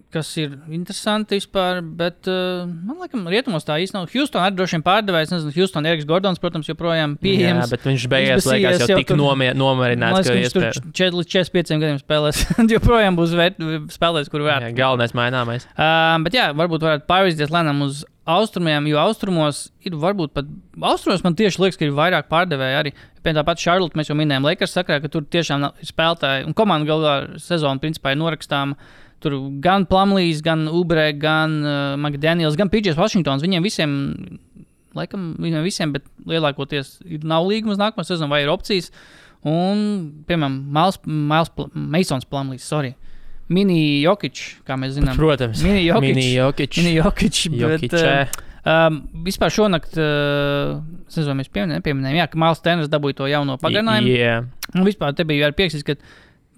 Kas ir interesanti vispār, bet man liekas, rietumos tā īsti nav. Houston arī droši vien pārdevējs, nezinu, Houston Eriks Gordons, protams, joprojām pieejams. Jā, bet viņš beigās liekas jau tik nomarināts, ka iespēja. 4 līdz 45 gadiem spēlēs. Joprojām būs spēlēs, kur varētu. Jā, galvenais maināmais. Bet jā, varbūt varētu pārvirzīties lēnām uz austrumiem, jo austrumos ir varbūt pat. Austrumos man tieši liekas, ka ir vairāk pārdevēji arī. Piemēram, tāpat Charlotte mēs jau minējām Lakers sakarā, ka tur tiešām ir spēlētāji. Un komanda galvā sezona principā ir norakstāma. Tur gan Plumlees, gan Oubre, gan McDaniels, gan PJs Washingtons. Viņiem visiem, bet lielākoties nav līguma uz nākamo sezonu vai ir opcijas. Un, piemēram, Masons Plumlees, Mini Jokic, kā mēs zinām. Protams, Mini Jokic. Vispār šonakt, nezinu, mēs nepieminējām, ka Miles Turners dabūja to jauno pagarinājumu. Yeah. Un vispār te bija arī prieks,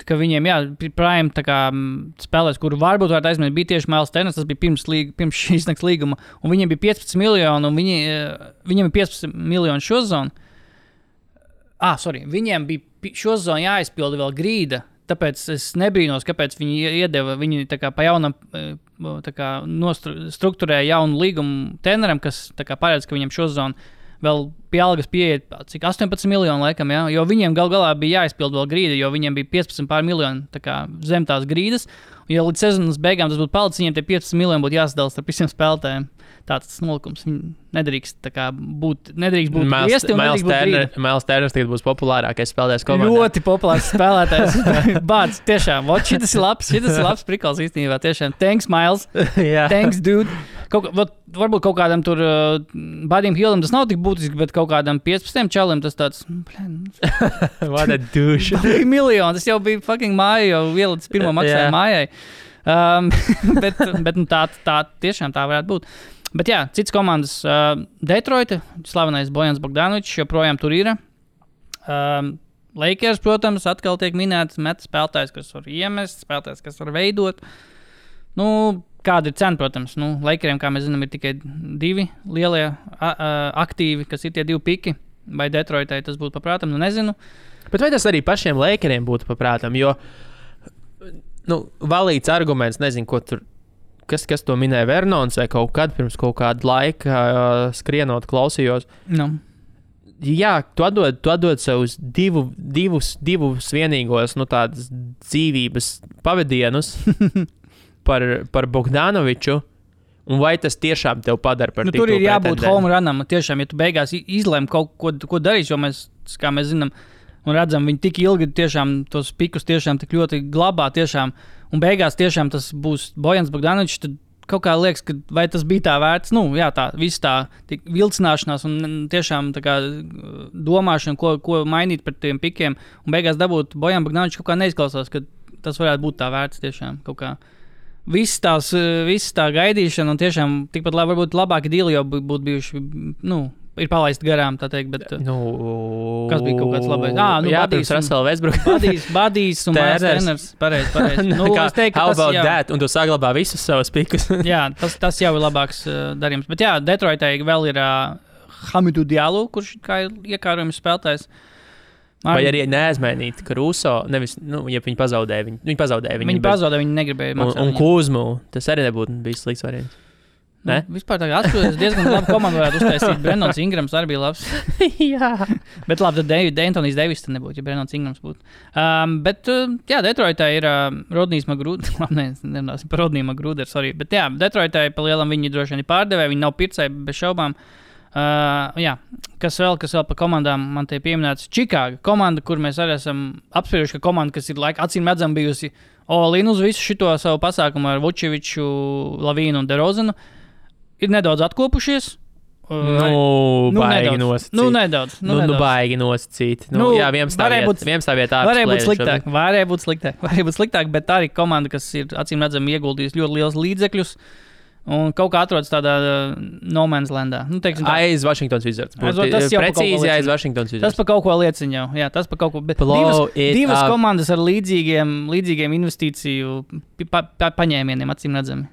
ka viņiem, prime spēlēs, kuru varbūt varētu aizmirst, bija tieši Miles Turners, tas bija pirms šīs nakts līguma, un viņiem bija 15 miljoni, un viņiem ir 15 miljoni šo zonu. Viņiem bija šo zonu jāizpilda vēl grīda, tāpēc es nebrīnos, kāpēc viņi pa jaunam struktūrēja jaunu līgumu treneram, kas paredz, ka viņam šo zonu vēl pie algas pieiet, cik 18 miljoni laikam, jā, jo viņiem galā bija jāizpild vēl grīda, jo viņiem bija 15 pār miljoni zem tās grīdas, un ja līdz sezonas beigām tas būtu palicis, viņiem tie 15 miljoni būtu jāsadala starp visiem spēlētājiem. Tāds nolikums. Viņi nedrīkst būt griezti un nedrīkst būt grīda. Miles Turners tagad būs populārākais spēlētājs komandā. Ļoti populārs spēlētājs. Bāds, tiešām. Šitas ir labs prikals īstenībā. Tiešām. Thanks, Miles. Thanks, dude. Varbūt kaut kādam tur Buddyam Hillam tas nav tik būtiski, bet kaut kādam 15 čalim tas tāds. What a douche. Miljoni. Tas jau bija fucking māja, jau ielicis pirmo maksājumu mājai. Bet tā tiešām tā varētu būt. Bet jā, cits komandas Detroita, slavenais Bojans Bogdanovičs joprojām tur ir. Lakers, protams, atkal tiek minēts spēlētājs, kas var iemest, spēlētājs, kas var veidot. Kāda ir cena, protams? Lakeriem, kā mēs zinām, ir tikai 2 lielie aktīvi, kas ir tie 2 piki. Vai Detroitai tas būtu paprātam? Nezinu. Bet vai tas arī pašiem Lakeriem būtu paprātam? Jo valīts arguments, nezinu, ko tur. Kas to minēja Vernons vai kaut kad pirms kaut kāda laika skrienot klausījos. Jā, tu atdod savus divus vienīgos tādas dzīvības pavadienus par Bogdanoviču, un vai tas tiešām tev padara par titulu tur ir jābūt home runam, tiešām, ja tu beigās izlēm kaut ko darīs, jo mēs, kā mēs zinām, un redzam, viņi tik ilgi tiešām tos pikus tiešām tik ļoti glabā tiešām, un beigās tiešām tas būs Bojans Bogdanovičs, tad kaut kā liekas, ka vai tas bija tā vērts, tā viss tā vilcināšanās un tiešām tā kā domāšana, ko mainīt par tiem pikiem, un beigās dabūt Bojan Bogdanovičs kaut kā neizklausās, ka tas varētu būt tā vērts tiešām kaut kā. Viss tā gaidīšana un tiešām tikpat varbūt labāki dīli jau būtu bijuši, ir palaisti garām, tā teikt, bet kas bija kaut kāds labais? Badijs Russell Westbrook. Badijs un Miles Turners. Pareizi. Es teiktu, how about that? Un tu saglabā visus savus pikus. Jā, tas jau ir labāks darījums. Bet jā, Detroitai vēl ir Hamidou Diallo, kurš kā ir iekārojums spēlētājs. Vai arī neaizmainīt Caruso, nevis, ja viņi pazaudēja. Viņi pazaudēja, viņi negribēja maksāt. Un Kuzmu, tas arī nebūtu bijis slikts variants. Vispār tā kā atskatoties, diezgan labi komandu varētu uztaisīt. Brendons Ingrams arī bija labs. Jā. Bet labi, tad Anthony's Davis tad nebūtu, ja Brendons Ingrams būtu. Bet, jā, Detroitā ir Rodnijs Magruder. Labi, nerunāsim par Rodniju Magruderu, sorry. Bet jā, Detroitā pa lielam viņi droši vien ir pārdevēji, viņi nav pircēji bez šaubām. Jā, kas vēl par komandām man te pieminēts? Čikāga komanda, kur mēs arī esam apsprieduši, ka komanda, kas ir acīm redzam bijusi all-in uz visu šito savu pasākumu ar Vučeviču, Lavīnu un DeRozanu, ir nedaudz atkopušies. Baigi nosacīt. Nedaudz. Baigi nosacīt. Jā, 11. vietā. Varēja būt sliktāk, bet tā arī komanda, kas ir acīm redzami ieguldījusi ļoti liels līdzekļus. Un kaut kā atrodas tādā no man's landā. Aiz Washington Wizards. Precīzi aiz Washington Wizards. Tas par kaut ko liecina jau. Jā, tas par kaut ko. Bet divas komandas ar līdzīgiem investīciju paņēmieniem, acīm redzami.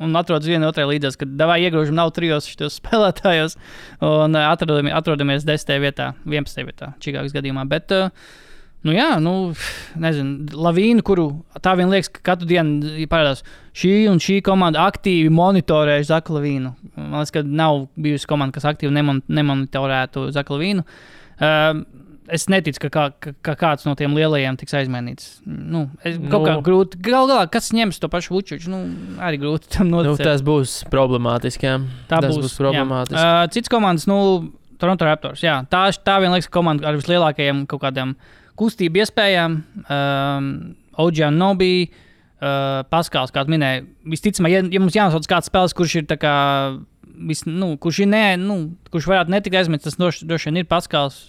Un atrodas viena otrai līdzās, kad davai iegrožam nav trijos šitos spēlētājos. Un atrodamies 10. vietā, 11. vietā Čikāgas gadījumā. Bet... nezinu, Lavīnu, kuru tā vien liekas, ka katru dienu parādās šī komanda aktīvi monitorējuši Zaku Lavīnu. Man liekas, ka nav bijusi komanda, kas aktīvi nemonitorētu Zaku Lavīnu. Es neticu, ka kāds no tiem lielajiem tiks aizmainīts. Kaut kā grūti. Galu galā, kas ņems to pašu Vučeviču? Arī grūti tam noticēt. Tas būs problemātiski, jā. Tas būs problemātiski. Cits komandas, Toronto Raptors, jā. Tā vien liekas komanda ar vislielākajiem kaut kādiem kustību iespējām, OG Anunoby, Paskals, kā tu minēji, visticamāk, ja mums jānosauc kāds spēles, kurš ir tā kā, kurš varētu netikt aizmirst, tas droši vien ir Paskals,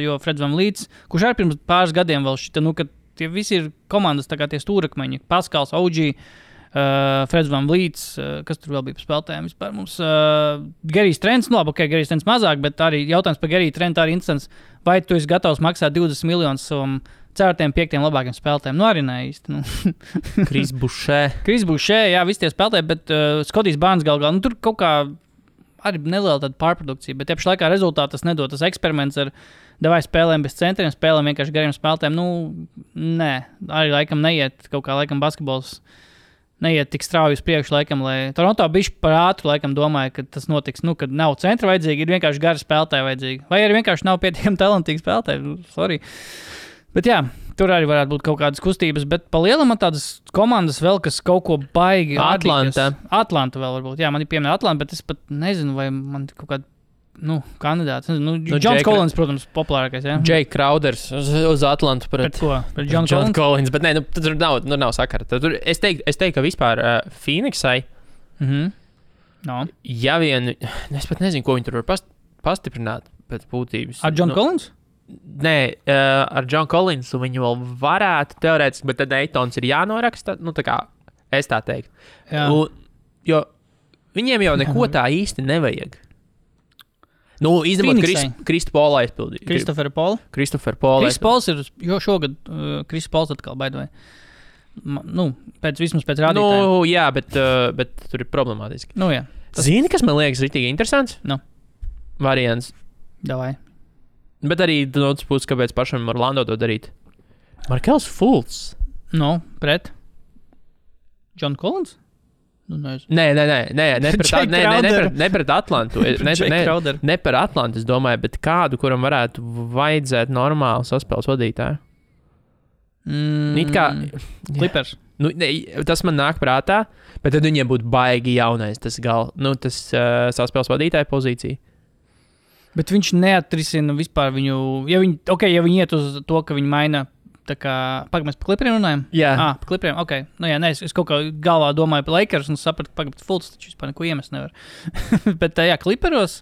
jo Freds VanVleets, kurš arī pirms pāris gadiem vēl šita, ka tie visi ir komandas, tā kā tie stūrakmeņi, Paskals, OG, Freds VanVleets, kas tur vēl bija par spēlētājiem vispār mums, Gerijs Trents, Gerijs Trents mazāk, bet arī jautājums par Geriju Trentu arī instants, vai tu esi gatavs maksāt 20 miljonus savam 4. 5. labākiem spēlētājiem? Arī ne īsti. Kris Bušē, jā, visi tie spēlētāji, bet Skotijs Barnes galvā, tur kaut kā arī neliela tāda pārprodukcija, bet tieši laikā rezultāti tas nedod. Tas eksperiments ar davai spēlēm bez centriem, spēlēm vienkārši gariem spēlētājiem, nē, arī laikam neiet kaut kā laikam basketbols. Neiet tik strauji uz priekšu, laikam, lai Toronto bišķi par ātru, laikam, domāja, ka tas notiks, kad nav centra vajadzīgi, ir vienkārši gari spēlētāji vajadzīgi. Vai arī vienkārši nav pietiekami talantīgi spēlētāji, sorry. Bet jā, tur arī varētu būt kaut kādas kustības, bet pa lielam man tādas komandas vēl, kas kaut ko baigi. Atlanta vēl varbūt, jā, man ir pieminēta Atlanta, bet es pat nezinu, vai man kaut kāda, kandidāts. Johns Collins, protams, populārākais, jā. Jake Crowders uz Atlantu pret ko? Pret John Collins, bet nē, tur nav sakara. Es teiktu, ka vispār Phoenixai, ja vien, es pat nezinu, ko viņi tur var pastiprināt pēc būtības. Ar John Collins? Nē, ar John Collins viņu vēl varētu teorētiski, bet tad Eitons ir jānoraksta, tā kā es tā teiktu. Jo viņiem jau neko tā īsti nevajag. Izņemot Kristoforu aizpildīt. Kristoferu Polu? Kris Pols ir šogad, Kris Pols atkal baidojai. Vismaz pēc rādītājiem. Jā, bet tur ir problemātiski. Jā. Zini, kas man liekas ritīgi interesants? Variants. Davai. Bet arī no otras puses, kāpēc pašam Orlando to darīt? Markels Fultz. Pret John Collins? Nē, ne pret Atlantu. Ne par Atlantu, es domāju, bet kādu, kuram varētu vajadzēt normālu saspēles vadītāju. Clippers. Tas man nāk prātā, bet tad viņiem būtu baigi jaunais tas saspēles vadītāja pozīcija. Bet viņš neatrisina vispār viņu, ja viņi iet uz to, ka viņi maina. Tā kā, mēs par Clipperiem runājam? Jā. Par Clipperiem, ok. Es kaut kā galvā domāju par Lakers un sapratu, ka Fultz taču vispār neko iemest nevar. Bet Clipperos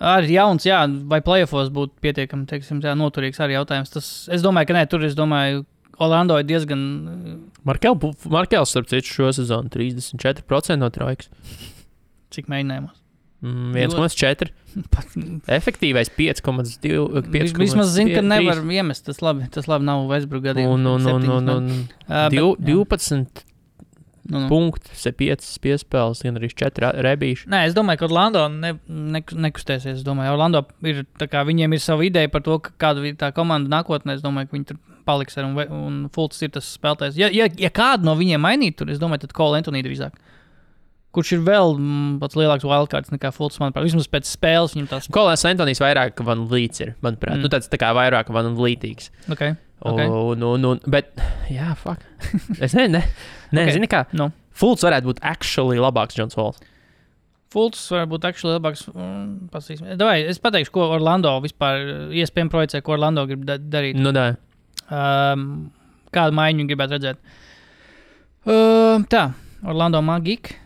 arī jauns, vai playoffos būtu pietiekami, noturīgs arī jautājums. Es domāju, ka nē, tur Orlando ir diezgan... Markels, starp citu, šo sezonu 34% no trojkas. Cik mēģinājumos? 1,4. Efektīvais 5,2. Vismaz zinu, ka nevar iemest. Tas labi nav Westbrook gadījumā. 12 punkti, 5 piespēles, gan arī 4 rebīši. Nē, es domāju, ka Orlando nekustēsies. Es domāju, Orlando ir, viņiem ir sava ideja par to, kāda ir tā komanda nākotnē. Es domāju, ka viņi tur paliks un Fultz ir tas spēlētājs. Ja kādu no viņiem mainīt tur, es domāju, tad Cole Anthony drīzāk. Kurš ir vēl pats lielāks wildcards nekā Fultz, manuprāt. Vismaz pēc spēles viņam tās... Kolēns Antonijs vairāk VanVleets ir, manuprāt. Tāds tā kā vairāk VanVleetīgs. Okay. Bet, jā, fuck. Es zini kā. Fultz varētu būt actually labāks Johns Walls. Fults varbūt actually labāks. Davai, es pateikšu, ko Orlando vispār iespējami projicē, ko Orlando grib darīt. Nu, da. Kādu maiņu gribētu redzēt? Tā, Orlando Magic.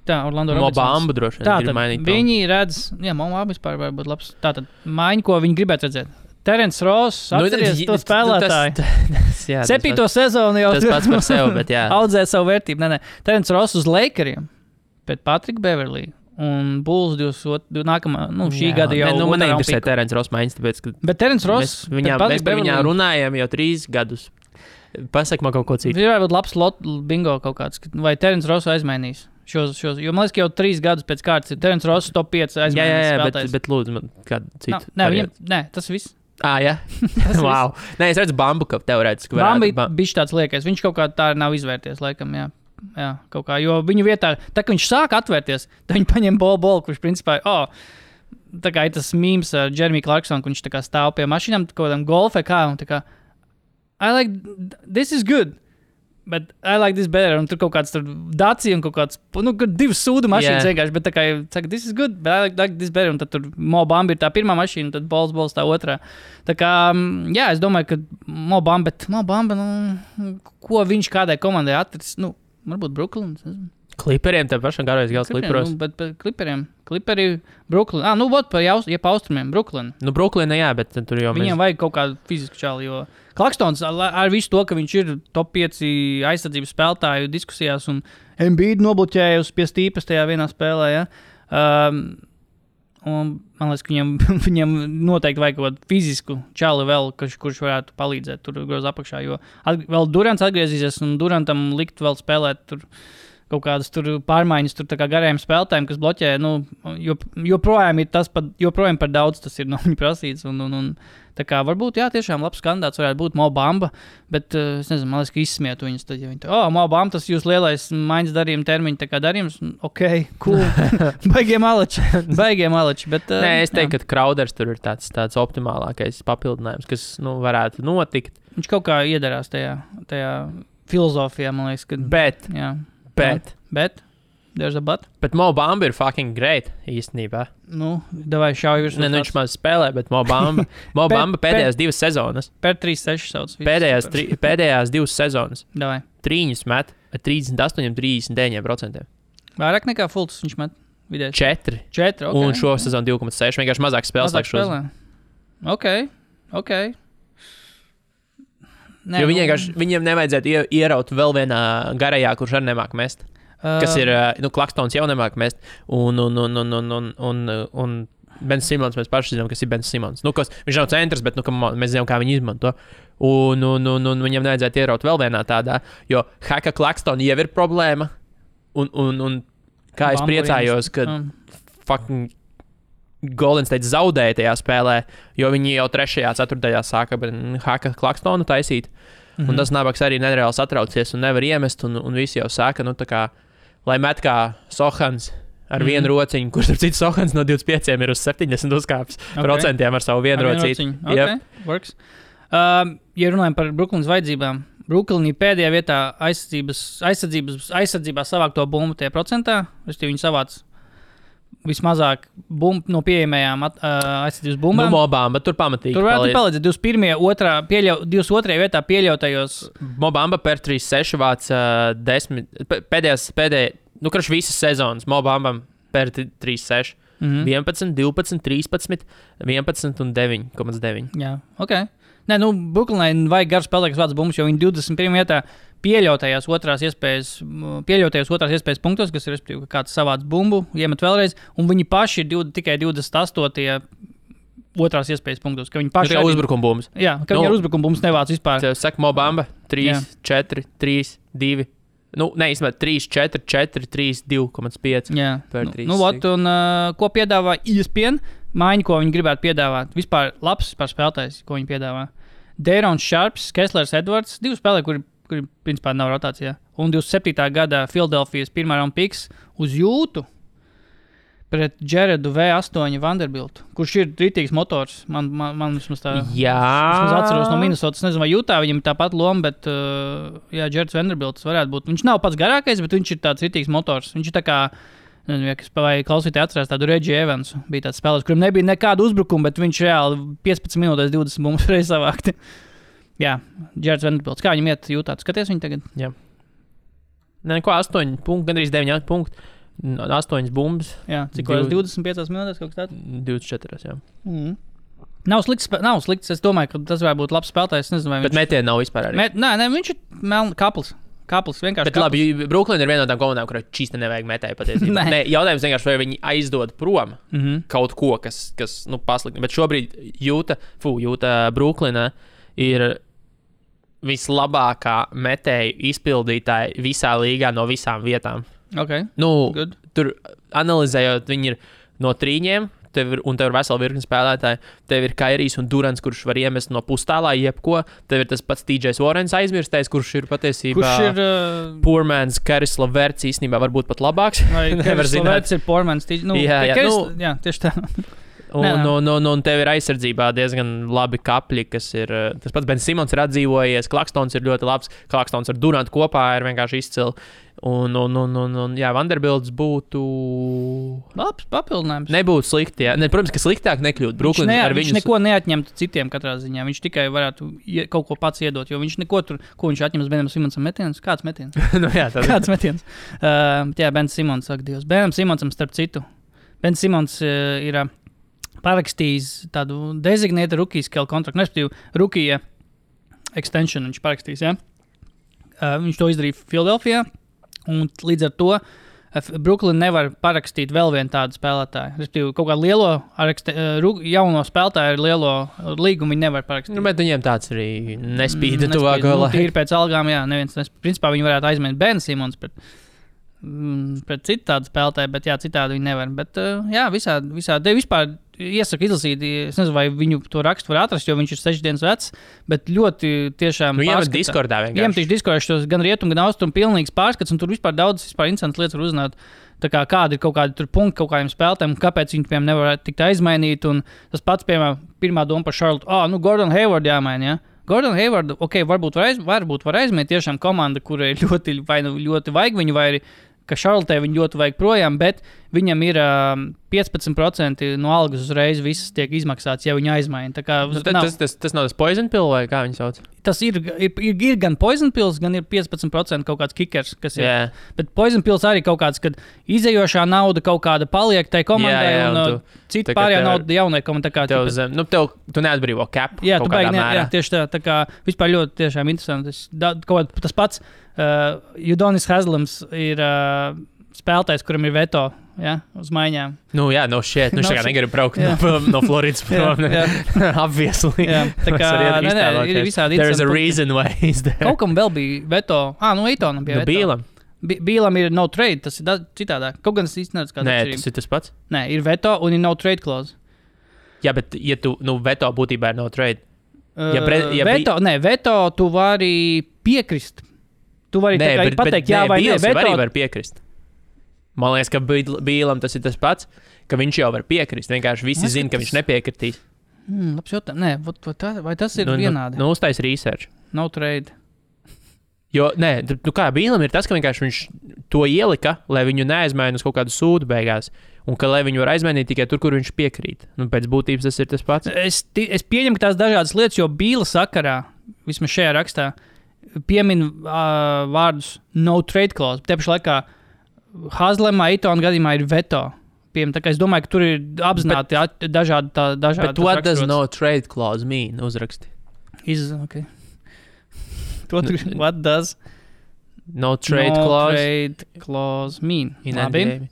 Tā, Orlando Robinsons. Mobamba droši vien grib mainīt. Viņi redz, Mobamba vispār var būt labs. Tātad maiņu, ko viņi gribētu redzēt. Terence Ross, atceries to spēlētāju. 7. sezonu jau tas pats par sevi, bet jā. Audzē savu vērtību. Nē. Terence Ross uz Lakeriem pēc Patrika Beverlī. Un Bulls nākamā, šī gada jau... Man neinteresē Terence Ross maiņas, tāpēc, ka... Bet Terence Ross... Mēs par viņā runājam jau 3 gadus. Pasaka man kaut ko citu. Ir varbūt labs bingo kaut kāds, vai Terence Ross aizmainīs šos. Jo man liekas, ka jau 3 gadus pēc kārtas ir Terence Ross top 5 aizmainīs spēlētājs. Bet lūdzu man kādu citu. Nē, tas viss. Jā? Wow. Nē, es redzu Bambu, ka teorētiski varētu. Bambi bišķi tāds liekais. Viņš kaut kā tā nav izvērties, laikam, jā. Jā, kaut kā, jo viņu vietā, tā kā viņš sāk atvērties, tad viņi paņem bolu, kurš principā, tā kā ir tas mīms ar Jeremy Clarksonu, kurš tā kā stāv pie mašīnām, kaut kādam golfē kā, un tā kā, this is good, but I like this better, un tur kaut kāds tur Dacia un kaut kāds, 2 sūdu mašīnas vienkārši, bet tā kā, saka, this is good, but I like this better, un tad tur Mo Bamba ir tā pirmā mašīna, tad bols tā otrā. Tā kā, jā, es domāju, ka Mo Bamba, ko viņš kādai komandai atris, varbūt Brooklyn. Kliperiem tev pašam garojas gals Kliperos. Bet Kliperi, Brooklyn. Pa austrumiem, Brooklyn. Brooklyn, jā, bet tur jau viņiem vajag kaut kādu fizisku čāli, jo Klakstons ar visu to, ka viņš ir top 5 aizsardzības spēlētāju diskusijās un Embiid nobloķējusi pie stīpes tajā vienā spēlē, ja. Un man liekas, ka viņam noteikti vajag kaut kādu fizisku čāli vēl, kurš varētu palīdzēt tur groz apakšā, jo vēl Durants atgriezīsies un Durantam likt vēl spēlēt tur kaut kādas tur pārmaiņas tur tā kā garajiem spēlētājiem, kas bloķē, joprojām ir tas, joprojām par daudz tas ir no viņa prasīts un tā kā varbūt, jā, tiešām labs kandidāts varētu būt Mo Bamba, bet es nezinu, man liekas, ka izsmietu viņus tad, ja viņi Mo Bamba, tas jūs lielais maiņas darījuma termiņa, tā kā darījums, cool, baigie maleči, bet... Nē, es teiktu, ka Crowders tur ir tāds optimālākais papildinājums, kas, varētu notikt. Viņš kaut kā iedarās tajā filozofijā, man liekas, ka... Bet? There's a but? Bet Mo Bamba ir fucking great, īstenībā. Davai šauj virs. Viņš maz spēlē, bet Mo Bamba pēdējās 2 sezonas. Per 3-6 sauc. Pēdējās 2 sezonas. Davai. Trīņus met ar 38-39%. Vairāk nekā Fults viņš met vidēji? 4. 4, ok. Un šo sezonu 2,6. Vienkārši mazāk spēles. Ok. Nē, jo viņiem nevajadzētu ieraut vēl vienā garajā, kurš arī nemāk mest. Kas ir, Klakstons jau nemāk mest. Un Ben Simons, mēs paši zinām, kas ir Ben Simons. Viņš nav centrs, bet mēs zinām, kā viņu izmanto. Un viņam nevajadzētu ieraut vēl vienā tādā, jo Haka Klakston jau ir problēma. Un kā es priecājos, ka fucking Golden State zaudēja tajā spēlē, jo viņi jau 3. 4. sāka Haka Klakstonu taisīt. Un tas nabaks arī nereāli satraucies un nevar iemest, un visi jau sāka, tā kā, lai met kā Sohans ar vienu rociņu, kurš ar citu Sohans no 25 ir uz 70 uzkāpis procentiem ar savu vienu rociņu. Works. Ja runājam par Brooklynas vajadzībām, Brooklyn ir pēdējā vietā aizsardzībā savāk to bumbu tie procentā, viņi savāc vismazāk no pieejamajām aizsardzības bumbām. Mo Bamba tur pamatīgi tur varētu palīdzēt 22. vietā pieļautajos. Mo Bamba per 3-6 vāc 10, pēdējās, visas sezonas Mo Bambam per 3-6. 11, 12, 13, 11 un 9,9. Jā, ok. Nē, Brooklynai vajag garu spēlēt, kas vāc bumbas, jo viņi 21. vietā pieļautajās otrās iespējas punktos, kas ir, respektīvi, kāds savāds bumbu, iemet vēlreiz, un viņi paši ir tikai 28. otrās iespējas punktos, ka viņi paši ir uzbrukuma bumbas. Jā, ka viņi ar uzbrukuma bumbas nevāc vispār. Tev saka Mo Bamba 3, 4, 3, 2. Īstenībā 3, 4, 4, 3, 2,5 per 3. Un ko piedāvā ESPN? Maiņu, ko viņi gribētu piedāvāt. Vispār labs spēlētājs, ko viņi piedāvā. Dārons Šarps, Kesslers Edvards, 2 spēlētāji, kuri principā nav rotācijā. Un 27. gada Philadelphijas 1. round picks uz jūtu pret Jaredu V8 Vanderbiltu, kurš ir rītīgs motors. Man vismaz tā. Jā. Es atceros no Minnesotas. Nezinu, vai jūtā viņam ir tāpat loma, bet Jareds Vanderbilts varētu būt. Viņš nav pats garākais, bet viņš ir tāds rītīgs motors. Viņš ir tā kā vai klausītāji atcerās tādu Reggie Evansu. Bija tāds spēlētājs, kurim nebija nekāda uzbrukuma, bet viņš reāli 15 minūtēs 20 bumbas reiz savākti. Jā, Džerds Vanderbilts. Kā viņam iet jūtāt? Skaties viņu tagad? Jā. Nē, ko 8 punkti, gandrīz 9 punkti. 8 bumbas. Jā, cik 25 minūtēs kaut kas tāds? 24, jā. Nav slikts. Es domāju, ka tas varētu būt labs spēlētājs. Nezinu, vai viņš... Bet metieni nav vispār arī. Nē, viņš ir kapls. Kapls vienkārši. Bet labi, Brooklyn ir viena no tām komandām, kurai čīsti nevajag metēju patiesībā. Nē, jautājums vienkārši, vai viņi aizdod prom kaut ko, kas pasliktina. Bet šobrīd Jūta Brooklynā ir vislabākā metēju izpildītāja visā līgā no visām vietām. Okay. Good. Tur analizējot, viņi ir no trīņiem. Tev ir vesela virkne spēlētāji. Tev ir Kairijs un Durants, kurš var iemest no pustālā jebko. Tev ir tas pats TJs Warrens aizmirstais, kurš ir patiesībā poor man's Karis Leverts īstenībā varbūt pat labāks. Karis Leverts ir poor man's TJ. Jā, tieši tā. Un tev ir aizsardzībā diezgan labi kapļi, kas ir... Tas pats Ben Simons ir atdzīvojies, Klakstons ir ļoti labs, Klakstons ar Durantu kopā ir vienkārši izcili. Un Vanderbilts būtu... Labs papildinājums. Nebūtu slikti, jā. Protams, ka sliktāk nekļūt. Viņš neko neatņemtu citiem katrā ziņā. Viņš tikai varētu kaut ko pats iedot, jo viņš neko tur, ko viņš atņems Benam Simonsam metienus. Kāds metiens? Kāds metiens? Ben Simons, saka Dievs. Benam Simonsam starp citu. Ben Simons ir... parakstījis tādu designated rookie scale kontraktu, respektīvi rookie extension viņš parakstījis, ja? Viņš to izdarīja Philadelphijā, un līdz ar to Brooklyn nevar parakstīt vēl vienu tādu spēlētāju. Respektīvi, kaut kādu lielo, jauno spēlētāju ar lielo līgumu viņi nevar parakstīt. Bet viņiem tāds arī nespīda tuvāko laiku. Tīri pēc algām, jā, neviens principā viņi varētu aizmēt Ben Simons pret citu tādu spēlētāju, bet jā, citādi viņi nevar. Bet jā, visādi vispār iesaku izlasīt, es nezinu, vai viņu to rakstu var atrast, jo viņš ir 6 dienas vecs, bet ļoti tiešām iemet Discordā vienkārši. Iemet Discordā šos gan rietumu, gan austrumu pilnīgs pārskats, un tur vispār daudz interesantas lietas var uzzināt. Tā kā kādi ir kaut kādi tur punkti kaut kādiem spēlētājiem, kāpēc viņi, piemēram, nevar tikt aizmainīt, un tas pats, piemēram, pirmā doma par Charlotte, Gordon Hayward jāmaina, ja? Gordon Hayward, varbūt var aizmainīt tiešām komanda, kurai ļoti vajag viņu, vai arī ka Charlotte viņu ļoti vajag projām, bet viņam ir 15% no algas uzreiz visas tiek izmaksāts, ja viņu aizmaina. Tas nav tas poison pill vai kā viņi sauc? Tas ir gan poison pills, gan ir 15% kaut kāds kickers, kas ir. Yeah. Bet poison pills arī kaut kāds, kad izējošā nauda kaut kāda paliek tai komandai, un cita pārējā nauda jaunai komandai. Tu neatbrīvo cap kaut kādā mērā. Jā, tieši tā kā vispār ļoti tiešām interesanti. Tas pats Udonis Haslams ir spēlētājs, kuram ir veto, ja, uz maiņām. Viņš tā kā negribu braukt no Floridas prom. Obviously. Jā, tā kā ir visādi interesanti. There's a reason why he's there. Kaut kam vēl bija veto. Eitonam bija veto. Bīlam. Bīlam ir no trade, tas ir citādāk. Kaut gan es īsti nezinu, kāda atšķirība. Nē, tas ir tas pats. Nē, ir veto un ir no trade clause. Jā, bet ja tu, veto būtībā ir no trade. Veto tu vari piekrist. Tu vari pateikt, jā vai nē. Veto arī var piekrist. Man liekas, ka Bīlam tas ir tas pats, ka viņš jau var piekrist. Vienkārši visi zina, ka viņš nepiekritīs. Labs jautājums. Nē, vai tas ir vienādi? Uztais research. No trade. Jo, kā Bīlam ir tas, ka vienkārši viņš to ielika, lai viņu neaizmaina uz kaut kādu sūdu beigās. Un ka lai viņu var aizmainīt tikai tur, kur viņš piekrīt. Pēc būtības tas ir tas pats. Es pieņemu, ka tās dažādas lietas, jo Bīla sakarā, vismaz šajā rakstā, piemin vārdus no trade clause. Tiepaši laikā Haslemā, Eitona gadījumā ir veto. Tā kā es domāju, ka tur ir apzināti dažādi. Bet what does no trade clause mean? Uzraksti. Okay. What does no trade clause mean? Labi.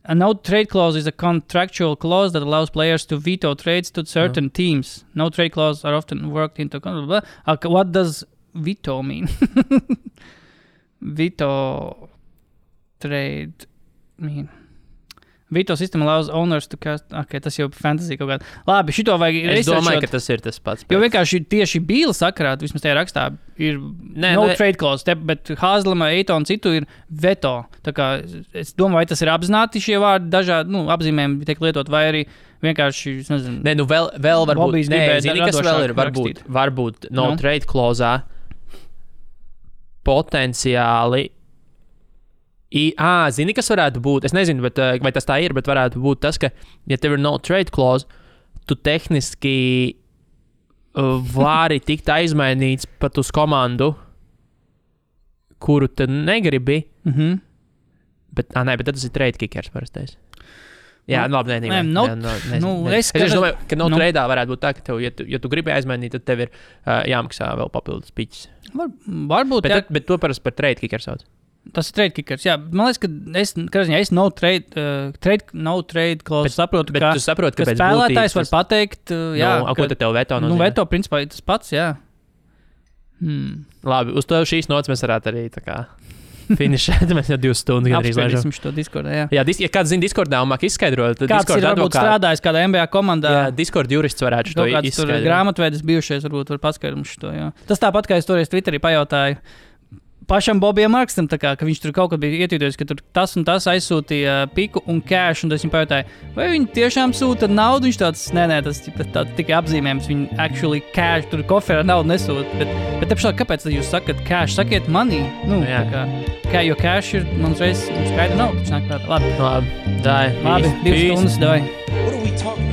A no trade clause is a contractual clause that allows players to veto trades to certain teams. No trade clause are often worked into... What does veto mean? Veto trade mean. Veto system allows owners to cast... Okay, tas jau fantasy kaut kādā. Labi, šito vajag researchot. Es domāju, ka tas ir tas pats. Jo vienkārši tieši Bīla sakarā, vismaz tajā rakstā, ir trade clause, bet Haslama, Eitona citu ir veto. Tā kā es domāju, vai tas ir apzināti šie vārdi dažādi, apzīmējumi tiek lietot, vai arī vienkārši, es nezinu. Vēl varbūt. Zini, kas vēl ir? Varbūt no trade clause potenciāli Zini, kas varētu būt? Es nezinu, vai tas tā ir, bet varētu būt tas, ka, ja tev ir no trade clause, tu tehniski vari tikt aizmainīts pat uz komandu, kuru tu negribi. Bet tas ir trade kickers parastais. Jā, labi, es domāju, ka tradeā varētu būt tā, ka tev, ja tu gribi aizmainīt, tad tev ir jāmaksā vēl papildus piķis. Varbūt, bet to parasti par trade kickers sauc. Tas ir trade kickers. Jā, man liekas, ka es no trade clause saprotu, bet tu saproti, ka spēlētājs var pateikt, ko tad tev veto nozīmē? Veto principā ir tas pats, jā. Labi, uz to šīs nots mēs varētu arī tā kā finišēt. Mēs jau 2 stundas gandrīz lēžam. Apspriedīsim šo Discordā, jā. Ja kāds zina Discordā un māk izskaidrot, tad kāds Discord ir varbūt strādājis kādā NBA komandā. Jā, Discord jurists varētu šo izskaidrot. Tur grāmatvedis bijušies varbūt var paskaidrot mums šo, jā. Tas tāpat, kā es toreiz Twitterī pajautāju pašam Bobijam Markstam, ka viņš tur kaut kad bija ietīdojis, ka tur tas un tas aizsūtīja piku un cash, un es viņam pajautāju, vai viņi tiešām sūta naudu, viņš tāds, nē, tas tikai apzīmējums, viņi actually cash, tur koferā naudu nesūta, bet pašā, kāpēc tad jūs sakat cash, sakiet money, jo cash ir, man reiz skaidra nauda, taču nāk prātā, labi, 2 stundas, davai. What are we talking